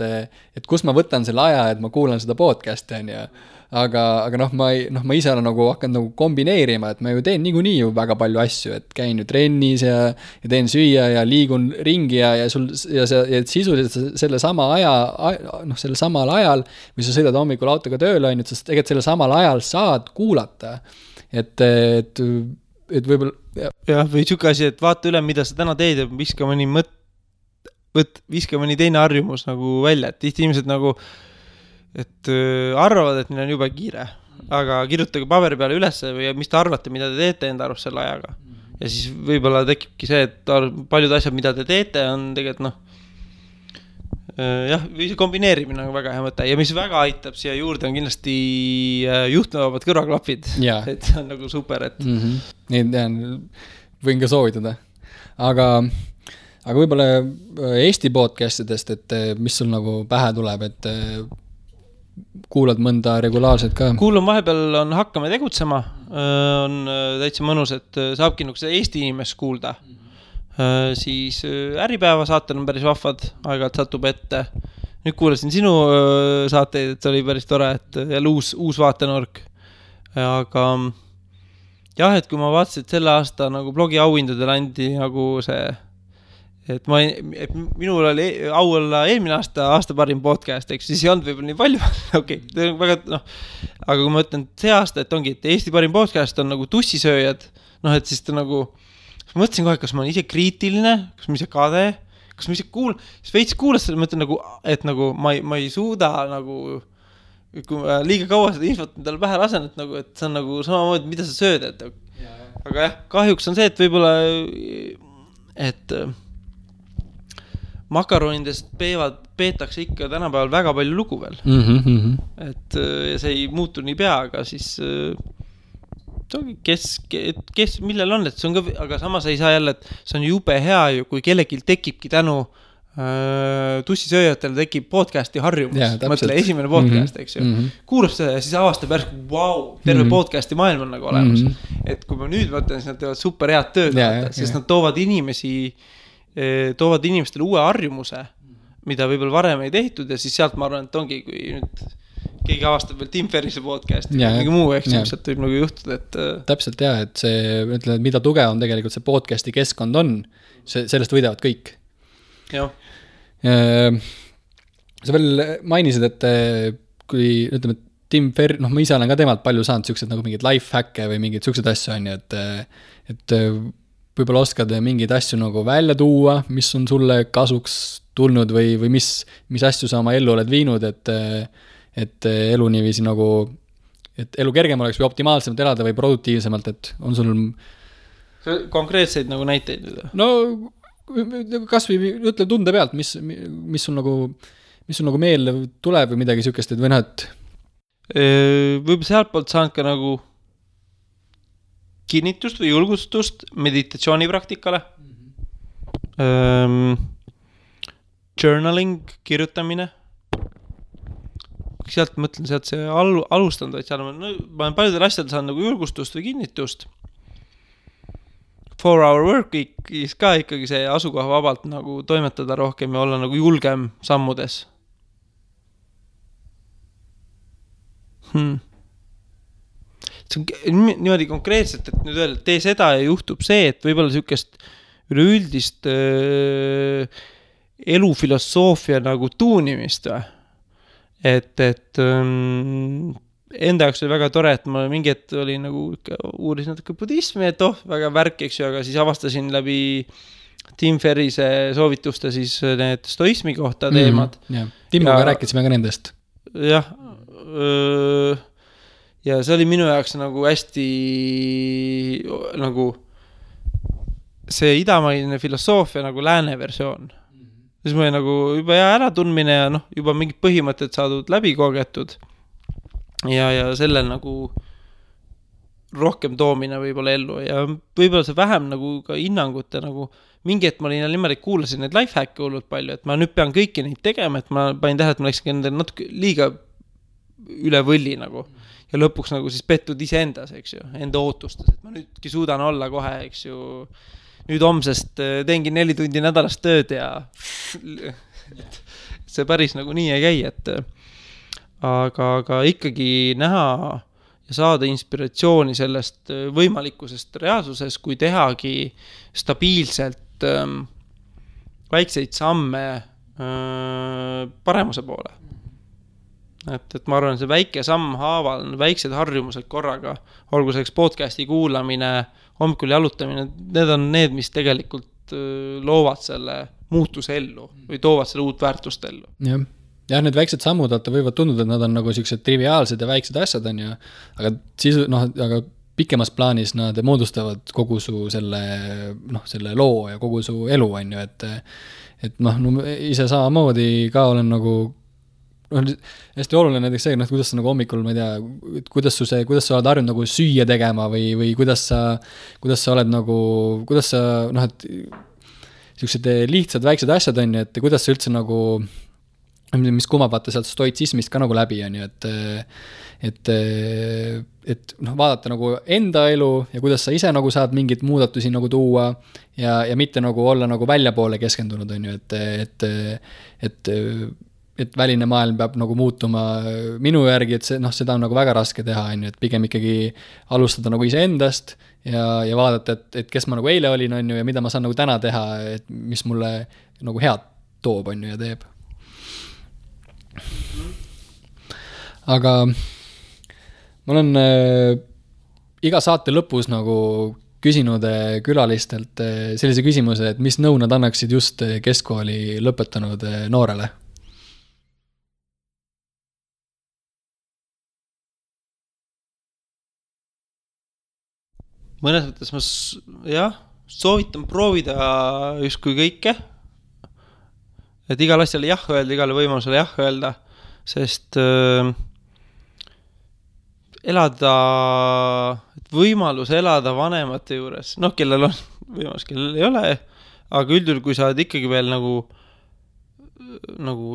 kus ma võtan selle aja, et ma kuulan seda podcasti, on ju. aga ma ise olen nagu hakanud nagu kombineerima, et ma ju teen niikuinii ju väga palju asju, et käin ju trennis ja teen süüa ja liigun ringi ja sisuliselt selle sama aja, selle samal ajal, või sa sõidad hommikul autoga tööle, on ju, sest tegelikult selle samal ajal saad kuulata, et võib-olla jah, või siuke asi, et vaata üle, mida sa täna teed ja viska mõni teine harjumus nagu välja, et tihti inimesed nagu et arvavad, et neil on juba kiire, aga kirjutage paberi peale üles või mis te arvate, mida te teete enda arust selle ajaga. Ja siis võib-olla tekibki see, et paljud asjad, mida te teete, on tegelikult jah, või see kombineerimine on väga hea mõte. Ja mis väga aitab siia juurde on kindlasti juhtmevabad kõrvaklapid. Et see on nagu super, et Neid võin ka soovitada. Aga võib-olla Eesti podcastidest, et mis sul nagu pähe tuleb, et kuulad mõnda regulaarselt ka? Kuulun vahepeal on Hakkame tegutsema, on täitsa mõnus, et saabki nagu seda Eesti inimest kuulda. Siis Äripäeva saatel on päris vahvad, aeg-ajalt satub ette. Nüüd kuulasin sinu saateid, et see oli päris tore, et jälle uus vaatenurk. Aga jah, et kui ma vaatasin, et selle aasta nagu blogi auhindadel andi nagu see et minul oli au olla eelmine aasta parim podcast, eks siis ei olnud võib-olla nii palju, okei, väga, aga kui ma ütlen see aasta, et ongi, et Eesti parim podcast on nagu tussisööjad, et siis ta nagu, ma mõtlesin kohe, kas ma olen ise kriitiline, kas ma ise kade, kas ma ise siis veits kuulas selle, ma ütlen nagu, et nagu ma ei suuda nagu, kui ma liiga kaua seda infot endale pähe lasen, et nagu, et see on nagu samamoodi, mida sa sööd, aga jah, kahjuks on see, et võib-olla, et makaronidest peetakse ikka tänapäeval väga palju lugu veel. Et see ei muutu nii pea, aga siis kes millel on, et see on ka, aga samas ei saa jälle, et see on jube hea ju, kui kellelgi tekibki tänu tussisööjatele tekib podcasti harjumus. Mõtle, esimene podcast, eks ju. Kuulab seda ja siis avastab järsk, terve podcasti maailm on nagu olemas. Et kui ma nüüd mõtlen, siis nad teevad super head tööd, siis nad toovad inimestele uue harjumuse, mida võib-olla varem ei tehtud ja siis sealt ma arvan, et ongi, kui nüüd keegi avastab veel Tim Ferrise podcasti või mingi muu, eks sealt võib nagu juhtuda, et täpselt jah, et see, ütleme, et mida tugevam tegelikult see podcasti keskkond on, sellest võidavad kõik. Jah. Sa veel mainisid, et kui, ütleme, Tim Ferris, ma ise olen ka temalt palju saanud siuksed nagu mingid lifehacke või mingid siuksed asju on, et võib-olla oskad mingeid asju nagu välja tuua, mis on sulle kasuks tulnud või mis asju sa oma ellu oled viinud, et elu niiviisi nagu, et elu kergem oleks või optimaalsemalt elada või produktiivsemalt, et on sul konkreetseid nagu näiteid? No kas või ütle tunde pealt, mis sul nagu meelde tuleb või midagi siukest, et või näed? Võib-olla sealt poolt saanud ka nagu kinnitust või julgustust meditatsioonipraktikale. Journaling, kirjutamine. Sealt mõtlen, sealt see alustanud, et seal ma olen paljudel asjadel saanud nagu julgustust või kinnitust. 4-hour work week'is ka ikkagi see asukoha vabalt nagu toimetada rohkem ja olla nagu julgem sammudes. See on niimoodi konkreetselt, et nüüd öelda, et tee seda ja juhtub see, et võib-olla niisugust üleüldist elufilosoofia nagu tuunimist või? Et enda jaoks oli väga tore, et ma mingi hetk oli nagu uurisin natuke budismi, et väga värk, eks ju, aga siis avastasin läbi Tim Ferrise soovituste siis need stoismi kohta teemad. Timmoga rääkisime ka nendest. Jah, ja see oli minu jaoks nagu hästi nagu see idamaine filosoofia nagu lääne versioon. Siis ma oli nagu juba äratundmine ja juba mingid põhimõtted saadud läbi kogetud ja sellel nagu rohkem toomine võib-olla ellu ja võib-olla see vähem nagu ka hinnangute nagu mingi hetk ma olin niimoodi, kuulasin neid lifehacke hullult palju, et ma nüüd pean kõiki neid tegema, et ma panin tähele, et ma läksin endale natuke liiga üle võlli nagu ja lõpuks nagu siis pettud iseendas, eks ju, enda ootustes, et ma nüüdki suudan olla kohe, eks ju, nüüd homsest teengi 4 tundi nädalast tööd ja see päris nagu nii ei käi, et aga ikkagi näha ja saada inspiratsiooni sellest võimalikkusest reaalsuses, kui tehagi stabiilselt väikseid samme paremuse poole. Et ma arvan, see väike samm haaval, väiksed harjumused korraga, olgu selleks podcasti kuulamine, hommikul jalutamine, need on need, mis tegelikult loovad selle muutuse ellu või toovad selle uut väärtust ellu. Jah, need väiksed sammud võivad tunduda, et nad on nagu sellised triviaalsed ja väiksed asjad on ju, aga aga pikemas plaanis nad moodustavad kogu su selle loo ja kogu su elu on ju, et ise samamoodi ka olen nagu hästi oluline näiteks see, kuidas sa nagu hommikul, ma ei tea, kuidas sa oled harjunud nagu süüa tegema või kuidas sa oled nagu, kuidas sa, et sellised lihtsad väiksed asjad on ju, et kuidas sa üldse nagu, mis kumab vaata sealt stoitsismist ka nagu läbi on ju, et vaadata nagu enda elu ja kuidas sa ise nagu saad mingit muudatusi nagu tuua ja mitte nagu olla nagu väljapoole keskendunud on ju, et väline maailm peab nagu muutuma minu järgi, et seda on nagu väga raske teha, on ju, et pigem ikkagi alustada nagu iseendast ja vaadata, et kes ma nagu eile olin, on ju, ja mida ma saan nagu täna teha, et mis mulle nagu head toob, on ju, ja teeb. Aga ma olen iga saate lõpus nagu küsinud külalistelt sellise küsimuse, et mis nõu nad annaksid just keskkooli lõpetanud noorele? Mõnes mõttes ma soovitan proovida justkui kõike, et igal asjale jah öelda, igale võimalusele jah öelda, sest võimalus elada vanemate juures, kellel on võimalus, kellel ei ole, aga üldjuhul, kui sa oled ikkagi veel nagu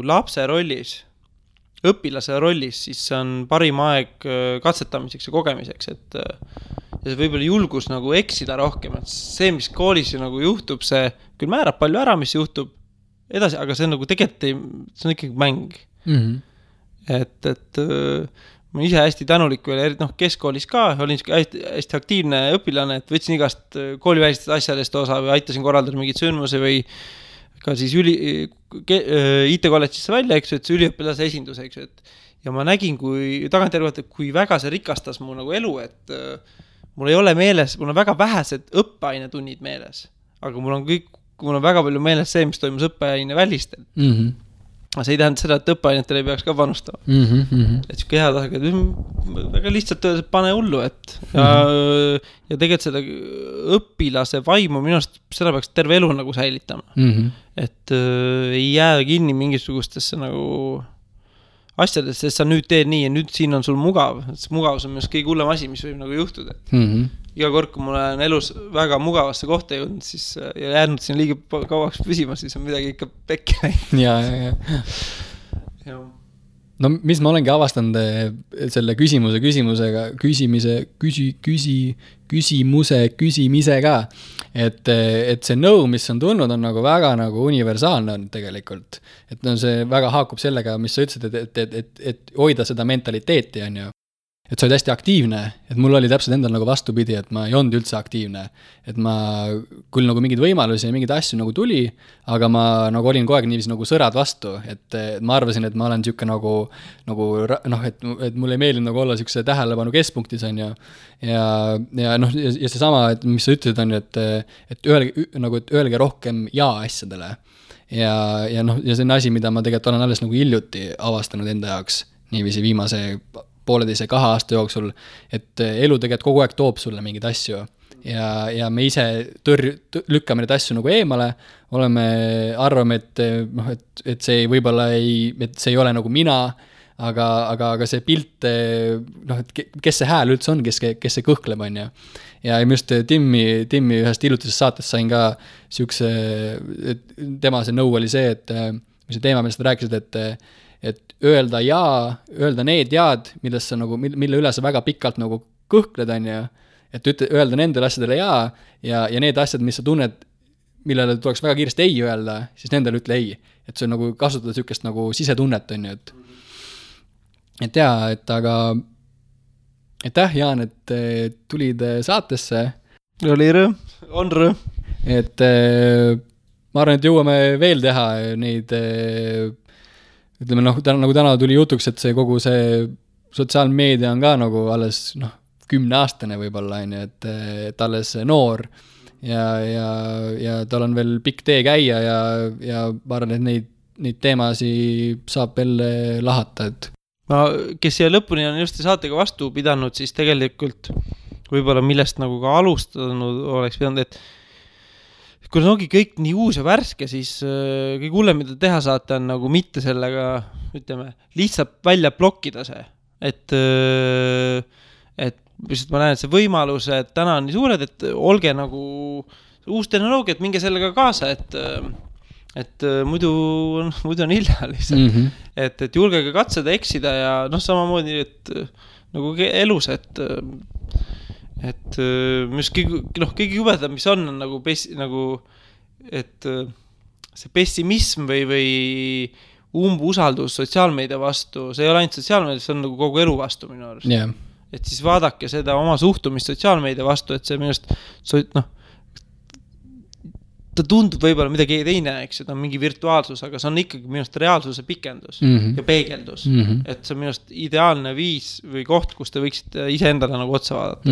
lapse rollis, õpilase rollis, siis see on parim aeg katsetamiseks ja kogemiseks, et ja see võib-olla julgus nagu eksida rohkem, et see, mis koolis nagu juhtub, see küll määrab palju ära, mis juhtub edasi, aga see on nagu tegelikult see on ikkagi mäng. Et ma ise hästi tänulik veel, keskkoolis ka, olin hästi aktiivne õpilane, et võtsin igast koolivälistest asjadest osa või aitasin korraldada mingit sündmuse või ka siis IT-kolledžisse välja, eks ju, et see üliõpilase esindus, eks ju, ja ma nägin, kui väga see rikastas mu nagu elu, et mul ei ole meeles, mul on väga vähesed õppeainetunnid meeles, aga mul on väga palju meeles see, mis toimus õppeaine välistel. Aga see ei tähenda seda, et õppeainetele ei peaks ka panustama. Et siuke hea tasega, väga lihtsalt öeldes, pane hullu, et ja tegelikult seda õpilase vaimu minust seda peaks terve elu nagu säilitama. Et ei jää kinni mingisugustesse nagu asjadest, sest sa nüüd teed nii ja nüüd siin on sul mugav. Mugavus on minust kõige hullem asi, mis võib nagu juhtuda. Iga kord, kui mul on elus väga mugavasse kohta jõudnud, siis ja jäänud siin liiga kauaks püsima, siis on midagi ikka pekki läinud. Ja. No mis ma olengi avastanud selle küsimisega, et see nõu, mis on tulnud, on nagu väga nagu universaalne on tegelikult. Et see väga haakub sellega, mis sa ütlesid, et hoida seda mentaliteeti, on ju. Et sa olid hästi aktiivne, et mul oli täpselt endal nagu vastupidi, et ma ei olnud üldse aktiivne. Et ma küll nagu mingid võimalusi ja mingid asju nagu tuli, aga ma nagu olin kogu aeg niiviisi nagu sõrad vastu, et ma arvasin, et ma olen siuke et mul ei meeldi nagu olla siukse tähelepanu keskpunktis on ju. Ja see sama, et mis sa ütlesid on ju, et öelge rohkem jaa asjadele. Ja see on asi, mida ma tegelikult olen alles nagu hiljuti avastanud enda jaoks, niiviisi viimase 1,5-2 aasta jooksul, et elu tegelikult kogu aeg toob sulle mingeid asju ja me ise lükkame neid asju nagu eemale, arvame, et see võib-olla et see ei ole nagu mina, aga see pilt, et kes see hääl üldse on, kes see kõhkleb on ju. Ja just Timmi ühest hiljutisest saatest sain ka siukse, tema see nõu oli see, et mis see teema, millest rääkisid, et öelda need jaad, mille üle sa väga pikalt nagu kõhkled on ju, et öelda nendele asjadele ja need asjad, mis sa tunned, millele tuleks väga kiiresti ei öelda, siis nendele ütle ei. Et see on nagu kasutada siukest nagu sisetunnet on ju, et jaa, et aga aitäh, Jaan, et tulid saatesse. Oli rõõm, on rõõm. Et ma arvan, et jõuame veel teha neid, ütleme nagu täna tuli jutuks, et see kogu see sotsiaalmeedia on ka nagu alles 10-aastane võib-olla, et alles noor ja tal on veel pikk tee käia ja ma arvan, et neid teemasi saab veel lahata, et kes siia lõpuni on just saatega vastu pidanud, siis tegelikult võib-olla millest nagu ka alustanud oleks pidanud, et kui ongi kõik nii uus ja värske, siis kõik hullem, mida teha saate, on nagu mitte sellega, ütleme, lihtsalt välja blokkida see. Et lihtsalt ma näen, et see võimalus, et täna on nii suured, et olge nagu uus tehnoloogia, et minge sellega kaasa, et muidu on hilja lihtsalt. Et julgege katseda, eksida ja samamoodi, et nagu elus, et kõige jubedam, mis on nagu, et see pessimism või umbusaldus sotsiaalmeedia vastu, see ei ole ainult sotsiaalmeedia, see on nagu kogu elu vastu minu arust. Yeah. Et siis vaadake seda oma suhtumist sotsiaalmeedia vastu, et see minust ta tundub võib-olla midagi teine, eks, et on mingi virtuaalsus, aga see on ikkagi minust reaalsuse pikendus ja peegeldus. Et see on minust ideaalne viis või koht, kus te võiksite iseendale nagu otsa vaadata.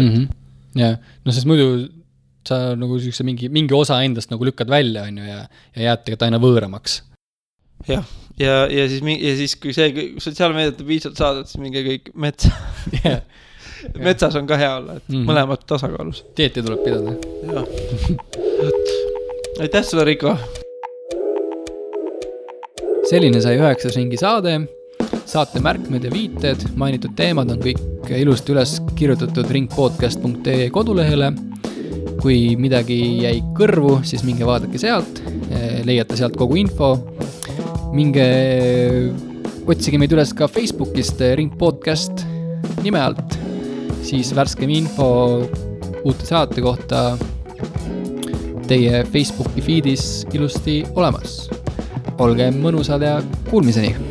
Ja, sest muidu sa nagu mingi osa endast nagu lükkad välja, on ju, ja jääd tegelikult aina võõramaks. Jah, ja siis kui see sotsiaalmeediat piisalt saadad, siis minge kõik metsa. Yeah. Metsas on ka hea olla, et mõlemad tasakaalus. Dieeti tuleb pidada. Jah. Aitäh sulle, Riko! Selline sai 9. ringi saade. Saate märkmed ja viited, mainitud teemad on kõik ilusti üles kirjutatud ringpodcast.ee kodulehele. Kui midagi jäi kõrvu, siis minge vaadake sealt, leiate sealt kogu info. Minge otsige meid üles ka Facebookist Ringpodcast nime alt, siis värskem info uute saate kohta teie Facebooki feedis ilusti olemas. Olge mõnusad ja kuulmiseni!